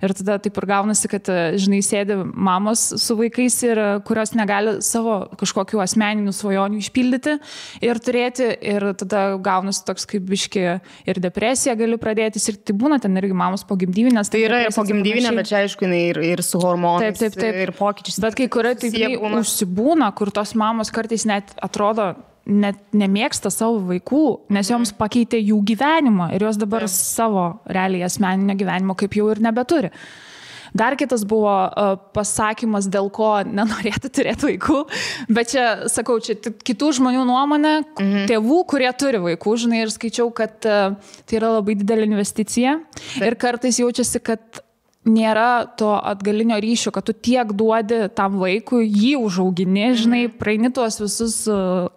Ir tada taip ir gaunasi, kad, žinai, sėdi mamos su vaikais ir kurios negali savo kažkokių asmeninių svajonių išpildyti ir turėti. Ir tada gaunasi toks kaip biški ir depresija gali pradėtis. Ir tai būna ten irgi mamos pogimdyvinės. Tai yra ir pogimdyvinė, bet čia aišku, ir su hormonais ir pokyčiais. Bet kai kurie taip užsibūna, kur tos mamos kartais net atrodo net nemėgsta savo vaikų, nes joms pakeitė jų gyvenimą ir jos dabar savo realiai asmeninio gyvenimo kaip jau ir nebeturi. Dar kitas buvo pasakymas, dėl ko nenorėtų turėti vaikų, bet čia, sakau, čia kitų žmonių nuomonė, tėvų, kurie turi vaikų, žinai, ir skaičiau, kad tai yra labai didelė investicija ir kartais jaučiasi, kad nėra to atgalinio ryšio, kad tu tiek duodi tam vaikui, jį užaugini, žinai, praeini tuos visus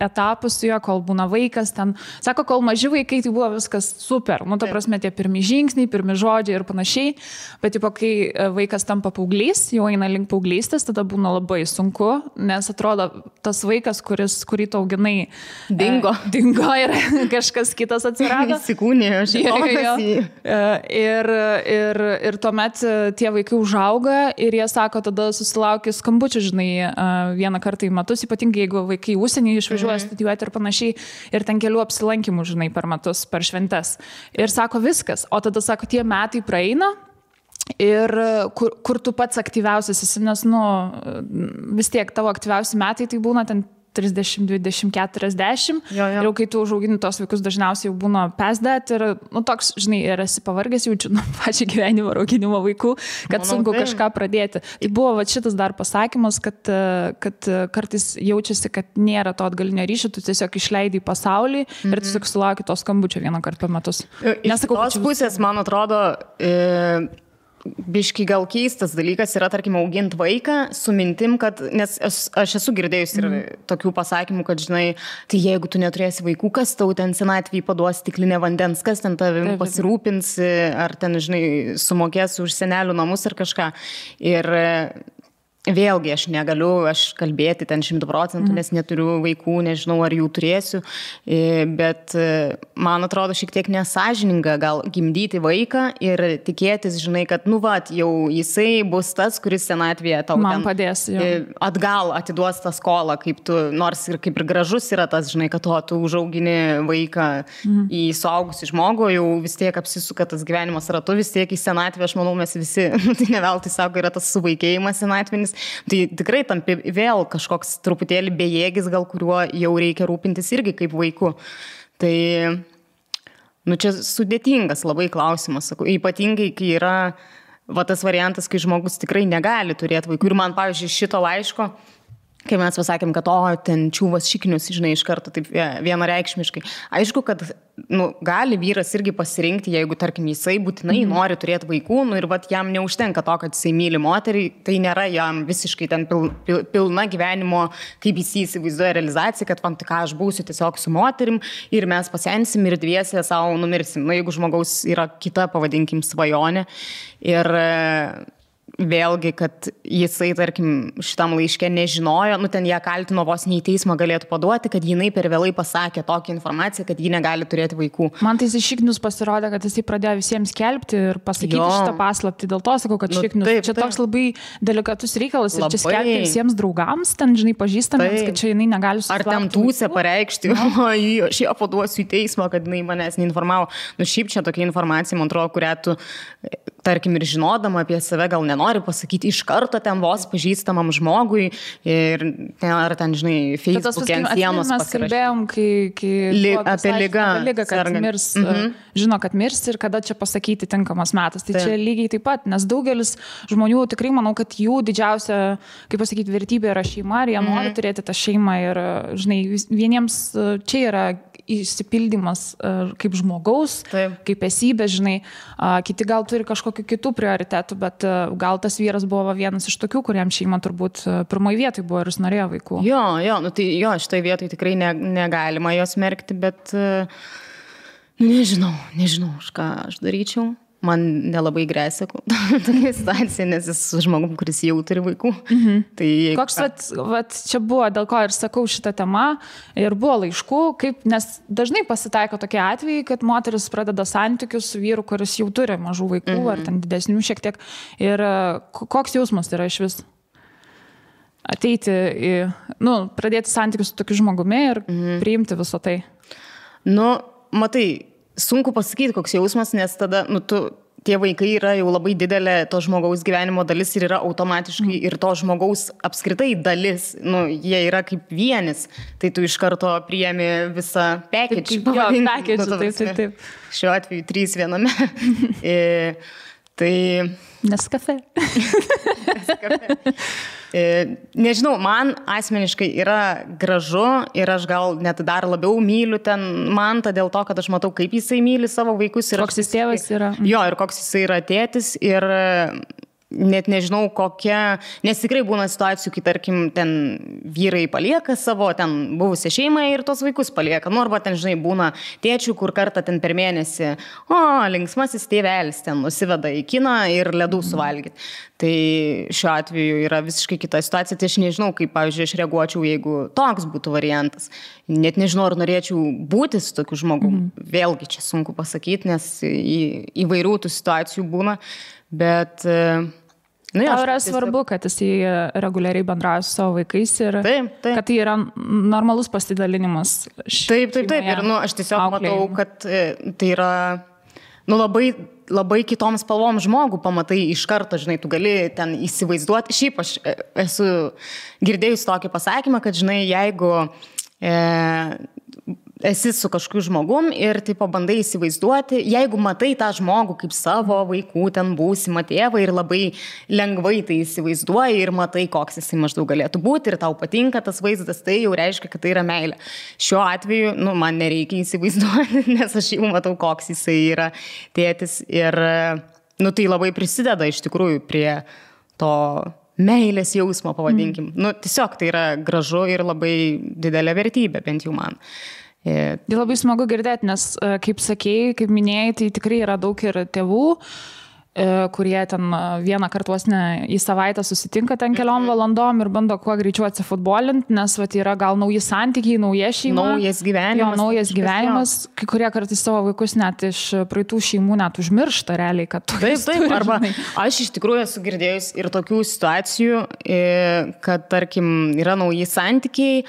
etapus su juo, kol būna vaikas ten. Sako, kol maži vaikai, tai buvo viskas super. Ta prasme, tie pirmi žingsniai, pirmi žodžiai ir panašiai. Bet tipo, kai vaikas tampa paauglys, jau eina link paauglystės, tada būna labai sunku, nes atrodo, tas vaikas, kurį tu auginai, dingo ir kažkas kitas atsirado. Įsikūnėjo, ir tuomet tie vaikai užauga ir jie sako, tada susilaukia skambučių, žinai, vieną kartą į metus, ypatingai jeigu vaikai užsienį išvažiuoja studijuoti ir panašiai, ir ten kelių apsilankymų, žinai, per metus, per šventes. Ir sako viskas, o tada sako, tie metai praeina ir kur tu pats aktyviausias esi, nes, vis tiek tavo aktyviausi metai tai būna ten 30, 20, 40. Ir jau kai tu užaugini tos vaikus, dažniausiai jau būna pesdet ir, toks, žinai, ir esi pavargęs, jaučiu pačią gyvenimo auginimo vaikų, kad sunku kažką pradėti. Tai buvo šitas dar pasakymas, kad kartais jaučiasi, kad nėra to atgalinio ryšio, tu tiesiog išleidai į pasaulį ir tiesiog sulauki to skambučio vieną kartą per metus. Nesakau, tos pusės, man atrodo, biški gal keistas dalykas yra, tarkim, auginti vaiką su mintim, kad, nes aš esu girdėjus ir tokių pasakymų, kad, žinai, tai jeigu tu neturėsi vaikų, kas tau ten senatvėje paduos stiklinę vandens, kas ten tavim pasirūpins, ar ten, žinai, sumokės už senelių namus ar kažką. Ir vėlgi aš negaliu kalbėti ten 100%, nes neturiu vaikų, nežinau, ar jų turėsiu, bet man atrodo šiek tiek nesąžininga gal gimdyti vaiką ir tikėtis, žinai, kad, jau jisai bus tas, kuris senatvėje tau man padės, atgal atiduos tą skolą, kaip tu, nors ir kaip ir gražus yra tas, žinai, kad tu užaugini vaiką į suaugusį žmogų, jau vis tiek apsisuka tas gyvenimas ratu, vis tiek į senatvę, aš manau, mes visi, tai ne veltui sako, yra tas suvaikėjimas senatvinis. Tai tikrai tampi vėl kažkoks truputėlį bejėgis, gal kuriuo jau reikia rūpintis irgi kaip vaiku. Tai, čia sudėtingas labai klausimas, sakau, ypatingai, kai yra tas variantas, kai žmogus tikrai negali turėti vaikų. Ir man, pavyzdžiui, šito laiško, kai mes pasakėm, kad ten čiūvas šiknius, žinai, iš karto taip vienareikšmiškai. Aišku, kad gali vyras irgi pasirinkti, jeigu, tarkim, jisai būtinai nori turėti vaikų, ir jam neužtenka to, kad jisai myli moterį, tai nėra jam visiškai ten pilna gyvenimo, kaip jis įsivaizduoja realizacija, kad tik aš būsiu tiesiog su moterim ir mes pasensim ir dviese savo numirsim. Jeigu žmogaus yra kita, pavadinkim, svajonė ir vėlgi, kad jisai, tarkim, šitam laiške nežinojo, ten ją kaltino vos nei teismą galėtų paduoti, kad jinai per vėlai pasakė tokią informaciją, kad ji negali turėti vaikų. Man tai šiknius pasirodė, kad jisai pradėjo visiems skelbti ir pasakyti šitą paslaptį. Dėl to sakau, kad šiknius. Čia toks labai delikatus reikalas ir čia skelbti visiems draugams, ten, žinai, pažįstamiems, kad čia jinai negali susilaukti. Ar ten tūsę pareikšti, aš ją paduosiu į teismą, kad jinai manęs neinformavo. Šiaip čia tokia informacija, man atrodo, kurią tu, tarkim, ir žinodama apie save gal nenori pasakyti iš karto ten vos pažįstamam žmogui ir ar ten, žinai, Facebook'e ant sienos pasirašyti. Mes kalbėjom, kai apie ligą, kad mirs, žino, kad mirs ir kada čia pasakyti tinkamas metas. Tai čia lygiai taip pat, nes daugelis žmonių tikrai manau, kad jų didžiausia, kaip pasakyti, vertybė yra šeima ir jie nori turėti tą šeimą ir, žinai, vieniems čia yra įsipildymas kaip žmogaus, kaip esybė, žinai, kiti gal turi kažkokių kitų prioritetų, bet gal tas vyras buvo vienas iš tokių, kuriam šeima turbūt pirmoji vietoj buvo ir jis norėjo vaikų. Tai šitoj vietoj tikrai negalima jos merkti, bet nežinau, už ką aš daryčiau. Man nelabai grėsia tokia situacija, nes jis žmogum, kuris jau turi vaikų. Tai koks čia buvo, dėl ko ir sakau šitą temą, ir buvo laiškų, nes dažnai pasitaiko tokie atvejai, kad moteris pradeda santykius su vyru, kuris jau turi mažų vaikų, ar ten didesnių šiek tiek. Ir koks jausmas yra iš vis? Ateiti pradėti santykius su tokiu žmogumi ir priimti viso tai. Matai, sunku pasakyti, koks jausmas, nes tada, tie vaikai yra jau labai didelė to žmogaus gyvenimo dalis ir yra automatiškai ir to žmogaus apskritai dalis, jie yra kaip vienis, tai tu iš karto priemi visą package. Taip. Šiuo atveju 3 viename. Tai... Nescafe. Nežinau, man asmeniškai yra gražu ir aš gal net dar labiau myliu ten Mantą dėl to, kad aš matau, kaip jisai myli savo vaikus. Koks jis tėvas yra. Ir koks jisai yra tėtis ir net nežinau kokia, nes tikrai būna situacijų, kai tarkim ten vyrai palieka savo ten buvusią šeimą ir tos vaikus palieka. Arba ten, žinai, būna tėčių, kur kartą ten per mėnesį, linksmasis tėvelis ten nusiveda į kiną ir ledų suvalgyti. Tai šiuo atveju yra visiškai kita situacija. Tai aš nežinau, kaip, pavyzdžiui, aš reaguočiau, jeigu toks būtų variantas. Net nežinau, ar norėčiau būti su tokiu žmogum. Vėlgi čia sunku pasakyti, nes įvairių tų situacijų būna. Bet... Tau yra svarbu, kad jisai reguliariai bendrauja su savo vaikais ir kad tai yra normalus pasidalinimas. Taip. Ir aš tiesiog matau, kad tai yra labai labai kitom spalvom žmogų pamatai iš karto, žinai, tu gali ten įsivaizduoti. Šiaip aš esu girdėjus tokį pasakymą, kad, žinai, jeigu esi su kažkokiu žmogum ir tai pabandai įsivaizduoti, jeigu matai tą žmogų kaip savo vaikų ten būsimą tėvą ir labai lengvai tai įsivaizduoji ir matai, koks jisai maždaug galėtų būti ir tau patinka tas vaizdas, tai jau reiškia, kad tai yra meilė. Šiuo atveju, man nereikia įsivaizduoti, nes aš jau matau, koks jisai yra tėtis ir, tai labai prisideda iš tikrųjų prie to meilės jausmo, pavadinkim. Tiesiog tai yra gražu ir labai didelė vertybė, bent jau man. Tai labai smagu girdėti, nes, kaip sakėjai, kaip minėjai, tai tikrai yra daug ir tėvų, kurie ten vieną kartą į savaitę susitinka ten keliom valandom ir bando kuo greičiau atsifutbolinti, nes yra gal nauji santykiai, nauja šeima. Naujas gyvenimas. Naujas gyvenimas. Kai kurie kartais savo vaikus net iš praeitų šeimų net užmiršta realiai, kad tu Taip, arba aš iš tikrųjų esu girdėjus ir tokių situacijų, kad, tarkim, yra nauji santykiai,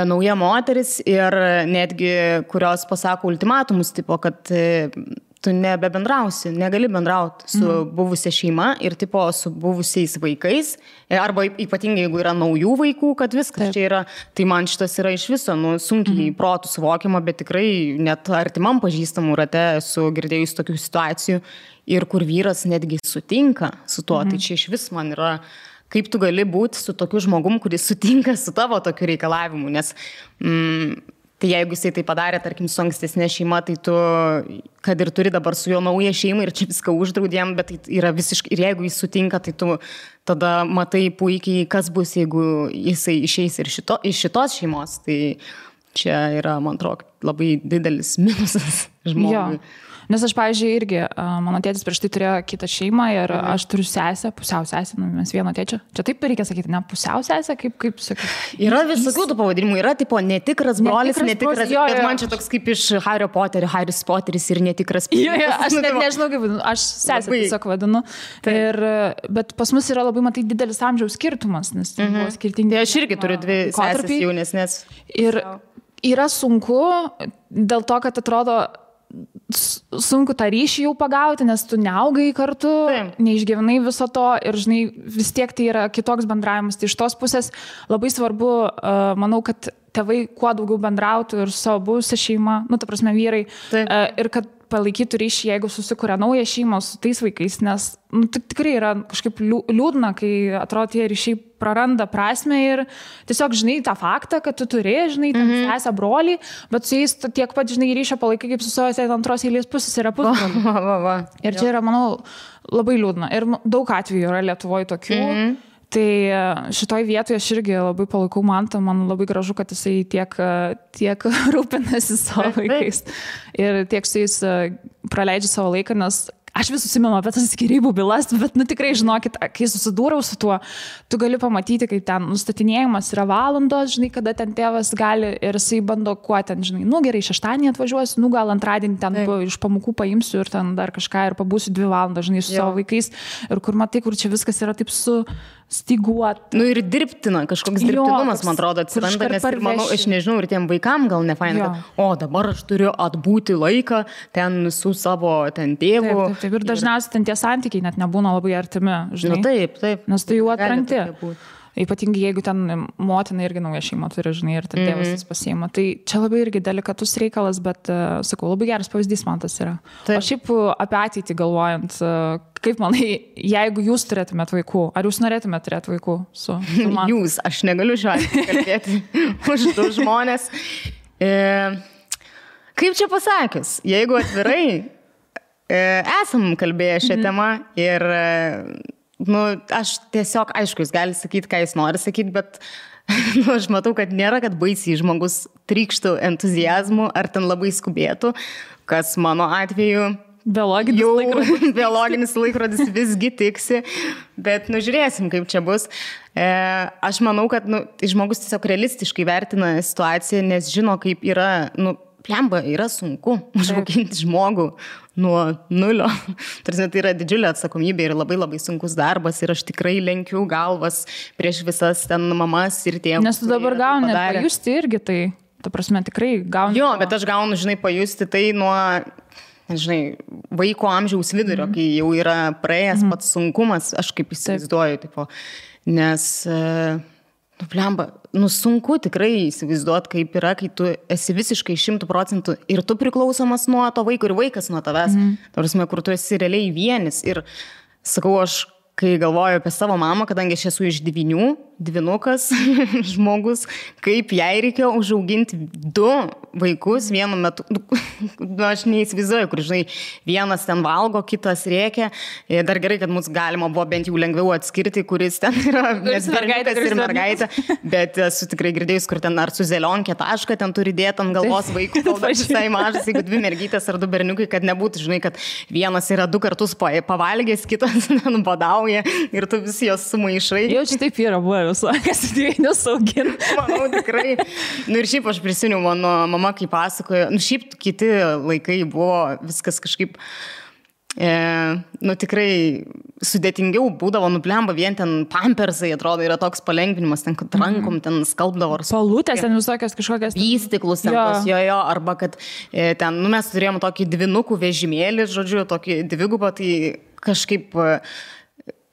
nauja moteris ir netgi kurios pasako ultimatumus, tipo, kad tu nebebendrausi, negali bendrauti su buvusia šeima ir tipo su buvusiais vaikais, arba ypatingai jeigu yra naujų vaikų, kad viskas čia yra, tai man šitas yra iš viso, sunkiai protų suvokiama, bet tikrai net artimam pažįstamų rate esu girdėjus tokių situacijų ir kur vyras netgi sutinka su tuo, tai čia iš vis man yra kaip tu gali būti su tokiu žmogum, kuris sutinka su tavo tokiu reikalavimu, nes tai jeigu jisai tai padarė, tarkim, su ankstesnė šeima, tai tu, kad ir turi dabar su juo naują šeimą ir čia viską uždraudėm, bet tai yra visiškai, ir jeigu jis sutinka, tai tu tada matai puikiai, kas bus, jeigu jisai išeis ir iš šitos šeimos, tai čia yra, man atrodo, labai didelis minusas žmogui. Jo. Nes aš, pavyzdžiui, irgi, mano tėtis prieš tai turėjo kitą šeimą ir aš turiu sesę, pusiau sesę, mes vieno tėčio. Čia taip reikia sakyti, ne pusiau sesę, kaip sakai. Yra visokių tų pavadinimų, yra tipo netikras brolis, netikras, bet man čia toks kaip iš Hario Poterio, Haris Poteris ir netikras. Jo, aš net nežinau, kaip vadinu, aš sesę tiesiog vadinu. Bet pas mus yra labai, matai, didelis amžiaus skirtumas, nes buvo skirtingi. Aš irgi turiu dvi sesės jaunesnės. Ir yra sunku dėl to, kad atrodo sunku tą ryšį jau pagauti, nes tu neaugai kartu, neišgyvenai viso to ir, žinai, vis tiek tai yra kitoks bendravimas. Tai iš tos pusės labai svarbu, manau, kad tėvai kuo daugiau bendrautų ir su savo buvusia šeima, ta prasme vyrai, ir kad palaikytų ryšį, jeigu susikuria naują šeimą su tais vaikais, nes tikrai yra kažkaip liūdna, kai atrodo tie ryšiai praranda prasmę ir tiesiog, žinai, tą faktą, kad tu turi, žinai, ten sesę brolį, bet su jais tiek pat, žinai, ryšio palaikai kaip su savo antros eilės pusės yra pusbroliai. Ir čia yra, manau, labai liūdna. Ir daug atvejų yra Lietuvoje tokių. Tai šitoj vietoje aš irgi labai palaikau Mantą, man labai gražu, kad jisai tiek rūpinasi savo vaikais ir tiek su jais praleidžia savo laiką, nes aš vis susimenu apie tas skyrybų bylas, bet tikrai žinokit, kai susidūriau su tuo, tu gali pamatyti, kaip ten nustatinėjimas yra valandos, žinai, kada ten tėvas gali ir jisai bando kuo ten, žinai, gerai, šeštadienį atvažiuosiu, gal antradienį ten iš pamokų paimsiu ir ten dar kažką ir pabūsiu 2 valandas, žinai, su savo vaikais ir kur matai, kur čia viskas yra taip stiguot. Ir dirbtina, kažkoks dirbtinumas, man atrodo, atsiranda, nes ir manau, aš nežinau, ir tiem vaikam gal nefaina, kad dabar aš turiu atbūti laiką ten su savo ten tėvu. Taip, ir dažniausiai ten tie santykiai net nebūna labai artimi, žinai. Taip. Nes tai jau atrankti. Ypatingai jeigu ten motina irgi nauja šeima turi, žinai, ir ten tėvas jis pasiima. Tai čia labai irgi delikatus reikalas, bet, sakau, labai geras pavyzdys man tas yra. O šiaip apie ateitį galvojant, kaip manai, jeigu jūs turėtumėt vaikų, ar jūs norėtumėt turėti vaikų su Manta? Jūs, aš negaliu šiuo atveju kalbėti už du žmonės. Kaip čia pasakius, jeigu atvirai, esam kalbėję šią temą ir aš tiesiog, aišku, jis gali sakyti, ką jis nori sakyti, bet aš matau, kad nėra, kad baisiai žmogus trykštų entuziazmu ar ten labai skubėtų, kas mano atveju biologinis laikrodis visgi tiksi, bet žiūrėsim, kaip čia bus. Aš manau, kad žmogus tiesiog realistiškai vertina situaciją, nes žino, kaip yra, plemba, yra sunku užauginti žmogų nuo nulio. Tai yra didžiulė atsakomybė ir labai labai sunkus darbas ir aš tikrai lenkiu galvas prieš visas ten mamas ir tėvus. Nes tu dabar gauni pajusti irgi tai, ta prasme, tikrai gauni. Jo, bet aš gaunu, žinai, pajusti tai nuo žinai, vaiko amžiaus vidurio, kai jau yra praėjęs pats sunkumas, aš kaip įsivaizduoju, tipo, nes, blemba, sunku tikrai įsivaizduoti, kaip yra, kai tu esi visiškai 100% ir tu priklausomas nuo to vaiko ir vaikas nuo tavęs, tarsi, kur tu esi realiai vienis. Ir sakau, aš kai galvoju apie savo mamą, kadangi aš esu iš 9, dvynukas žmogus, kaip jai reikėjo užauginti 2 vaikus vienu metu. Aš neįsivaizduoju, kur, žinai, vienas ten valgo, kitas rėkia. Dar gerai, kad mums galima buvo bent jau lengviau atskirti, kuris ten yra berniukas ir mergaitė. Bet esu tikrai girdėjus, kur ten ar su zelionkė tašką ten turi dėti ant galvos vaikų, kol visai mažas, jeigu 2 mergytės ar 2 berniukai, kad nebūtų, žinai, kad vienas yra 2 kartus pavalgęs, kitas badauja ir tu visi jos sumaišai. Jau čia taip yra buvo visą, kas dviejus augina. Manau, tikrai. Ir šiaip aš prisimenu, mano mama, kai pasakojo, šiaip kiti laikai buvo viskas kažkaip, tikrai sudėtingiau būdavo, blemba, vien ten pampersai, atrodo, yra toks palengvinimas, ten, kad rankom ten skalbdavo. Palutės ten visokios kažkokias. Įstiklus ten tos, jo, arba kad ten, mes turėjom tokį 2 vežimėlį, žodžiu, tokį 2, tai kažkaip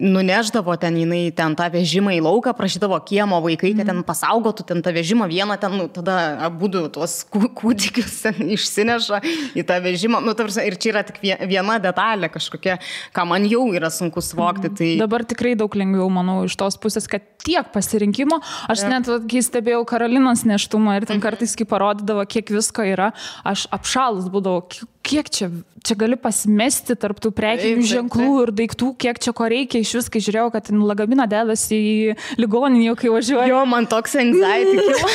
nuneždavo ten jinai ten tą vežimą į lauką, prašydavo kiemo vaikai, kad ten pasaugotų ten tą vežimą vieną, ten, tada abudu tuos kūdikius ten išsineša į tą vežimą. Ir čia yra tik viena detalė kažkokia, ką man jau yra sunku suvokti. Tai... Dabar tikrai daug lengviau, manau, iš tos pusės, kad tiek pasirinkimo. Aš net, kai stebėjau Karolinos nėštumą ir ten kartais, kai parodydavo, kiek visko yra, aš apšalus būdavau, kiek čia gali pasimesti tarp tų prekinių ženklų ir daiktų, kiek čia ko reikia. Iš vis, kai žiūrėjau, kad lagaminą dedasi į ligoninį, kai važiuoju. Jo, man toks anxiety kilo,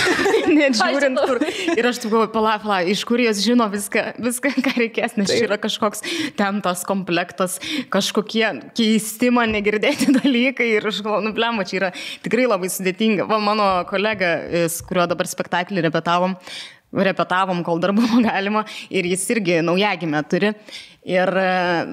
net žiūrint kur. Ir aš taip galvoju, pala, iš kur jos žino viską, ką reikės, nes čia yra kažkoks ten tas komplektas, kažkokie keisti man negirdėti dalykai ir aš galvoju, blemba, čia yra tikrai labai sudėtinga. Va, mano kolega, su kuriuo dabar spektaklį repetavom, kol dar buvo galima, ir jis irgi naujagimę turi. Ir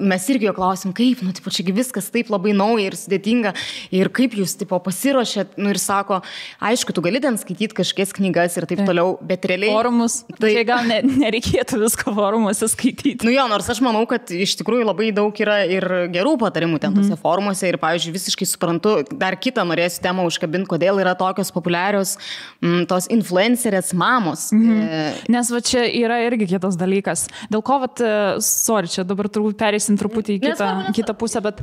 mes irgi jo klausim, kaip, čiagi viskas taip labai nauja ir sudėtinga, ir kaip jūs, pasiruošėt, ir sako, aišku, tu gali ten skaityti kažkokias knygas ir taip toliau, bet realiai... Forumus, tai gal nereikėtų visko forumuose skaityti. Nors aš manau, kad iš tikrųjų labai daug yra ir gerų patarimų ten tose forumuose, ir, pavyzdžiui, visiškai suprantu, dar kitą norėsiu temą užkabinti, kodėl yra tokios populiarios tos influencerės mamos. Nes va čia yra irgi kitas dalykas. Dėl ko, sorry, čia dabar turbūt pereisim truputį į kitą pusę, bet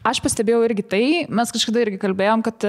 aš pastebėjau irgi tai, mes kažkada irgi kalbėjom, kad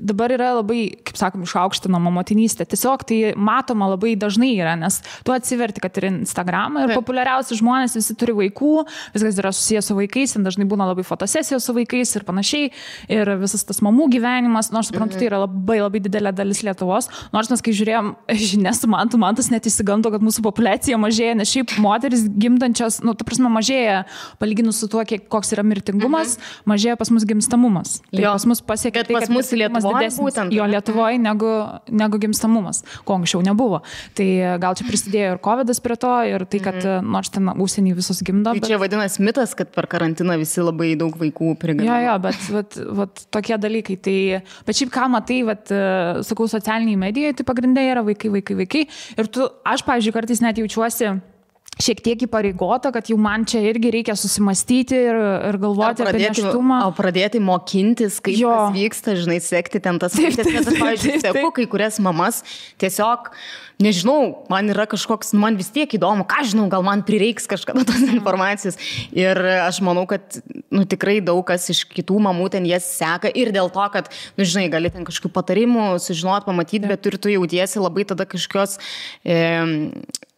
dabar yra labai, kaip sakom, išaukštinama motinystė. Tiesiog tai matoma labai dažnai yra, nes tu atsiverti, kad ir Instagramą ir populiariausi žmonės visi turi vaikų, viskas yra susijęs su vaikais, dažnai būna labai fotosesijos su vaikais ir panašiai, ir visas tas mamų gyvenimas, nors suprantu, tai yra labai didelė dalis Lietuvos, nors mes kai žiūrėjom žinias su Mantas net įsigando, kad mūsų populiacija mažėja, nes šiaip moteris gimdančios, ta prasme, mažėja palyginus su tuo, koks yra mirtingumas, mažėja pas mus gimstamumas. Tai pas mus pasiekia tai, kad mirtingumas didesnis Lietuvoje negu gimstamumas, ko anksčiau nebuvo. Tai gal čia prisidėjo ir COVIDas prie to, ir tai, kad nors ten užsienį visus gimdo. Tai čia vadinasi mitas, kad per karantiną visi labai daug vaikų prigimdo. Jo, bet tokie dalykai. Tai, bet šiaip ką matai, sakau, socialiniai medijai, tai pagrindai yra vaikai. Ir aš, pavyzdžiui, kartais net jaučiuosi šiek tiek įpareigota, kad jau man čia irgi reikia susimastyti ir galvoti apie nėštumą. O pradėti mokintis, kaip tas vyksta, žinai, sekti ten tas vaikas. Nes aš, pavyzdžiui, seku kai kurias mamas, tiesiog, nežinau, man yra kažkoks, man vis tiek įdomu, ką žinau, gal man prireiks kažkada tos informacijos. Ir aš manau, kad, tikrai daug kas iš kitų mamų ten jas seka ir dėl to, kad, žinai, gali ten kažkokių patarimų sužinot, pamatyti, bet ir tu jautiesi labai tada kažkokios...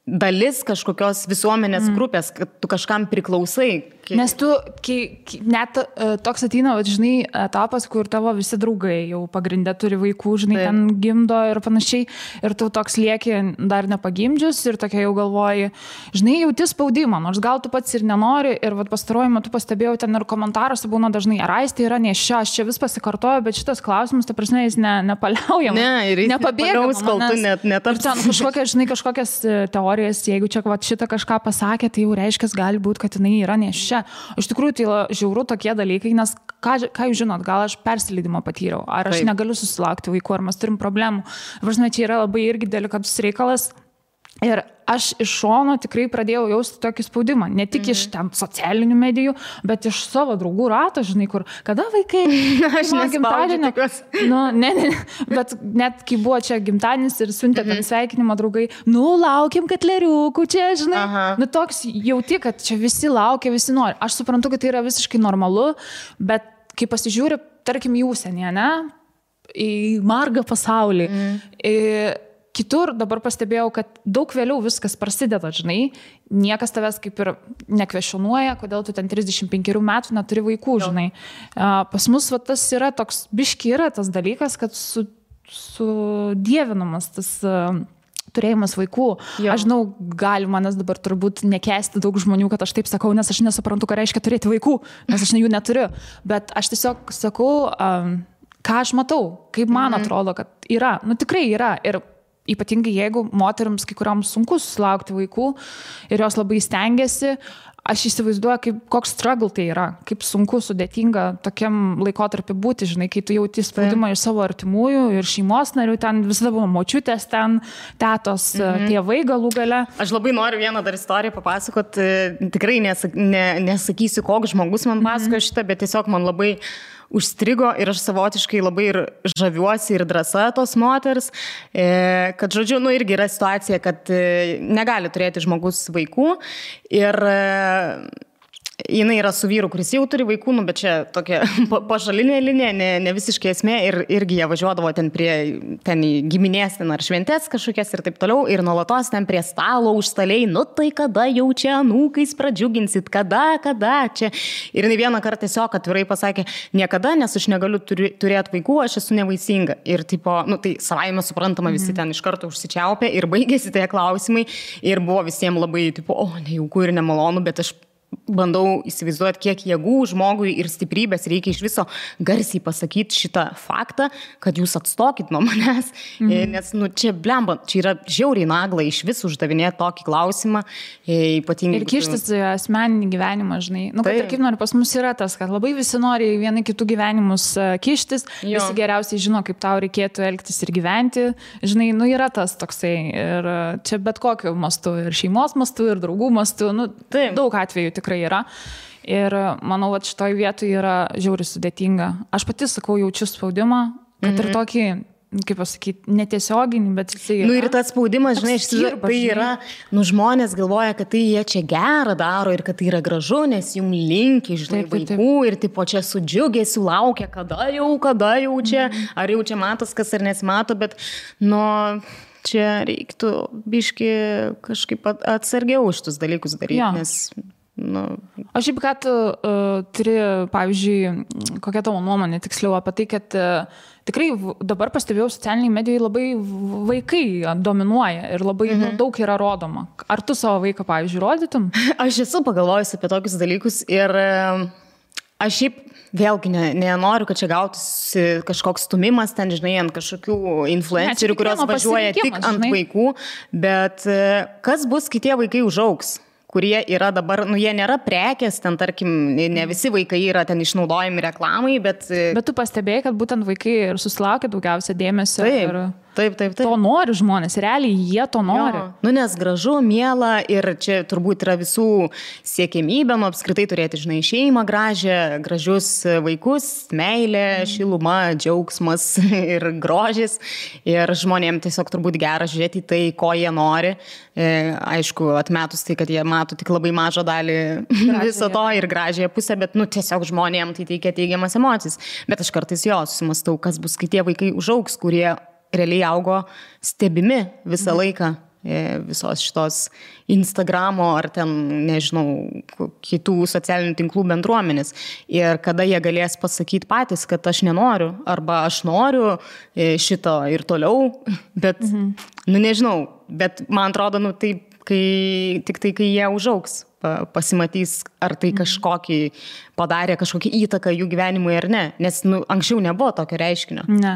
dalis kažkokios visuomenės grupės, kad tu kažkam priklausai. Nes tu, net toks ateina, žinai, etapas, kur tavo visi draugai jau pagrindę turi vaikų, žinai, ten gimdo ir panašiai, ir tu toks lieki dar nepagimdžius ir tokia jau galvoji, žinai, jauti spaudimą, nors gal tu pats ir nenori, ir pastaruoju metu pastebėjau ten ir komentaruose būna dažnai, ar Aistė yra nėščia, aš čia vis pasikartoju, bet šitas klausimas, ta prasme, jis nepaliaujam, nepabėgamas, kol tu netapsi. Ten kažkokias teorijas, jeigu čia šitą kažką pasakė, tai jau reiškia, gali būti, kad jinai yra nėščia. Iš tikrųjų, tai žiauru tokie dalykai, nes ką jūs žinot, gal aš persileidimą patyriau, ar aš negaliu susilaukti vaikų, ar mes turim problemų. Važinai, čia yra labai irgi delikatus reikalas. Ir aš iš šono tikrai pradėjau jausti tokį spaudimą. Ne tik iš ten socialinių medijų, bet iš savo draugų rato, žinai, kur, kada vaikai, aš nespaudžiu. Nu, ne, bet net kai buvo čia gimtadienis ir siuntė ten sveikinimą draugai, laukiam katleriukų čia, žinai. Aha. Nu, toks jauti, kad čia visi laukia, visi nori. Aš suprantu, kad tai yra visiškai normalu, bet kai pasižiūri, tarkim, į užsienį, ne? Į margą pasaulį. Kitur dabar pastebėjau, kad daug vėliau viskas prasideda, žinai. Niekas tavęs kaip ir nekvešionuoja, kodėl tu ten 35 metų neturi vaikų, žinai. Pas mus tas yra toks, biški yra tas dalykas, kad sudievinamas tas turėjimas vaikų. Jo. Aš žinau, gali manęs dabar turbūt nekęsti daug žmonių, kad aš taip sakau, nes aš nesuprantu, ką reiškia turėti vaikų, nes aš jų neturiu. Bet aš tiesiog sakau, ką aš matau, kaip man atrodo, kad yra. Nu tikrai yra. Ir ypatingai jeigu moterims kai kuriams sunku susilaukti vaikų ir jos labai stengiasi, aš įsivaizduoju, koks struggle tai yra, kaip sunku, sudėtinga tokiam laikotarpiu būti, žinai, kai tu jauti spaudimą iš savo artimųjų ir šeimos narių, ten visada buvo močiutės, ten tetos, tėvai galų gale. Aš labai noriu vieną dar istoriją papasakoti, tikrai nesakysiu, koks žmogus man pasakojo šitą, bet tiesiog man labai užstrigo ir aš savotiškai labai ir žaviuosi ir drąsa tos moters, kad, žodžiu, irgi yra situacija, kad negali turėti žmogus vaikų ir jinai yra su vyru, kuris jau turi vaikų, bet čia tokia pažalinė linija, ne visiškai esmė ir irgi jie važiuodavo ten į giminės ten ar šventės kažkokias ir taip toliau ir nuolatos ten prie stalo užstaliai, tai kada jau čia anūkais pradžiuginsit, kada čia. Ir jinai vieną kartą tiesiog atvirai pasakė, niekada, nes aš negaliu turėti vaikų, aš esu nevaisinga. Ir tipo, tai savaime suprantama, visi ten iš karto užsičiaupė ir baigėsi tie klausimai ir buvo visiems labai tipo, nejauku ir nemalonu, bet aš bandau įsivaizduoti, kiek jėgų žmogui ir stiprybės reikia iš viso garsiai pasakyti šitą faktą, kad jūs atstokit nuo manęs, nes čia blemba, čia yra žiauriai nagla iš vis uždavinėti tokį klausimą, ypatingai. Ir kištis asmeninį gyvenimą, žinai. Kad ir kaip nori, pas mus yra tas, kad labai visi nori vieni kitų gyvenimus kištis, visi geriausiai žino, kaip tau reikėtų elgtis ir gyventi, žinai, yra tas toksai ir čia bet kokiu mastu, ir šeimos mastu, ir draugų mastu, daug atvejų tikrai yra. Ir manau, kad šitoj vietoj yra žiauriai sudėtinga. Aš pati sakau, jaučiu spaudimą, kad ir tokį, kaip pasakyti, netiesioginį, bet jisai yra. Ir tas spaudimas, žinai, tai yra, žmonės galvoja, kad tai jie čia gerą daro ir kad tai yra gražu, nes jums linki, žinai, vaikų ir tipo čia su džiugesiu laukia, kada jau čia, ar jau čia matos, kas ar nesimato, bet, čia reiktų biški kažkaip atsargiau šitus dalykus daryti, nes Aš šiaip, kad turi, pavyzdžiui, kokia tavo nuomonė tiksliau apie tai, kad tikrai dabar pastebėjau socialiniai medijai labai vaikai dominuoja ir labai daug yra rodoma. Ar tu savo vaiką, pavyzdžiui, rodytum? Aš esu pagalvojusi apie tokius dalykus ir aš šiaip vėlgi nenoriu, kad čia gautųsi kažkoks stumimas ten, žinai, ant kažkokių influencerių, kurios važiuoja tik ant vaikų, bet kas bus, kai tie vaikai užaugs? Kurie yra dabar, jie nėra prekės, ten tarkim, ne visi vaikai yra ten išnaudojami reklamai, bet... Bet tu pastebėjai, kad būtent vaikai ir susilaukia daugiausia dėmesio. Taip. To nori žmonės, realiai jie to nori. Nes gražu, miela ir čia turbūt yra visų siekėmybė, apskritai turėti, žinai, šeimą gražią, gražius vaikus, meilė, šiluma, džiaugsmas ir grožis. Ir žmonėms tiesiog turbūt gera žiūrėti tai, ko jie nori. Aišku, atmetus tai, kad jie mato tik labai mažą dalį viso to ir gražiąją pusę, bet tiesiog žmonėms tai teikia teigiamas emocijas. Bet aš kartais susimastau, kas bus, kai tie vaikai užaugs, kurie realiai augo stebimi visą laiką visos šitos Instagramo ar ten, nežinau, kitų socialinių tinklų bendruomenės. Ir kada jie galės pasakyti patys, kad aš nenoriu, arba aš noriu šito ir toliau, bet, nežinau, bet man atrodo, tik tai, kai jie užaugs, pasimatys, ar tai padarė kažkokį įtaką jų gyvenimui ar ne, nes anksčiau nebuvo tokio reiškinio. Ne.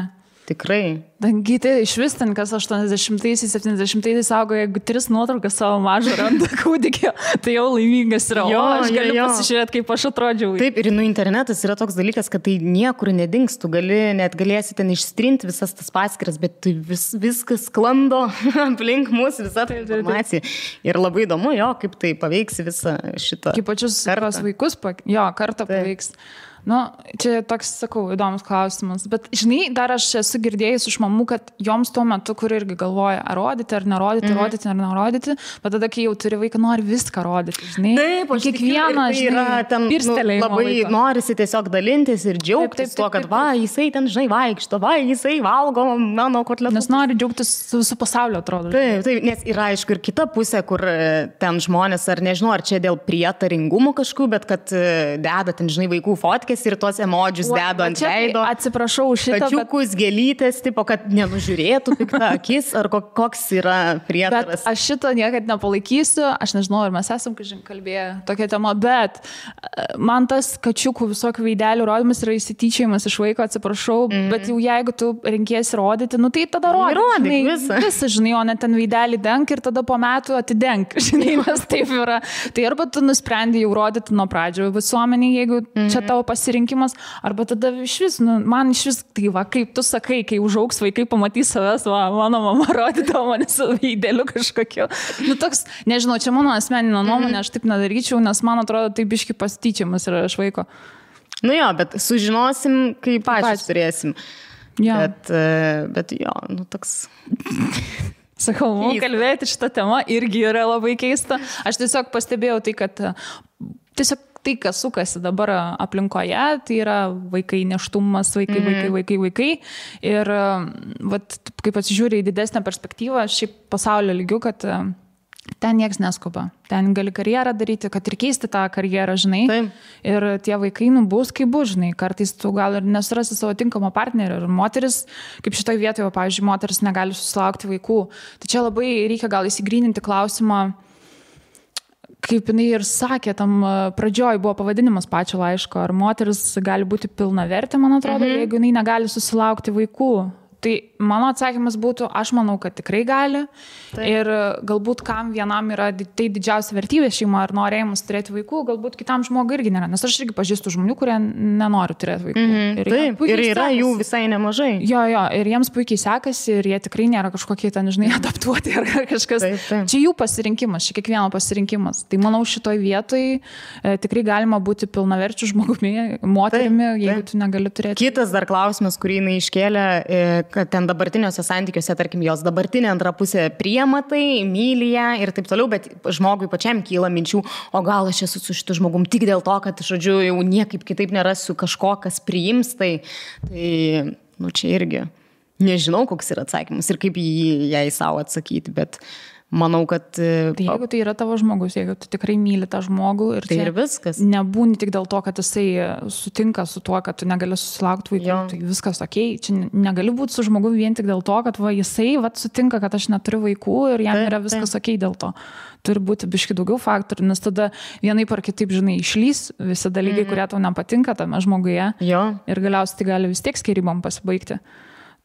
Tikrai. Dangyti, iš vis ten, kas 80-aisiais, 70-aisiais augo, jeigu 3 nuotraukas savo mažą randa kūdikio, tai jau laimingas yra. Jo, aš galiu pasižiūrėti, kaip aš atrodžiau. Taip, ir internetas yra toks dalykas, kad tai niekur nedings, tu galėsi ten ištrinti visas tas paskiras, bet tai viskas sklando aplink mus, visa ta informacija. Ir labai įdomu, kaip tai paveiks visą šitą. Kaip pačius vaikus, kartą paveiks. Čia toks, sakau, įdomus klausimas. Bet, žinai, dar aš esu girdėjus iš mamų, kad joms tuo metu, kur irgi galvoja, ar rodyti, ar nerodyti, rodyti, ar nerodyti, bet tada, kai jau turi vaiką, nori viską rodyti, žinai. Taip, aš kiekvieną, žinai, ten labai laiko. Norisi tiesiog dalintis ir džiaugtis tuo, kad jisai ten, žinai, vaikšto, jisai valgo mano kotletus. Nes nori džiaugtis su pasaulio, atrodo. Taip, nes yra, aišku, ir kita pusė, kur ten žmonės, ar nežinau, ar čia dėl prietaringumų kažkokių, bet kad deda ten, žinai, vaikų fotkės ir tuos emodžius dedu ant veido. Atsiprašau už šitą. Kačiukus, gėlytės, tipo, kad nenužiūrėtų piktą akis, ar koks yra prietaras. Bet aš šito niekad nepalaikysiu, aš nežinau, ar mes esam kalbėję tokią temą, bet man tas kačiukų visokių veidelių rodymas yra įsityčiajimas iš vaiko, atsiprašau, bet jau jeigu tu renkiesi rodyti, tai tada rodyk visą, žinai, o ne ten veidelį denk ir tada po metų atidenk, žinai, nes taip yra. Tai arba tu nusprendai jau rodyti nuo pradžio visuomenį, jeigu čia tavo pasirinkimas, arba tada man iš vis, tai kaip tu sakai, kai užaugs vaikai pamatys savęs, mano mama rodydavo mane su veideliu kažkokiu. Toks, nežinau, čia mano asmeninė nuomonė, aš taip nedaryčiau, nes man atrodo, tai biški pasityčiamas yra iš vaiko. Bet sužinosim, kai pačios turėsim. Bet toks... Sakau, kalbėti šitą temą irgi yra labai keista. Aš tiesiog pastebėjau tai, kad tiesiog tai, kas sukasi dabar aplinkoje, tai yra vaikai, nėštumas, vaikai. Ir kaip pasižiūrė į didesnę perspektyvą, šiaip pasaulio lygių, kad ten nieks neskuba. Ten gali karjerą daryti, kad ir keisti tą karjerą, žinai. Taip. Ir tie vaikai bus kaip bus, žinai. Kartais tu gal ir nesurasi savo tinkamą partnerį. Ir moteris, kaip šitoje vietoje, pavyzdžiui, moteris negali susilaukti vaikų. Tai čia labai reikia gal įsigryninti klausimą, kaip jinai ir sakė, tam pradžioj buvo pavadinimas pačio laiško, ar moteris gali būti pilnavertė, man atrodo, jeigu jinai negali susilaukti vaikų. Tai mano atsakymas būtų, aš manau, kad tikrai gali. Taip. Ir galbūt kam vienam yra tai didžiausia vertybė šeima ar norėjimas turėti vaikų, galbūt kitam žmogui irgi nėra. Nes aš irgi pažįstu žmonių, kurie nenori turėti vaikų. Taip, ir yra jų visai nemažai. Jo, ir jiems puikiai sekasi ir jie tikrai nėra kažkokie ten, žinai, adaptuoti ar kažkas. Taip. Čia jų pasirinkimas, čia kiekvieno pasirinkimas. Tai manau, šitoj vietoj tikrai galima būti pilnaverčiu žmogumi, moterimi, jeigu tu negali turėti. Kitas dar klausimas, kurį jinai iškėlė, kad ten dabartiniuose santykiuose, tarkim, jos dabartinė antra pusė priima tai, myli ją ir taip toliau, bet žmogui pačiam kyla minčių, o gal aš esu su šitu žmogum tik dėl to, kad, žodžiu, jau niekaip kitaip nerasiu kažko, kas priims, tai čia irgi nežinau, koks yra atsakymas ir kaip jai savo atsakyti, bet manau, kad... Tai jeigu tai yra tavo žmogus, jeigu tu tikrai myli tą žmogų ir tai ir viskas. Nebūni tik dėl to, kad jisai sutinka su tuo, kad tu negali susilaukti vaikų, tai viskas okei. Čia negali būti su žmogu vien tik dėl to, kad jisai sutinka, kad aš neturiu vaikų ir jam yra viskas okei dėl to. Turi būti biški daugiau faktorių, nes tada vienaip ar kitaip, žinai, išlys visi dalykai, kurie tau nepatinka tame žmoguje. Ir galiausiai tai gali vis tiek skyrybom pasibaigti.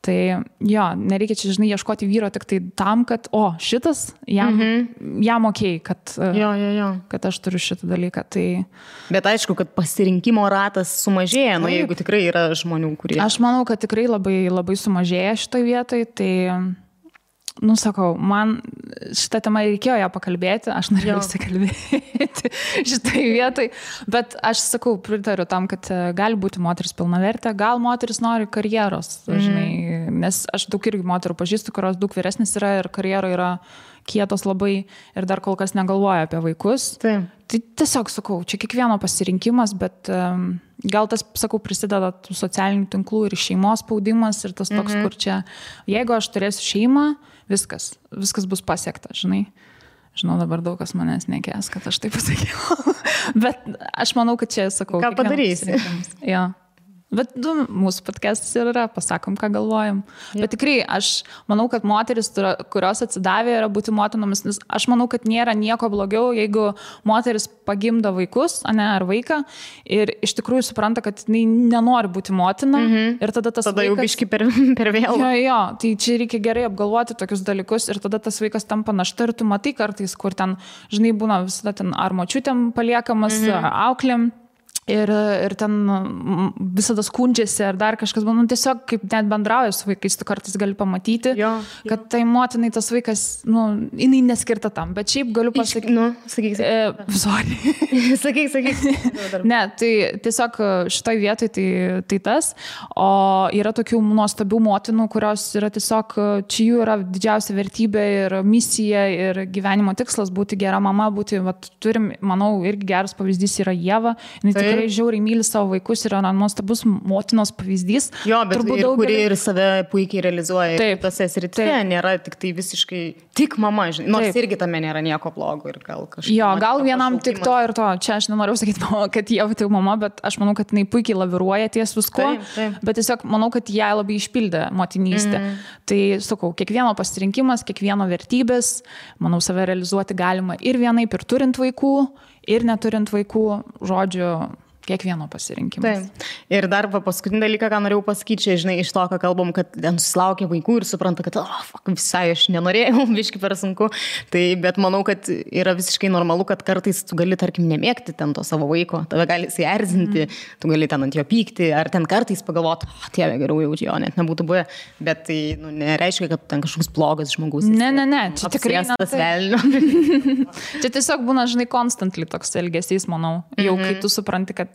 Tai nereikia čia, žinai, ieškoti vyro tik tai tam, kad, šitas jam okei, kad aš turiu šitą dalyką. Tai... Bet aišku, kad pasirinkimo ratas sumažėja, jeigu tikrai yra žmonių, kurie... Aš manau, kad tikrai labai, labai sumažėja šitoj vietoj, tai... sakau, man šitą temą reikėjo ją pakalbėti, aš norėjau įsikalbėti šitai vietai, bet aš sakau, pritariu tam, kad gali būti moteris pilnavertė, gal moteris nori karjeros, žinai, nes aš daug irgi moterų pažįstu, kurios daug vyresnis yra ir karjera yra kietos labai ir dar kol kas negalvoja apie vaikus. Tai tiesiog sakau, čia kiekvieno pasirinkimas, bet gal tas, sakau, prisideda tų socialinių tinklų ir šeimos spaudimas ir tas toks, kur čia, jeigu aš turėsiu šeimą, viskas bus pasiekta, žinai. Žinau, dabar daug kas manęs nekės, kad aš taip pasakiau. Bet aš manau, kad čia, sakau, ką padarysi. Bet mūsų podcastas ir yra, pasakom, ką galvojam. Bet tikrai, aš manau, kad moteris, kurios atsidavė, yra būti motinomis, nes aš manau, kad nėra nieko blogiau, jeigu moteris pagimdo vaikus, ar vaiką, ir iš tikrųjų supranta, kad jinai nenori būti motina. Ir tada tas tada vaikas... jau biški per vėlų. Jo, tai čia reikia gerai apgalvoti tokius dalykus ir tada tas vaikas tampa našta ir tu matai kartais, kur ten, žinai, būna visada ten ar močiutėm paliekamas, ar auklėm. Ir ten visada skundžiasi ar dar kažkas, tiesiog kaip net bendrauja su vaikais, tu kartais gali pamatyti, kad tai motinai tas vaikas, jinai neskirta tam, bet šiaip galiu pasakyti. Sakyk. Sorry. Sakyk. Ne, tai tiesiog šitoj vietoj tai tas, o yra tokių nuostabių motinų, kurios yra tiesiog, čia jų yra didžiausia vertybė ir misija ir gyvenimo tikslas būti gera mama, turim, manau, irgi geras pavyzdys yra Ieva, jinai tikrai žiauriai myli savo vaikus, yra nuostabus motinos pavyzdys. Jo, bet kuri ir save puikiai realizuoja. Taip, tose srityse nėra tik tai visiškai tik mama, žinai, nors irgi tame nėra nieko blogo ir gal kažkaip. Jo, gal vienam tik to ir to. Čia aš nenoriu sakyti, kad jie tik mama, bet aš manau, kad jinai puikiai laviruoja ties visko, bet tiesiog manau, kad ją labai išpildė motinystė. Tai, sakau, kiekvieno pasirinkimas, kiekvieno vertybės, manau, save realizuoti galima ir vienaip, ir turint vaikų, ir neturint vaikų, žodžiu, kiekvieno pasirinkimas. Taip. Ir dar paskutinį dalyką, ką norėjau pasakyti, čia, žinai, iš to, ką kalbam, kad ten susilaukia vaikų ir supranta, kad visai aš nenorėjau, biški per sunku. Tai, bet manau, kad yra visiškai normalu, kad kartais tu gali, tarkim, nemėgti ten to savo vaiko, tave gali įsierzinti, tu gali ten ant jo pykti, ar ten kartais pagalvoti, Dieve, geriau jau jo net nebūtų buvę, bet tai nereiškia, kad ten kažkoks blogas žmogus. Ne, čia tikrai tas velnio. Čia tiesiog būna, žinai, constantly toks elgesys, manau, jau kai tu supranti, kad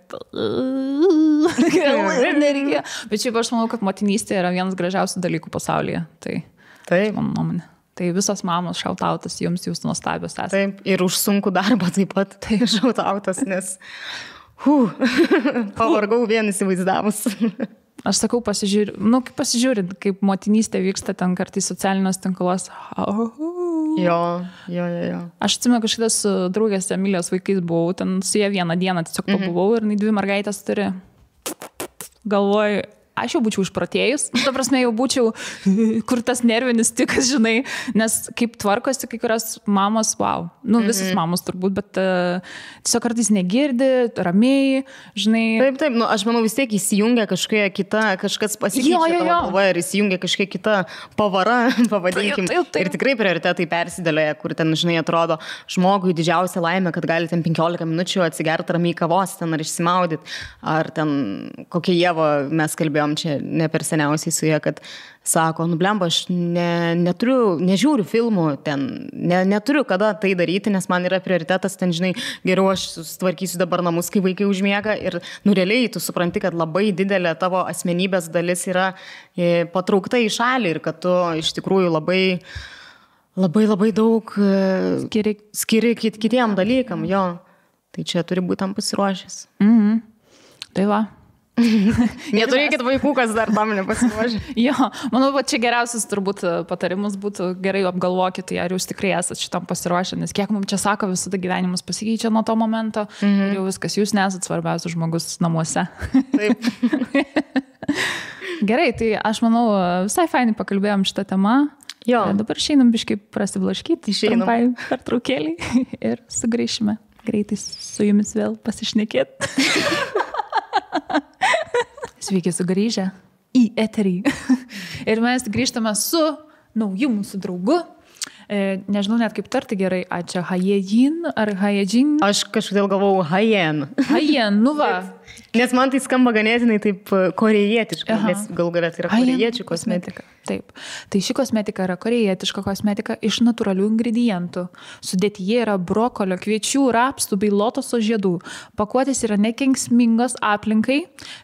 nereikia. Bet šiaip aš manau, kad motinystė yra vienas gražiausių dalykų pasaulyje. Tai mano nuomonė. Tai visos mamos šautautas jums, jūs nuostabios esate. Taip, ir už sunkų darbą taip pat šautautas, nes pavargau vien įsivaizdavus. Aš sakau, pasižiūrint, kaip motinystė vyksta ten kartais socialiniuose tinkluose. Jo. Aš atsimenu, kažkada su draugės Emilijos vaikais buvau, ten su jie vieną dieną tiesiog pabuvau ir 2 mergaitės turi. Galvoju, aš jau būčiau išprotėjus, ta prasme jau būčiau, kur tas nervinis tikas, žinai, nes kaip tvarkosi kai kurios mamos, visos mamos turbūt, bet tiesiog kartais negirdi, ramiai, žinai. Taip, aš manau vis tiek įsijungia kažkokia kita, kažkas pasikeičia tavo galvoje ir įsijungia kažkokia kita pavara, pavadinkim. Taip. Ir tikrai prioritetai persidėlioja, kur ten, žinai, atrodo žmogui didžiausia laimė, kad gali ten 15 minučių atsigerti ramiai kavos ten ar išsimaudyti, ar ten kokia Ieva mes kalbėjom čia ne per seniausiai su jie, kad sako, blemba, aš nežiūriu filmų ten, neturiu kada tai daryti, nes man yra prioritetas, ten, žinai, geriau aš sutvarkysiu dabar namus, kai vaikai užmiega ir, realiai tu supranti, kad labai didelė tavo asmenybės dalis yra patraukta į šalį ir kad tu iš tikrųjų labai daug skiri kitiem dalykam, jo. Tai čia turi būti tam pasiruošęs. Tai va. Neturėkit vaikų, kas dar tam nepasiruošė. Jo, manau, čia geriausias turbūt patarimus būtų gerai apgalvokite, ar jūs tikrai esate šitam pasiruošę, nes kiek mums čia sako, visada gyvenimas pasikeičia nuo to momento ir jau viskas, jūs nesat svarbiausias žmogus namuose. Taip. Gerai, tai aš manau, visai fainai pakalbėjom šitą temą. Jo. Dabar išeinam biškai prasiblaškyti, trumpai pertraukėlį ir sugrįšime greitai su jumis vėl pasišnekėti. Sveiki sugrįžę į eterį. Ir mes grįžtame su nauju mūsų draugu. Nežinau net kaip tarti gerai, ar čia Hayejin ar Hayejin? Aš kažkodėl galvau Hayen. Hayen, va. Nes man tai skamba ganėtinai taip korejietiškai, nes gal galėt yra korejiečių kosmetika. Taip. Tai ši kosmetika yra korejietiška kosmetika iš natūralių ingredientų. Sudėtyje yra brokolio, kviečių, rapsų bei lotoso žiedų. Pakuotės yra nekenksmingos aplinkai.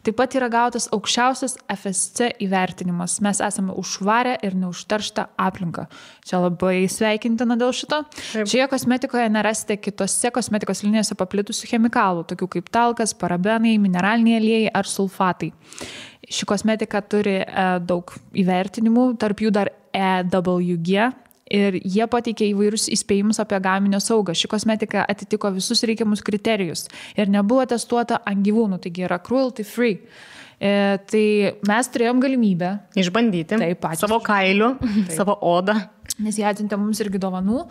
Taip pat yra gautas aukščiausias FSC įvertinimas. Mes esame už švarę ir neužterštą aplinką. Čia labai sveikintina dėl šito. Taip. Šioje kosmetikoje nerasite kitose kosmetikos linijose paplitusių chemikalų, tokių kaip talkas, parabenai, mineraliniai aliejai ar sulfatai. Ši kosmetika turi daug įvertinimų, tarp jų dar EWG ir jie pateikė įvairius įspėjimus apie gaminio saugą. Ši kosmetika atitiko visus reikiamus kriterijus ir nebuvo testuota ant gyvūnų, taigi yra cruelty free. Tai mes turėjom galimybę išbandyti savo kailiu, savo odą. Nes jie atsiuntė mums irgi dovanų.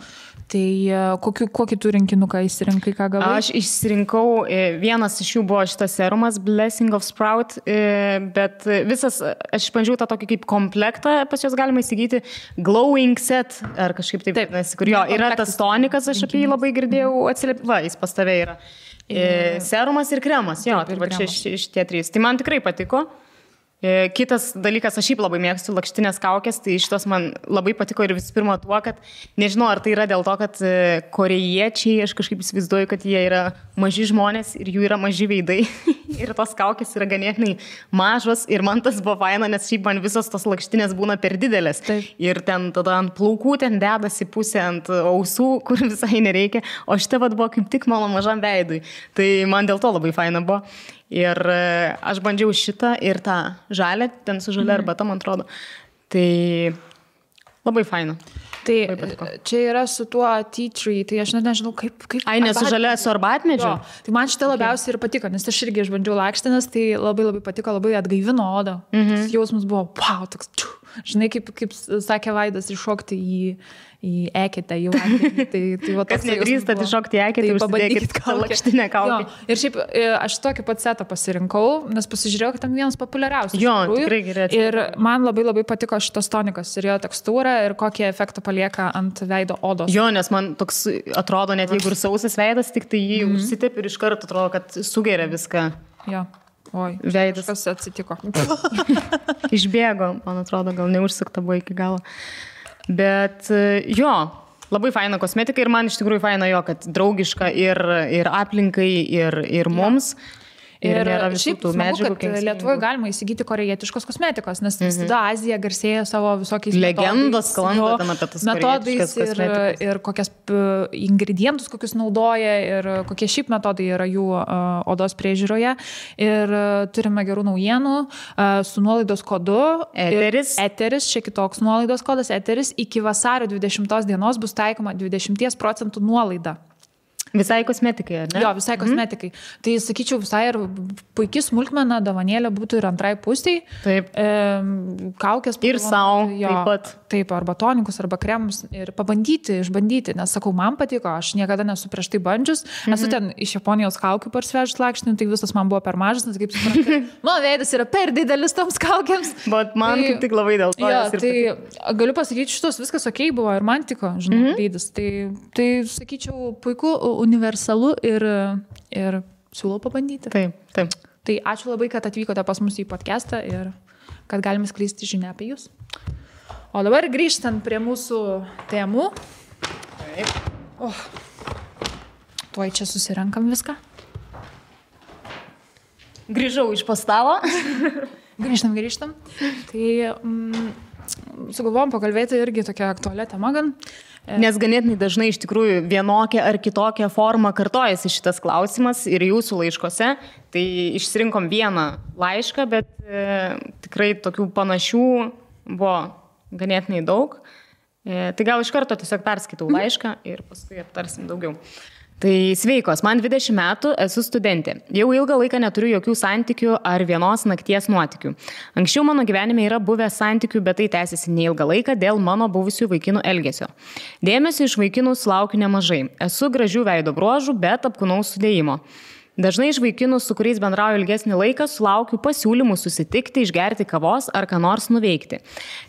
Tai kokį tu rinkinuką įsirinkai, ką gavai? Aš išsirinkau, vienas iš jų buvo šitas serumas Blessing of Sprout, bet visas, aš išbandžiau tą tokį kaip komplektą, pas juos galima įsigyti Glowing Set, ar kažkaip taip, kur jo yra tas tonikas, aš apie jį labai girdėjau atsiliepimą, jis pas tave yra. Serumas ir kremas, jo, tai va čia šitie trys. Tai man tikrai patiko. Kitas dalykas, aš šiaip labai mėgstu lakštinės kaukės, tai šitos man labai patiko ir visų pirma tuo, kad nežinau, ar tai yra dėl to, kad korėjiečiai, aš kažkaip įsivaizduoju, kad jie yra maži žmonės ir jų yra maži veidai ir tos kaukės yra ganėtinai mažos ir man tas buvo faina, nes šiaip man visos tos lakštinės būna per didelės. Taip. Ir ten tada ant plaukų ten dedasi pusė, ant ausų, kur visai nereikia, o šitą vat buvo kaip tik mano mažam veidui. Tai man dėl to labai faina buvo. Ir aš bandžiau šitą ir tą žalę, ten su žalia arbata, man atrodo. Tai labai faina. Tai čia yra su tuo tea tree, tai aš net nežinau, kaip... Ai, ne su žalia, su arbatmedžiu? Tai man šitą labiausiai ir patiko, nes aš irgi išbandžiau lakštinas, tai labai patiko, labai atgaivino odą. Tas jausmas buvo, wow, toks, žinai, kaip sakė Vaidas, iššokti į eketę, į vandenį. Tai kas nedrįstat iššokti į eketę, tai užsidėkit lakštinę kaukę. Ir šiaip aš tokį pat setą pasirinkau, nes pasižiūrėjau, kad tam vienas populiariausias. Jo, tikrai gerai. Ir man labai patiko šitas tonikas ir jo tekstūra ir kokį efektą palieka ant veido odos. Jo, nes man toks atrodo, net jeigu ir sausas veidas, tik tai jį užsitep ir iš karto atrodo, kad sugeria viską. Jo. Oi, veidas. Kas atsitiko. Išbėgo, man atrodo, gal neužsukta buvo iki galo. Bet jo, labai faina kosmetika ir man iš tikrųjų faina jo, kad draugiška ir aplinkai, ir mums. Ir šiaip smagu, kad Lietuvoje galima įsigyti korejietiškos kosmetikos, nes visada Azija garsėja savo visokiais legendos sklando ten apie tas metodais ir kokias ingredientus, kokius naudoja ir kokie šiaip metodai yra jų odos priežiūroje. Ir turime gerų naujienų su nuolaidos kodu Eteris, čia kitoks nuolaidos kodas Eteris, iki vasario 20 dienos bus taikoma 20% nuolaida. Visai kosmetikai, ar ne? Jo, visai kosmetikai. Tai sakyčiau, visai ir puikiai smulkmena, dovanėlė būtų ir antrai pusiai. Taip. Kaukės. Ir savo taip pat. Taip, arba tonikus, arba kremus. Ir pabandyti, išbandyti. Nes sakau, man patiko, aš niekada nesu prieš tai bandžius. Esu ten iš Japonijos kaukių parsivežus lakštinį, tai visas man buvo per mažas, nes kaip suprantu, mano veidas yra per didelis toms kaukiams. Bet man kaip tik labai dėl to. Jo, tai galiu pasakyti, šitos viskas okei buvo ir man tiko, žinau, veidas. Tai sakyčiau, puiku, universalu ir siūlau pabandyti. Taip. Tai ačiū labai, kad atvykote pas mus į podcastą ir kad galime skleisti žinią apie jūs. O dabar grįžtant prie mūsų temų. Taip. Tuoj čia susirenkam viską. Grįžau iš pastalo. Grįžtam. Tai sugalvojom pakalbėti irgi tokia aktualia tema gan. Nes ganėtinai dažnai iš tikrųjų vienokia ar kitokia forma kartojasi šitas klausimas ir jūsų laiškose. Tai išsirinkom vieną laišką, bet tikrai tokių panašių buvo ganėtinai daug. Tai gal iš karto tiesiog perskaitau laišką ir paskui aptarsim daugiau. Tai sveikos, man 20 metų, esu studentė. Jau ilgą laiką neturiu jokių santykių ar vienos nakties nuotykių. Anksčiau mano gyvenime yra buvę santykių, bet tai tęsiasi neilgą laiką dėl mano buvusių vaikinų elgesio. Dėmesio iš vaikinų sulaukiu nemažai. Esu gražių veido bruožų, bet apkūnaus sudėjimo. Dažnai iš vaikinų, su kuriais bendrauju ilgesnį laiką, sulaukiu pasiūlymų susitikti, išgerti kavos ar ką nors nuveikti.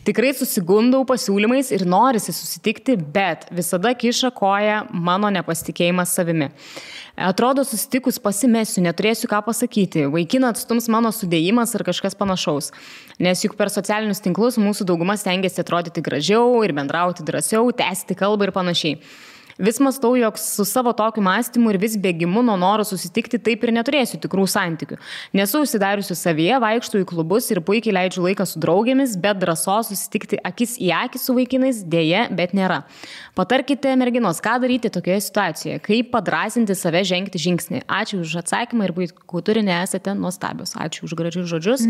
Tikrai susigundau pasiūlymais ir norisi susitikti, bet visada kiša koją mano nepasitikėjimas savimi. Atrodo, susitikus pasimesiu, neturėsiu ką pasakyti, vaikiną atstums mano sudėjimas ar kažkas panašaus. Nes juk per socialinius tinklus mūsų dauguma stengiasi atrodyti gražiau ir bendrauti drąsiau, tęsti kalbą ir panašiai. Vis mąstau, jog su savo tokiu mąstymu ir vis bėgimu nuo noro susitikti taip ir neturėsiu tikrų santykių. Nesu užsidariusi savyje, vaikštų į klubus ir puikiai leidžiu laiką su draugėmis, bet drąsos susitikti akis į akį su vaikinais dėja, bet nėra. Patarkite, merginos, ką daryti tokioje situacijoje, kaip padrąsinti save žengti žingsnį. Ačiū už atsakymą ir puikų turinį, esate nuostabios. Ačiū už gražius žodžius.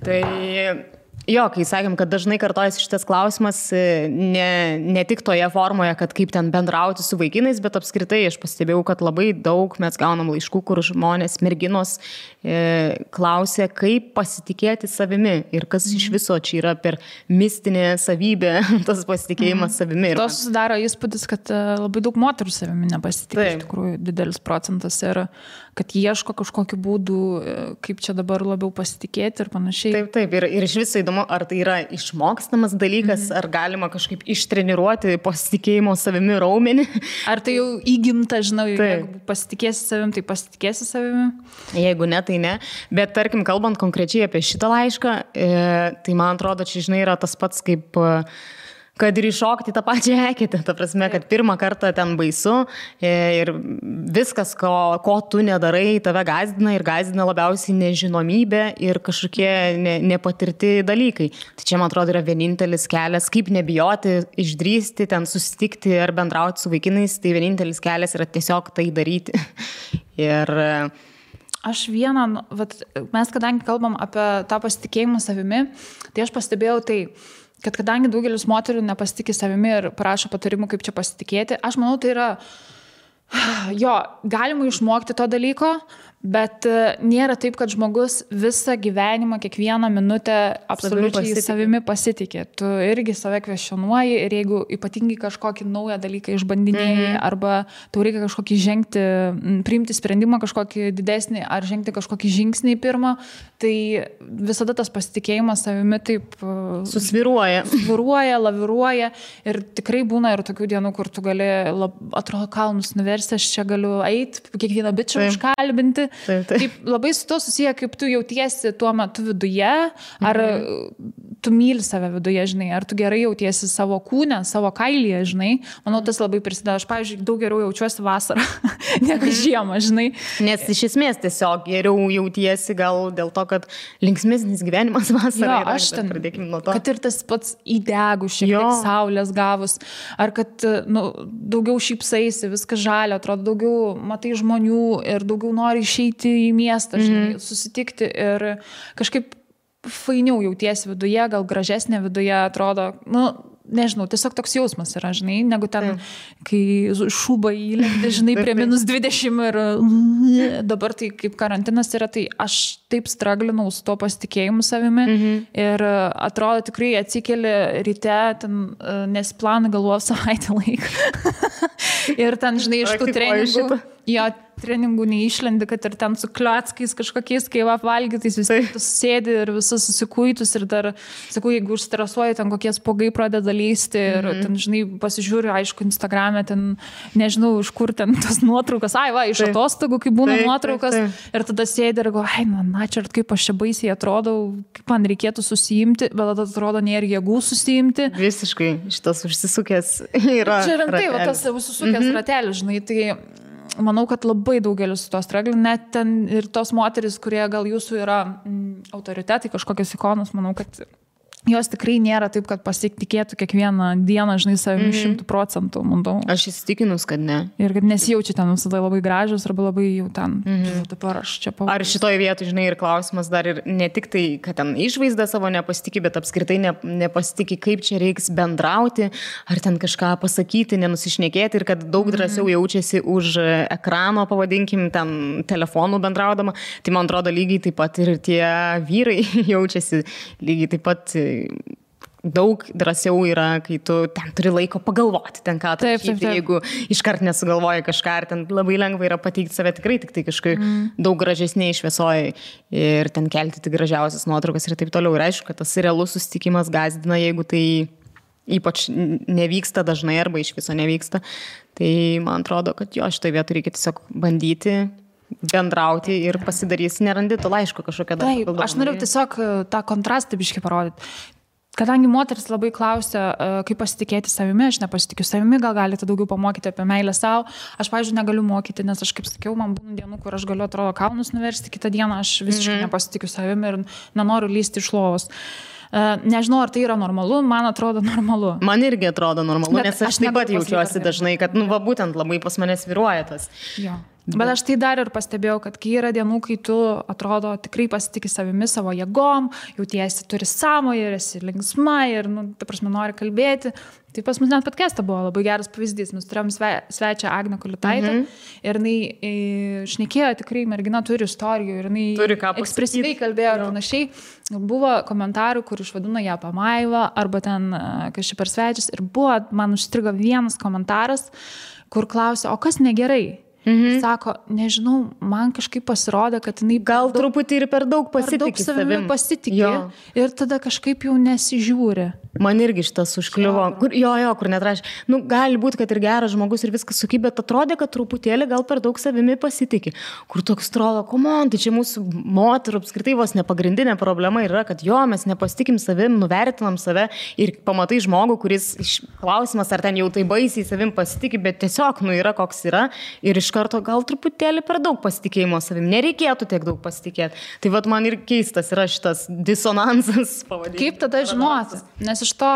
Tai Jo, kai sakėm, kad dažnai kartojasi šitas klausimas, ne tik toje formoje, kad kaip ten bendrauti su vaikinais, bet apskritai aš pastebėjau, kad labai daug mes gaunam laiškų, kur žmonės, merginos klausia, kaip pasitikėti savimi ir kas iš viso čia yra per mistinė savybė, tas pasitikėjimas savimi. To susidaro įspūdis, kad labai daug moterų savimi nepasitikė, iš tikrųjų didelis procentas ir kad ieško kažkokiu būdu, kaip čia dabar labiau pasitikėti ir panašiai. Taip. Ir iš viso įdomu, ar tai yra išmokstamas dalykas, ar galima kažkaip ištreniruoti pasitikėjimo savimi raumenį. Ar tai jau įgimta, žinau, jeigu pasitikėsi savim, tai pasitikėsi savimi. Jeigu ne, tai ne. Bet tarkim, kalbant konkrečiai apie šitą laišką, tai man atrodo, čia, žinai, yra tas pats kaip... kad ir iššokti tą pačią eketę, ta prasme, kad pirmą kartą ten baisu ir viskas, ko tu nedarai, tave gazdina ir gazdina labiausiai nežinomybė ir kažkokie nepatirti dalykai. Tai čia, man atrodo, yra vienintelis kelias, kaip nebijoti, išdrįsti, ten susitikti ar bendrauti su vaikinais, tai vienintelis kelias yra tiesiog tai daryti. Ir... Aš mes kadangi kalbam apie tą pasitikėjimą savimi, tai aš pastebėjau tai, kad kadangi daugelis moterų nepasitikė savimi ir prašo patarimų, kaip čia pasitikėti, aš manau, tai yra, galima išmokti to dalyko, bet nėra taip, kad žmogus visą gyvenimą, kiekvieną minutę absoliučiai savimi pasitikė. Tu irgi save kvestionuoji ir jeigu ypatingai kažkokį naują dalyką išbandinėjai arba tau reikia kažkokį priimti sprendimą kažkokį didesnį ar žengti kažkokį žingsnį pirmą, tai visada tas pasitikėjimas savimi taip susviruoja, laviruoja ir tikrai būna ir tokių dienų, kur tu gali, atrodo, kalnus nuversti, aš čia galiu eiti, kiekvieną bičą užkalbinti. Taip, labai su to susiję, kaip tu jautiesi tuo metu viduje, ar tu myli save viduje, žinai, ar tu gerai jautiesi savo kūne, savo kailyje, žinai. Manau, tas labai prisideda. Aš, pavyzdžiui, daug geriau jaučiuosi vasarą negu žiemą, žinai. Nes iš esmės tiesiog geriau jautiesi gal dėl to, kad linksmesnis gyvenimas vasarą yra. Aš ten, kad ir tas pats įdegus, šiek tiek saulės gavus, ar kad daugiau šypsaisi, viskas žalia, atrodo, daugiau matai žmonių ir daugiau nori išeiti į miestą, žinai, susitikti ir kažkaip fainiau jautiesi viduje, gal gražesnė viduje atrodo, nežinau, tiesiog toks jausmas yra, žinai, negu ten, kai šūba įlendi, žinai, prie -20 ir dabar tai kaip karantinas yra, tai aš taip straglinau su to pasitikėjimu savimi ir atrodo tikrai atsikeli ryte, ten nesiplanai galvos savaitę laiką ir ten, žinai, iš tų treningų neišlendi, kad ir ten su kliockais kažkokiais, kai apvalgytais, vis tiek tu sėdi ir visas susikuitus ir dar, sakau, jeigu užstresuoji, ten kokie spogai pradeda lysti ir ten, žinai, pasižiūriu, aišku, Instagrame, ten, nežinau, iš kur ten tas nuotraukas, iš atostogų, kai būna nuotraukas ir tada sėdi ir galvoju, čia kaip aš čia baisiai atrodau, kaip man reikėtų susijimti, bet tada atrodo, nėra jėgų susijimti. Visiškai, šitas užsisukęs yra. Čia rimtai, tas užsisukęs ratelis, žinai, tai manau, kad labai daugelis su to stragli, net ten ir tos moteris, kurie gal jūsų yra autoritetai, kažkokios ikonos, manau, kad jos tikrai nėra taip, kad pasitikėtų kiekvieną dieną, žinai, savimi 100%, manau. Aš įsitikinus, kad ne. Ir kad nesijaučia ten visada labai gražios arba labai jau ten, dabar aš čia pavadžiu. Ar šitoje vietoje, žinai, ir klausimas dar ir ne tik tai, kad ten išvaizdą savo nepasitikė, bet apskritai nepasitikė, kaip čia reiks bendrauti, ar ten kažką pasakyti, nenusišnekėti ir kad daug drąsiau jaučiasi už ekrano, pavadinkim, ten telefonų bendraudama. Tai man atrodo lygiai taip pat ir tie vyrai jaučiasi lygiai taip pat daug drąsiau yra, kai tu ten turi laiko pagalvoti, ten ką atrašyti, jeigu iškart nesugalvoji kažką, ir ten labai lengva yra pateikti save tikrai, tik tai kažkaip daug gražesniai šviesoje ir ten kelti tik gražiausias nuotraukas ir taip toliau. Ir aišku, kad tas realus susitikimas gazdina, jeigu tai ypač nevyksta dažnai arba iš viso nevyksta. Tai man atrodo, kad šitoje vietoje reikia tiesiog bandyti bendrauti ir pasidarysi, nerandi to laiško kažkokią dar. Taip, aš norėjau tiesiog tą kontrastą biškį parodyti. Kadangi moteris labai klausia, kaip pasitikėti savimi, aš nepasitikiu savimi, gal galite daugiau pamokyti apie meilę savo. Aš, pavyzdžiui, negaliu mokyti, nes aš, kaip sakiau, man būna dienų, kur aš galiu, atrodo, kalnus nuversti, kitą dieną aš visiškai nepasitikiu savimi ir nenoriu lysti iš lovos. Nežinau, ar tai yra normalu, man atrodo normalu. Man irgi atrodo normalu, nes aš taip pat jaučiuosi dažnai, kad, būtent labai pas mane sviruoja tas. Jo. Bet aš tai dar ir pastebėjau, kad kai yra dienų, kai tu atrodo tikrai pasitikė savimi, savo jėgom, jautiesi turi sąmoją ir esi linksma ir, ta prasme, nori kalbėti. Tai pas mus net podcast'ą buvo labai geras pavyzdys. Mes turėjom svečią Agnę Kulitaitę ir jinai šnekėjo, tikrai mergina turi istorijų ir jinai ekspresyviai kalbėjo ir panašiai. Buvo komentarų, kur išvadino ją pamaivą arba ten kažkaip per svečius ir buvo, man užstrigo vienas komentaras, kur klausė, o kas negerai? Sako, nežinau, man kažkaip pasirodė, kad jinai gal truputį ir per daug pasitikė savimi. Ir tada kažkaip jau nesižiūri. Man irgi šitas užkliuvo. Kur netrašė. Gali būti, kad ir geras žmogus ir viskas suky, bet atrodė, kad truputėlį gal per daug savimi pasitikė. Kur toks atrodo, tai čia mūsų moterų apskritai vos nepagrindinė problema yra, kad mes nepasitikim savim, nuvertinam save ir pamatai žmogų, kuris klausimas, ar ten jau tai baisiai savim pasitikė, bet tiesiog, yra koks yra ir iš karto gal truputėlį per daug pasitikėjimo savim. Nereikėtų tiek daug pasitikėti. Tai man ir keistas yra šitas disonansas pavadinimas. Kaip tada žinoti? Nes iš to,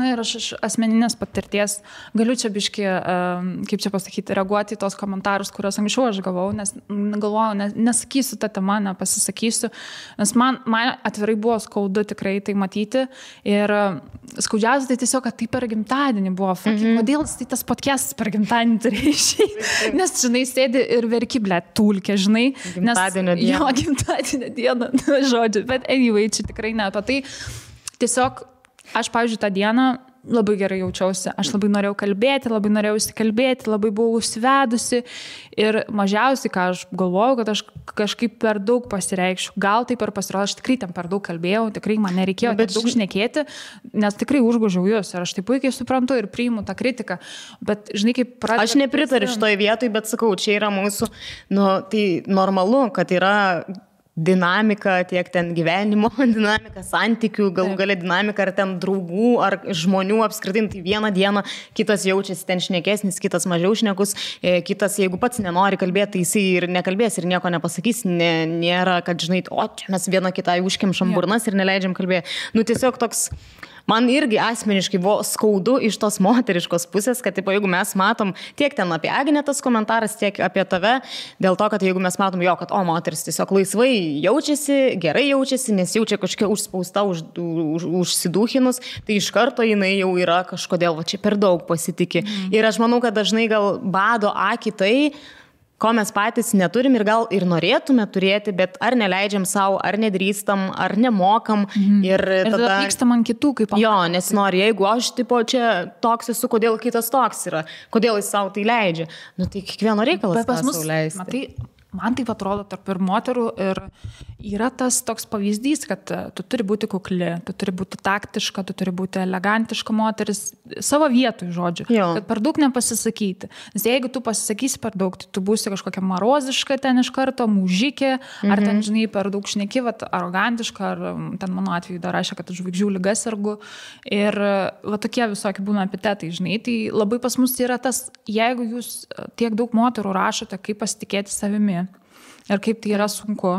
ir aš iš asmeninės patirties galiu čia biškį, kaip čia pasakyti, reaguoti į tos komentarus, kuriuos anksčiau aš gavau, nes galvojau, nesakysiu tą temą, nepasisakysiu, nes man atvirai buvo skaudu tikrai tai matyti ir skaudžiausia tai tiesiog, kad tai per gimtadienį buvo. Kodėl tai tas podcastas per gimtadienį turėjo išeiti? Nes, žinai, sėdi ir verki, tulkė, žinai. Gimtadienio dieną. Jo, gimtadienio dieną, žodžiu. Bet anyway, čia tikrai ne apie tai. Tiesiog aš, pavyzdžiui, tą dieną labai gerai jaučiausi. Aš labai norėjau kalbėti, labai norėjau įsikalbėti, labai buvau užsivedusi ir mažiausiai, ką aš galvojau, kad aš kažkaip per daug pasireikščiau. Gal taip ir pasirodė, aš tikrai ten per daug kalbėjau, tikrai man nereikėjo daug šnekėti, nes tikrai užgožiau jūs ir aš tai puikiai suprantu ir priimu tą kritiką. Bet, žinai, kaip pradėjau... Aš nepritariu šitoj vietoj, bet sakau, čia yra mūsų, tai normalu, kad yra dinamika, tiek ten gyvenimo dinamika, santykių, galų gale dinamika, ar ten draugų, ar žmonių apskritai, tai vieną dieną kitas jaučiasi ten šnekesnis, kitas mažiau šnekus, kitas, jeigu pats nenori kalbėti, tai jisai ir nekalbės ir nieko nepasakys, nėra, kad, žinai, čia mes vieną kitą užkimšam burnas ir neleidžiam kalbėti. Tiesiog toks... Man irgi asmeniškai buvo skaudu iš tos moteriškos pusės, kad jeigu mes matom tiek ten apie Agnę tas komentaras, tiek apie tave, dėl to, kad jeigu mes matom kad moteris tiesiog laisvai jaučiasi, gerai jaučiasi, nes jaučia kažkokia užspausta, užsidūchinus, tai iš karto jinai jau yra kažkodėl, čia per daug pasitikė. Ir aš manau, kad dažnai gal bado akį tai, ko mes patys neturim ir gal ir norėtume turėti, bet ar neleidžiam savo, ar nedrįstam, ar nemokam. Ir tada pykstam ant kitų, kaip jo, nes nori, jeigu aš čia toks esu, kodėl kitas toks yra, kodėl jis savo tai leidžia. Tai kiekvieno reikalas tą sau leisti. Matai, man taip atrodo tarp ir moterų ir yra tas toks pavyzdys, kad tu turi būti kukli, tu turi būti taktiška, tu turi būti elegantiška moteris, savo vietoj, žodžiu, kad per daug nepasisakyti. Nes jeigu tu pasisakysi per daug, tai tu būsi kažkokia maroziška ten iš karto, mužikė, ar ten, žinai, per daug šneki, arogantiška, ar ten mano atveju dar rašė, kad žvaigždžių liga sergu. Ir tokie visokie būna epitetai, žinai. Tai labai pas mus yra tas, jeigu jūs tiek daug moterų rašote, kaip pasitikėti savimi ir kaip tai yra sunku,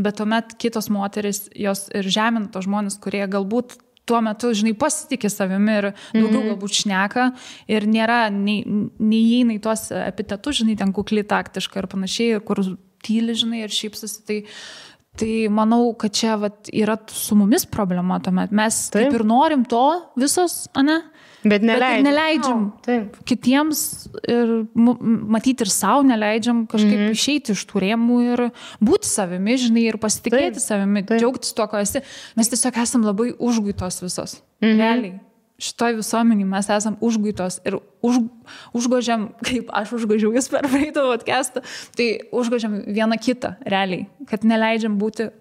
bet tuomet kitos moteris, jos ir žemina tos žmonės, kurie galbūt tuo metu, žinai, pasitikė savimi ir daugiau galbūt šneka ir nėra, neįeina į tuos epitetus, žinai, ten kukli, taktiška ir panašiai, kur tyli, žinai, ir šypsosi, tai manau, kad čia yra su mumis problema tuomet. Mes taip ir norim to visos, ane? Bet neleidžiam kitiems ir matyti ir savo neleidžiam kažkaip išeiti iš tų rėmų ir būti savimi, žinai, ir pasitikėti savimi, džiaugtis tuo, ko esi. Mes tiesiog esam labai užguitos visos. Realiai. Šitoj visuomenį mes esam užguitos ir užgožiam, kaip aš užgožiau jūs per praeitą podcastą, tai užgožiam vieną kitą, realiai, kad neleidžiam būti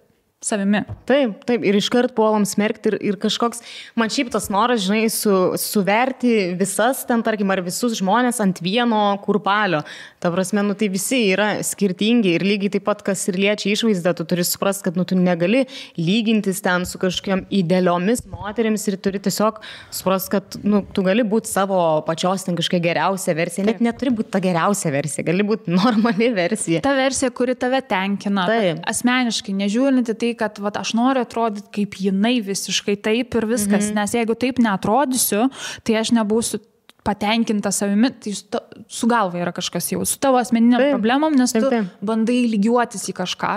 savimi. Taip, ir iškart puolam smerkti ir kažkoks, man šiaip tas noras, žinai, suverti visas ten, tarkim, ar visus žmonės ant vieno kurpalio. Ta prasme, tai visi yra skirtingi ir lygiai taip pat, kas ir liečia išvaizdą, tu turi suprasti, kad tu negali lygintis ten su kažkokiam idealiomis moterims ir turi tiesiog suprasti, kad tu gali būti savo pačios ten kažkokia geriausia versija. Net neturi būti ta geriausia versija, gali būti normali versija. Ta versija, kuri tave tenkina. Asmeniškai, nežiūrinti tai, kad aš noriu atrodyti kaip jinai visiškai taip ir viskas, nes jeigu taip neatrodysiu, tai aš nebūsiu patenkinta savimi, tai su galva yra kažkas jau, su tavo asmeniniam problemom, nes tu bandai lygiuotis į kažką.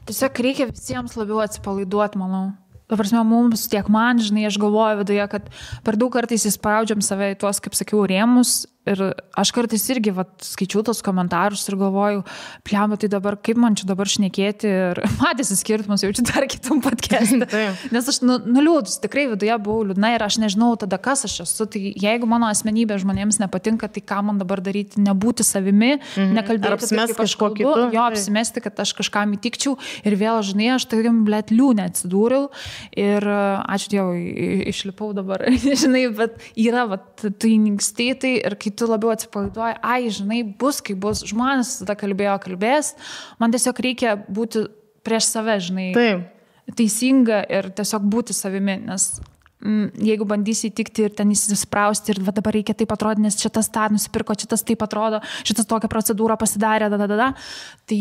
Tiesiog reikia visiems labiau atsipalaiduoti, manau. Ta prasme, mums tiek man, žinai, aš galvoju viduje, kad per daug kartais įspraudžiam save į tuos, kaip sakiau, rėmus. Ir aš kartais irgi skaičiau tos komentarus ir galvoju, pliamba, tai dabar kaip man čia dabar šnekėti ir matėsi skirtumus, jaučiu dar kitam podcast'e. Nes aš nuliūdus, tikrai viduje buvau liūdna ir aš nežinau tada, kas aš esu. Tai jeigu mano asmenybė žmonėms nepatinka, tai ką man dabar daryti, nebūti savimi, nekalbėti taip, kaip aš kalbu, jo apsimesti, kad aš kažkam įtikčiau ir vėl, žinai, aš tokiam liūnė atsidūriau ir ačiū Dievui, išlipau dabar, žinai, bet yra tai nyksti tai ir kai tu labiau atsipalaiduoji, žinai, bus, kaip bus, žmonės tada kalbės, man tiesiog reikia būti prieš save, žinai, teisinga ir tiesiog būti savimi, nes jeigu bandysi įtikti ir ten įsisprausti ir dabar reikia taip atrodyti, nes šitas tą nusipirko, šitas taip atrodo, šitas tokią procedūrą pasidarė, tai,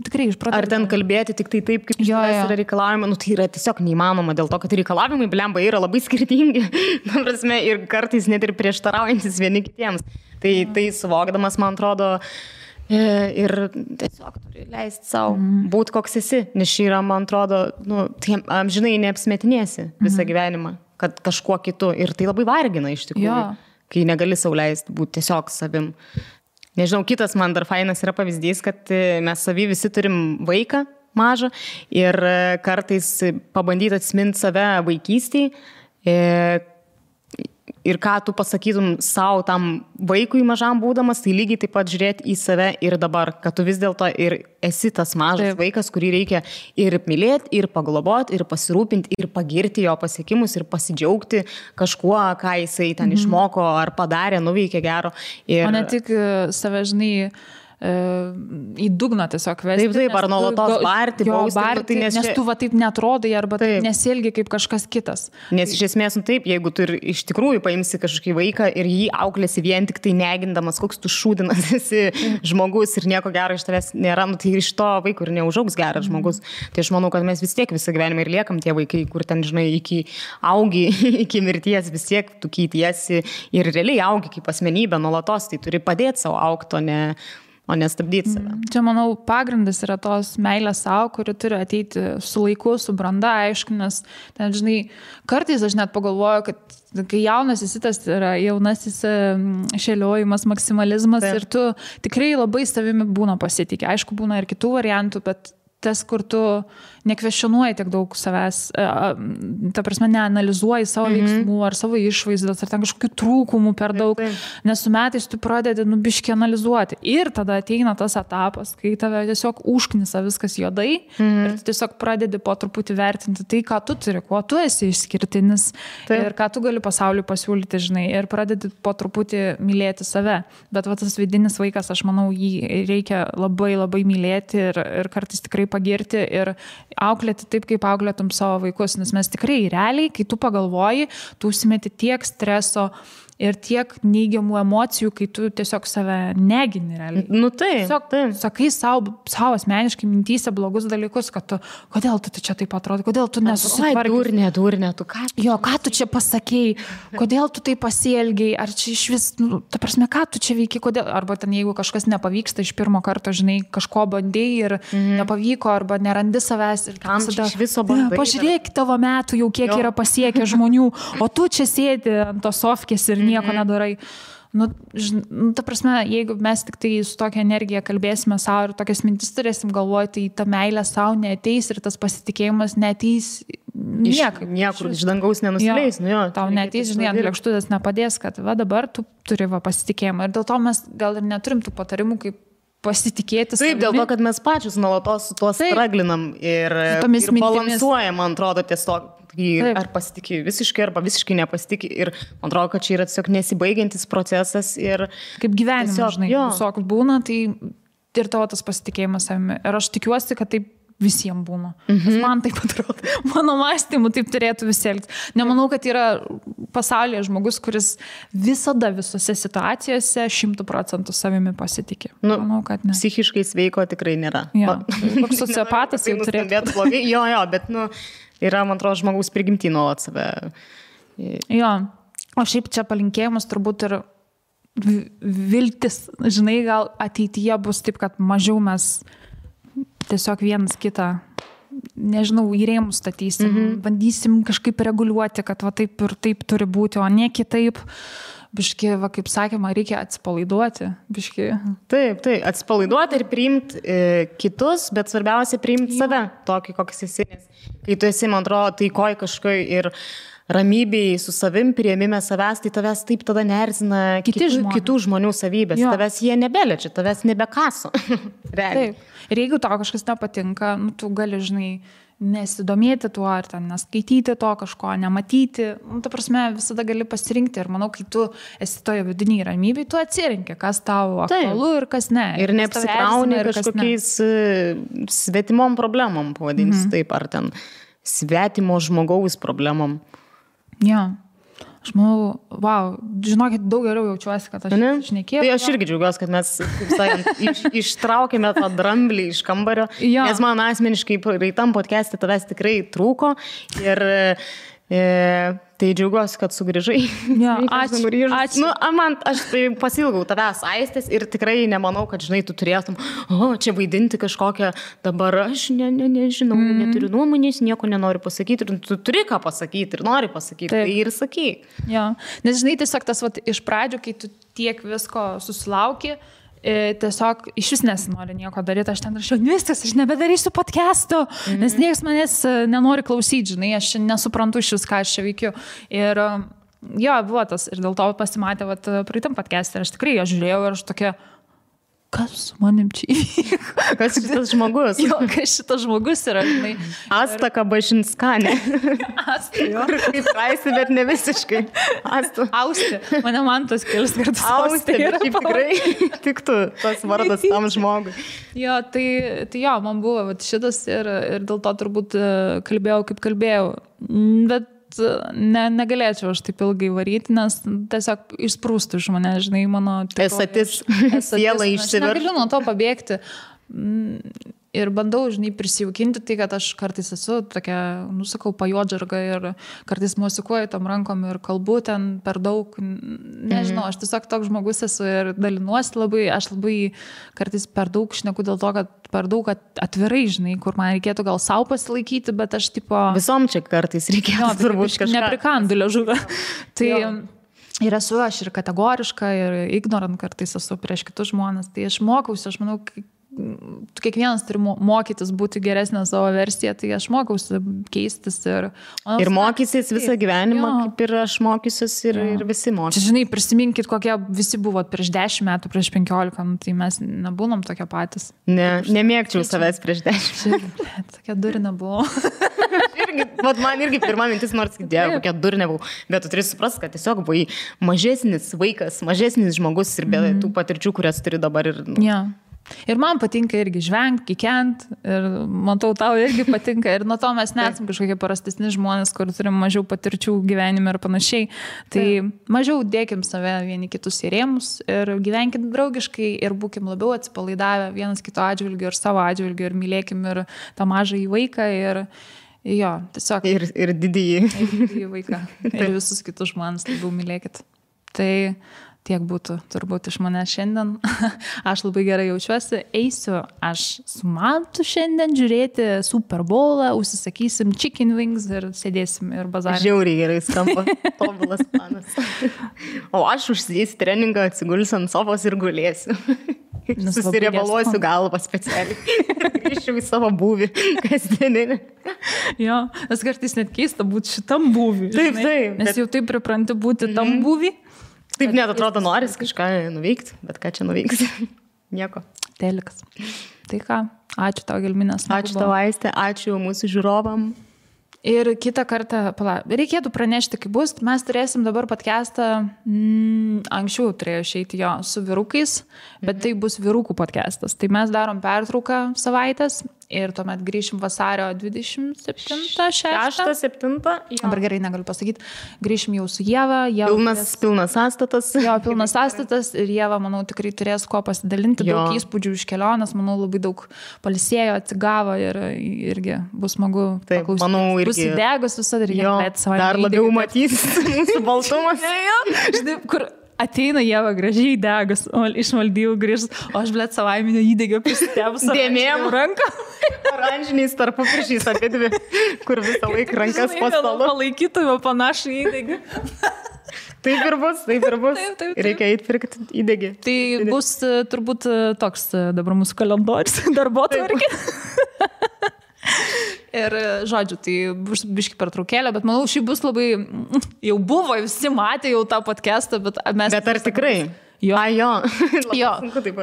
tikrai iš pradžių. Ar ten kalbėti tik tai taip, kaip iš tavęs yra reikalavimai, tai yra tiesiog neįmanoma dėl to, kad reikalavimai, blemba, yra labai skirtingi, prasme, ir kartais net ir prieštaraujantis vieni kitiems. Tai suvokdamas, man atrodo, ir tiesiog turi leisti savo būti koks esi, nes šį yra, man atrodo, amžinai neapsmetinėsi visą gyvenimą, kad kažkuo kitu ir tai labai vargina iš tikrųjų, kai negali sau leisti būti tiesiog savim. Nežinau, kitas man dar fainas yra pavyzdys, kad mes savy visi turim vaiką mažą ir kartais pabandyti atsiminti save vaikystėje. Ir ką tu pasakytum savo tam vaikui mažam būdamas, tai lygiai taip pat žiūrėti į save ir dabar, kad tu vis dėlto ir esi tas mažas vaikas, kurį reikia ir mylėti, ir pagloboti, ir pasirūpinti, ir pagirti jo pasiekimus, ir pasidžiaugti kažkuo, ką jisai ten išmoko ar padarė, nuveikė gero. O ne tik save, žinai, į dugną tiesiog vesti. Taip, ar nuolatos barti, bausti, nes tu taip netrodai arba taip nesielgi kaip kažkas kitas. Nes iš esmės, taip, jeigu tu ir iš tikrųjų paimsi kažkokį vaiką ir jį auklėsi vien tik tai negindamas, koks tu šūdinas esi žmogus ir nieko gero iš tavęs nėra, tai iš to vaiko ir neužaugs geras žmogus. Tai aš manau, kad mes vis tiek visą gyvenimą ir liekam tie vaikai, kur ten, žinai, iki augi, iki mirties vis tiek tu keitiesi ir realiai augi kaip asmenybė nuolatos, tai turi padėti savo augti, o nestabdyti save. Čia, manau, pagrindas yra tos meilės savo, kuri turi ateiti su laiku, su branda, aišku, nes ten, žinai, kartais aš net pagalvoju, kad kai jaunas esi, tas yra jaunasis šėliojimas, maksimalizmas ir tu tikrai labai savimi būna pasitikė. Aišku, būna ir kitų variantų, bet tas, kur tu nekvestionuoji tiek daug savęs, ta prasme, neanalizuoji savo veiksmų ar savo išvaizdos, ar ten kažkokių trūkumų per daug, nes su metais tu pradedi biškį analizuoti. Ir tada ateina tas etapas, kai tave tiesiog užknisa viskas juodai ir tu tiesiog pradedi po truputį vertinti tai, ką tu turi, kuo tu esi išskirtinis ir ką tu gali pasauliui pasiūlyti, žinai, ir pradedi po truputį mylėti save. Bet tas vidinis vaikas, aš manau, jį reikia labai, labai mylėti ir kartais tikrai pagirti ir auklėti taip, kaip auklėtum savo vaikus, nes mes tikrai realiai, kai tu pagalvoji, tu užsimeti tiek streso ir tiek neigiamų emocijų, kai tu tiesiog save negini realiai. Tiesiog sakai savo asmeniškai mintyse blogus dalykus, kad tu, kodėl tu čia taip atrodo, kodėl tu nesusitvarkei. Durnė, tu ką? Ką tu čia pasakei, kodėl tu taip pasielgiai, ar čia iš vis, ta prasme, ką tu čia veiki, kodėl, arba ten jeigu kažkas nepavyksta iš pirmo karto, žinai, kažko bandėjai ir nepavyko, arba nerandi savęs ir kam čia iš viso bandai. Pažiūrėk tavo metų jau kiek yra pasiekę žmonių, o tu čia sėdi ant tos sofkės ir nieko nedarai. Ta prasme, jeigu mes tik tai su tokia energija kalbėsime savo ir tokias mintis turėsim galvoti, tai ta meilė savo neateis ir tas pasitikėjimas neateis niekur iš dangaus nenusileis. Tau neateis, žinai, ant lėkštutės nepadės, kad dabar tu turi pasitikėjimą. Ir dėl to mes gal ir neturim tų patarimų, kaip pasitikėti savimi. Taip, dėl to, kad mes pačius nuolatos su tuo straglinam ir balansuojam, man atrodo, tiesiog. Ar pasitikė visiškai, arba visiškai nepasitikė. Ir man atrodo, kad čia yra tiesiog nesibaigiantis procesas. Ir kaip gyvenime, žinai, visoks būna, tai ir tavo tas pasitikėjimas savimi. Ir aš tikiuosi, kad taip visiems būna. Nes man taip atrodo. Mano mąstymu taip turėtų visi elgtis. Nemanau, kad yra pasaulyje žmogus, kuris visada visose situacijose 100% savimi pasitikė. Manau, kad ne. Psichiškai sveiko tikrai nėra. Koks sociopatas jau turėtų. Bet yra, man atrodo, žmogaus prigimtį nuolat save. O šiaip čia palinkėjimas turbūt ir viltis, žinai, gal ateityje bus taip, kad mažiau mes tiesiog vienas kitą, nežinau, į rėmus statysim, bandysim kažkaip reguliuoti, kad va taip ir taip turi būti, o ne kitaip. Biški, va, kaip sakėma, reikia atsipalaiduoti. Biški. Taip, atsipalaiduoti ir priimti kitus, bet svarbiausia priimti save, tokį, koks esi. Kai tu esi, man atrodo, taikoj kažkai ir ramybėj su savim, priėmime savęs, tai tavęs taip tada neerzina kitų žmonių savybės. Jo. Tavęs jie nebeliečia, tavęs nebekaso. Taip. Ir jeigu tau kažkas nepatinka, nu, tu gali, žinai, nesidomėti tuo, ar ten neskaityti to kažko, nematyti. Nu, ta prasme, visada gali pasirinkti. Ir manau, kai tu esi toje vidiniai ramybėje, tu atsirinki, kas tau aktualu ir kas ne. Ir neapsikrauni kažkokiais svetimom problemom, pavadinsi taip, ar ten svetimo žmogaus problemom. Jo. Aš manau, wow, žinokit, daug geriau jaučiuosi, kad aš šnekėjau. Tai aš irgi džiaugiuosi, kad mes, kaip sakant, ištraukėme tą dramblį iš kambario, nes man asmeniškai praeitam podcast'e tavęs tikrai trūko ir tai džiaugiuosi, kad sugrįžai. Ja, ačiū. Nu, man, aš tai pasilgau tavęs Aistės ir tikrai nemanau, kad, žinai, tu turėtum, čia vaidinti kažkokią, dabar aš nežinau, neturiu nuomonės, nieko nenoriu pasakyti, ir tu turi ką pasakyti ir nori pasakyti, tai ir sakyk. Ja, nes, žinai, tiesiog tas iš pradžių, kai tu tiek visko susilauki, tiesiog iš vis nesinori nieko daryti, aš ten rašiau, viskas, aš nebedarysiu podcast'o, nes niekas manęs nenori klausyti, žinai, aš nesuprantu iš vis, ką aš čia veikiu. Ir jo, buvo tas, ir dėl to pasimatė, praeitam podcast'e, ir aš tikrai jo žiūrėjau ir aš tokia, kas su manim čia įvyko? Kas šitas žmogus? Jo, kas šitas žmogus yra, žinai. Asta Kabašinskanė. Asta, jo. Kaip Raisti, bet ne visiškai. Asta. Austi. Mane man tas kelis kartus Austi. Bet šiaip tikrai tiktų tas vardas tam žmogui. Jo, tai jo, man buvo šitas ir dėl to turbūt kalbėjau, kaip kalbėjau. Bet negalėčiau aš taip ilgai varyti, nes tiesiog išsprūstų iš mane, žinai, mano... Esatis, siela išsiverš. Aš negaliu nuo to pabėgti. Ir bandau, žinai, prisijaukinti tai, kad aš kartais esu tokia, nusakau, pajodžarga ir kartais mosikuoju tom rankom ir kalbu ten per daug. Nežinau, aš tiesiog toks žmogus esu ir dalinuosi labai, aš labai kartais per daug šneku dėl to, kad per daug atvirai, žinai, kur man reikėtų gal savo pasilaikyti, bet aš tipo... Visom čia kartais reikėtų turbūt kažką. Neprikandu liežuvę. Tai... Ir esu aš ir kategoriška, ir ignorant kartais esu prieš kitus žmonės. Tai aš mokausi, aš manau, kiekvienas turi mokytis būti geresnė savo versiją, tai aš mokausi keistis. Ir mokysis visą gyvenimą, kaip ir aš mokysiuos ir visi mokysis. Čia, žinai, prisiminkit, kokie visi buvot prieš 10 metų, prieš 15, tai mes nebūnom tokie patys. Nemėgčiau savęs prieš 10. Tokia durina buvo. Man irgi pirma mintis, nors dėjau, kokia durne buvau, bet tu turi suprasti, kad tiesiog buvai mažesnis vaikas, mažesnis žmogus ir be tų patirčių, kurias turi dabar. Ir man patinka irgi žvengti, kikent, ir matau, tau irgi patinka, ir nuo to mes nesam kažkokie parastesni žmonės, kur turim mažiau patirčių gyvenime ir panašiai. Tai mažiau dėkim save vieni kitus į rėmus ir gyvenkim draugiškai ir būkim labiau atsipalaidavę vienas kito atžvilgiu ir savo atžvilgiu ir mylėkim ir tą mažą į vaiką ir jo, tiesiog. Ir didįjį. Ir didįjį vaiką. Ir visus kitus žmonės labiau mylėkit. Tai tiek būtų turbūt iš manęs šiandien. Aš labai gerai jaučiuosi. Eisiu aš su Mantu šiandien žiūrėti Super Bowlą, užsisakysim chicken wings ir sėdėsim ir bazarį. Žiauriai gerai skamba. Tobulas planas. O aš užsidėsiu treningą, atsigulsiu ant sofos ir gulėsiu. Susiriebaluosiu galvą specialiai. Grįžčiau į savo būvį kasdieninį. Jo, nes kartais net keista būti šitam būvį. Taip. Nes jau taip pripranti būti tam būvį. Taip net atrodo noris kažką nuveikti, bet ką čia nuveiksi? Nieko. Telikas. Tai ką, ačiū tau, Gelminės. Ačiū tau, Aiste, ačiū mūsų žiūrovam. Ir kitą kartą, reikėtų pranešti, kaip bus, mes turėsim dabar podcastą, anksčiau turėjo išeiti jo su vyrukais, bet tai bus vyrukų podcastas. Tai mes darom pertrauką savaitės ir tuomet grįšim vasario 27-6. Dabar gerai negaliu pasakyti. Grįšim jau su Ieva. Pilnas sąstatas. Jo, pilnas sąstatas ir Ieva, manau, tikrai turės ko pasidalinti, daug įspūdžių iš kelionės, manau, labai daug palisėjo, atsigavo ir irgi bus smagu paklausyti. Manau, irgi. Bus įdegus visada ir dar labiau matys mūsų baltumas. Žinai, kur ateina Ieva gražiai degas, o iš Maldyvų grįžs, o aš, blėt, savaiminio įdegio prisitėbus dėmėm ranką. Oranžiniais tarpupiršiais apie dvi, kur visą laiką rankas po stalu. Palaikytume panašų įdegį. Taip ir bus. Taip. Reikia eiti pirkti įdegį. Tai bus turbūt toks dabar mūsų kalendorius, darbotvarkė. Ir, žodžiu, tai bus biški pertraukėlė, bet manau, šį bus labai, jau buvo, visi matė jau tą podcastą, bet mes... Bet ar tikrai? Jo. Jo,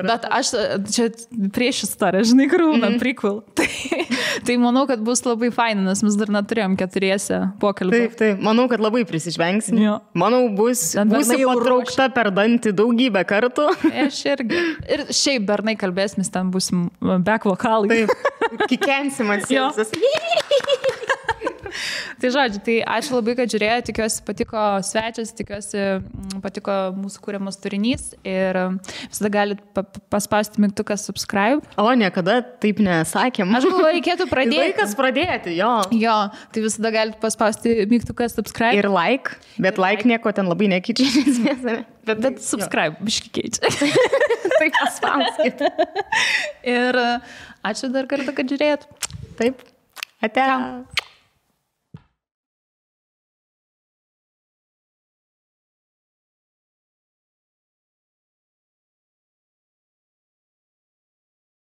bet aš čia prieš istoriją, žinai, kur būna prequel. Tai manau, kad bus labai faina, nes mes dar neturėjom 4 pokalbį. Taip, manau, kad labai prisižvengsim. Manau, būsi patraukta per dantį daugybę kartų. Aš irgi. Ir šiaip bernai kalbėsim, ten būsim back vokalai. Taip, kikensim atsiausias. Tai žodžiu, tai ačiū labai, kad žiūrėjo, tikiuosi patiko svečias, tikiuosi patiko mūsų kūriamas turinys ir visada galite paspausti mygtuką subscribe. O, niekada taip nesakėm. Aš galvoju, reikėtų pradėti. Laikas pradėti, jo. Jo, tai visada galite paspausti mygtuką subscribe. Ir like, bet like nieko ten labai nekeičia. Bet subscribe, biški keičia. Tai paspauskit. Ir ačiū dar kartą, kad žiūrėjot. Taip, ate.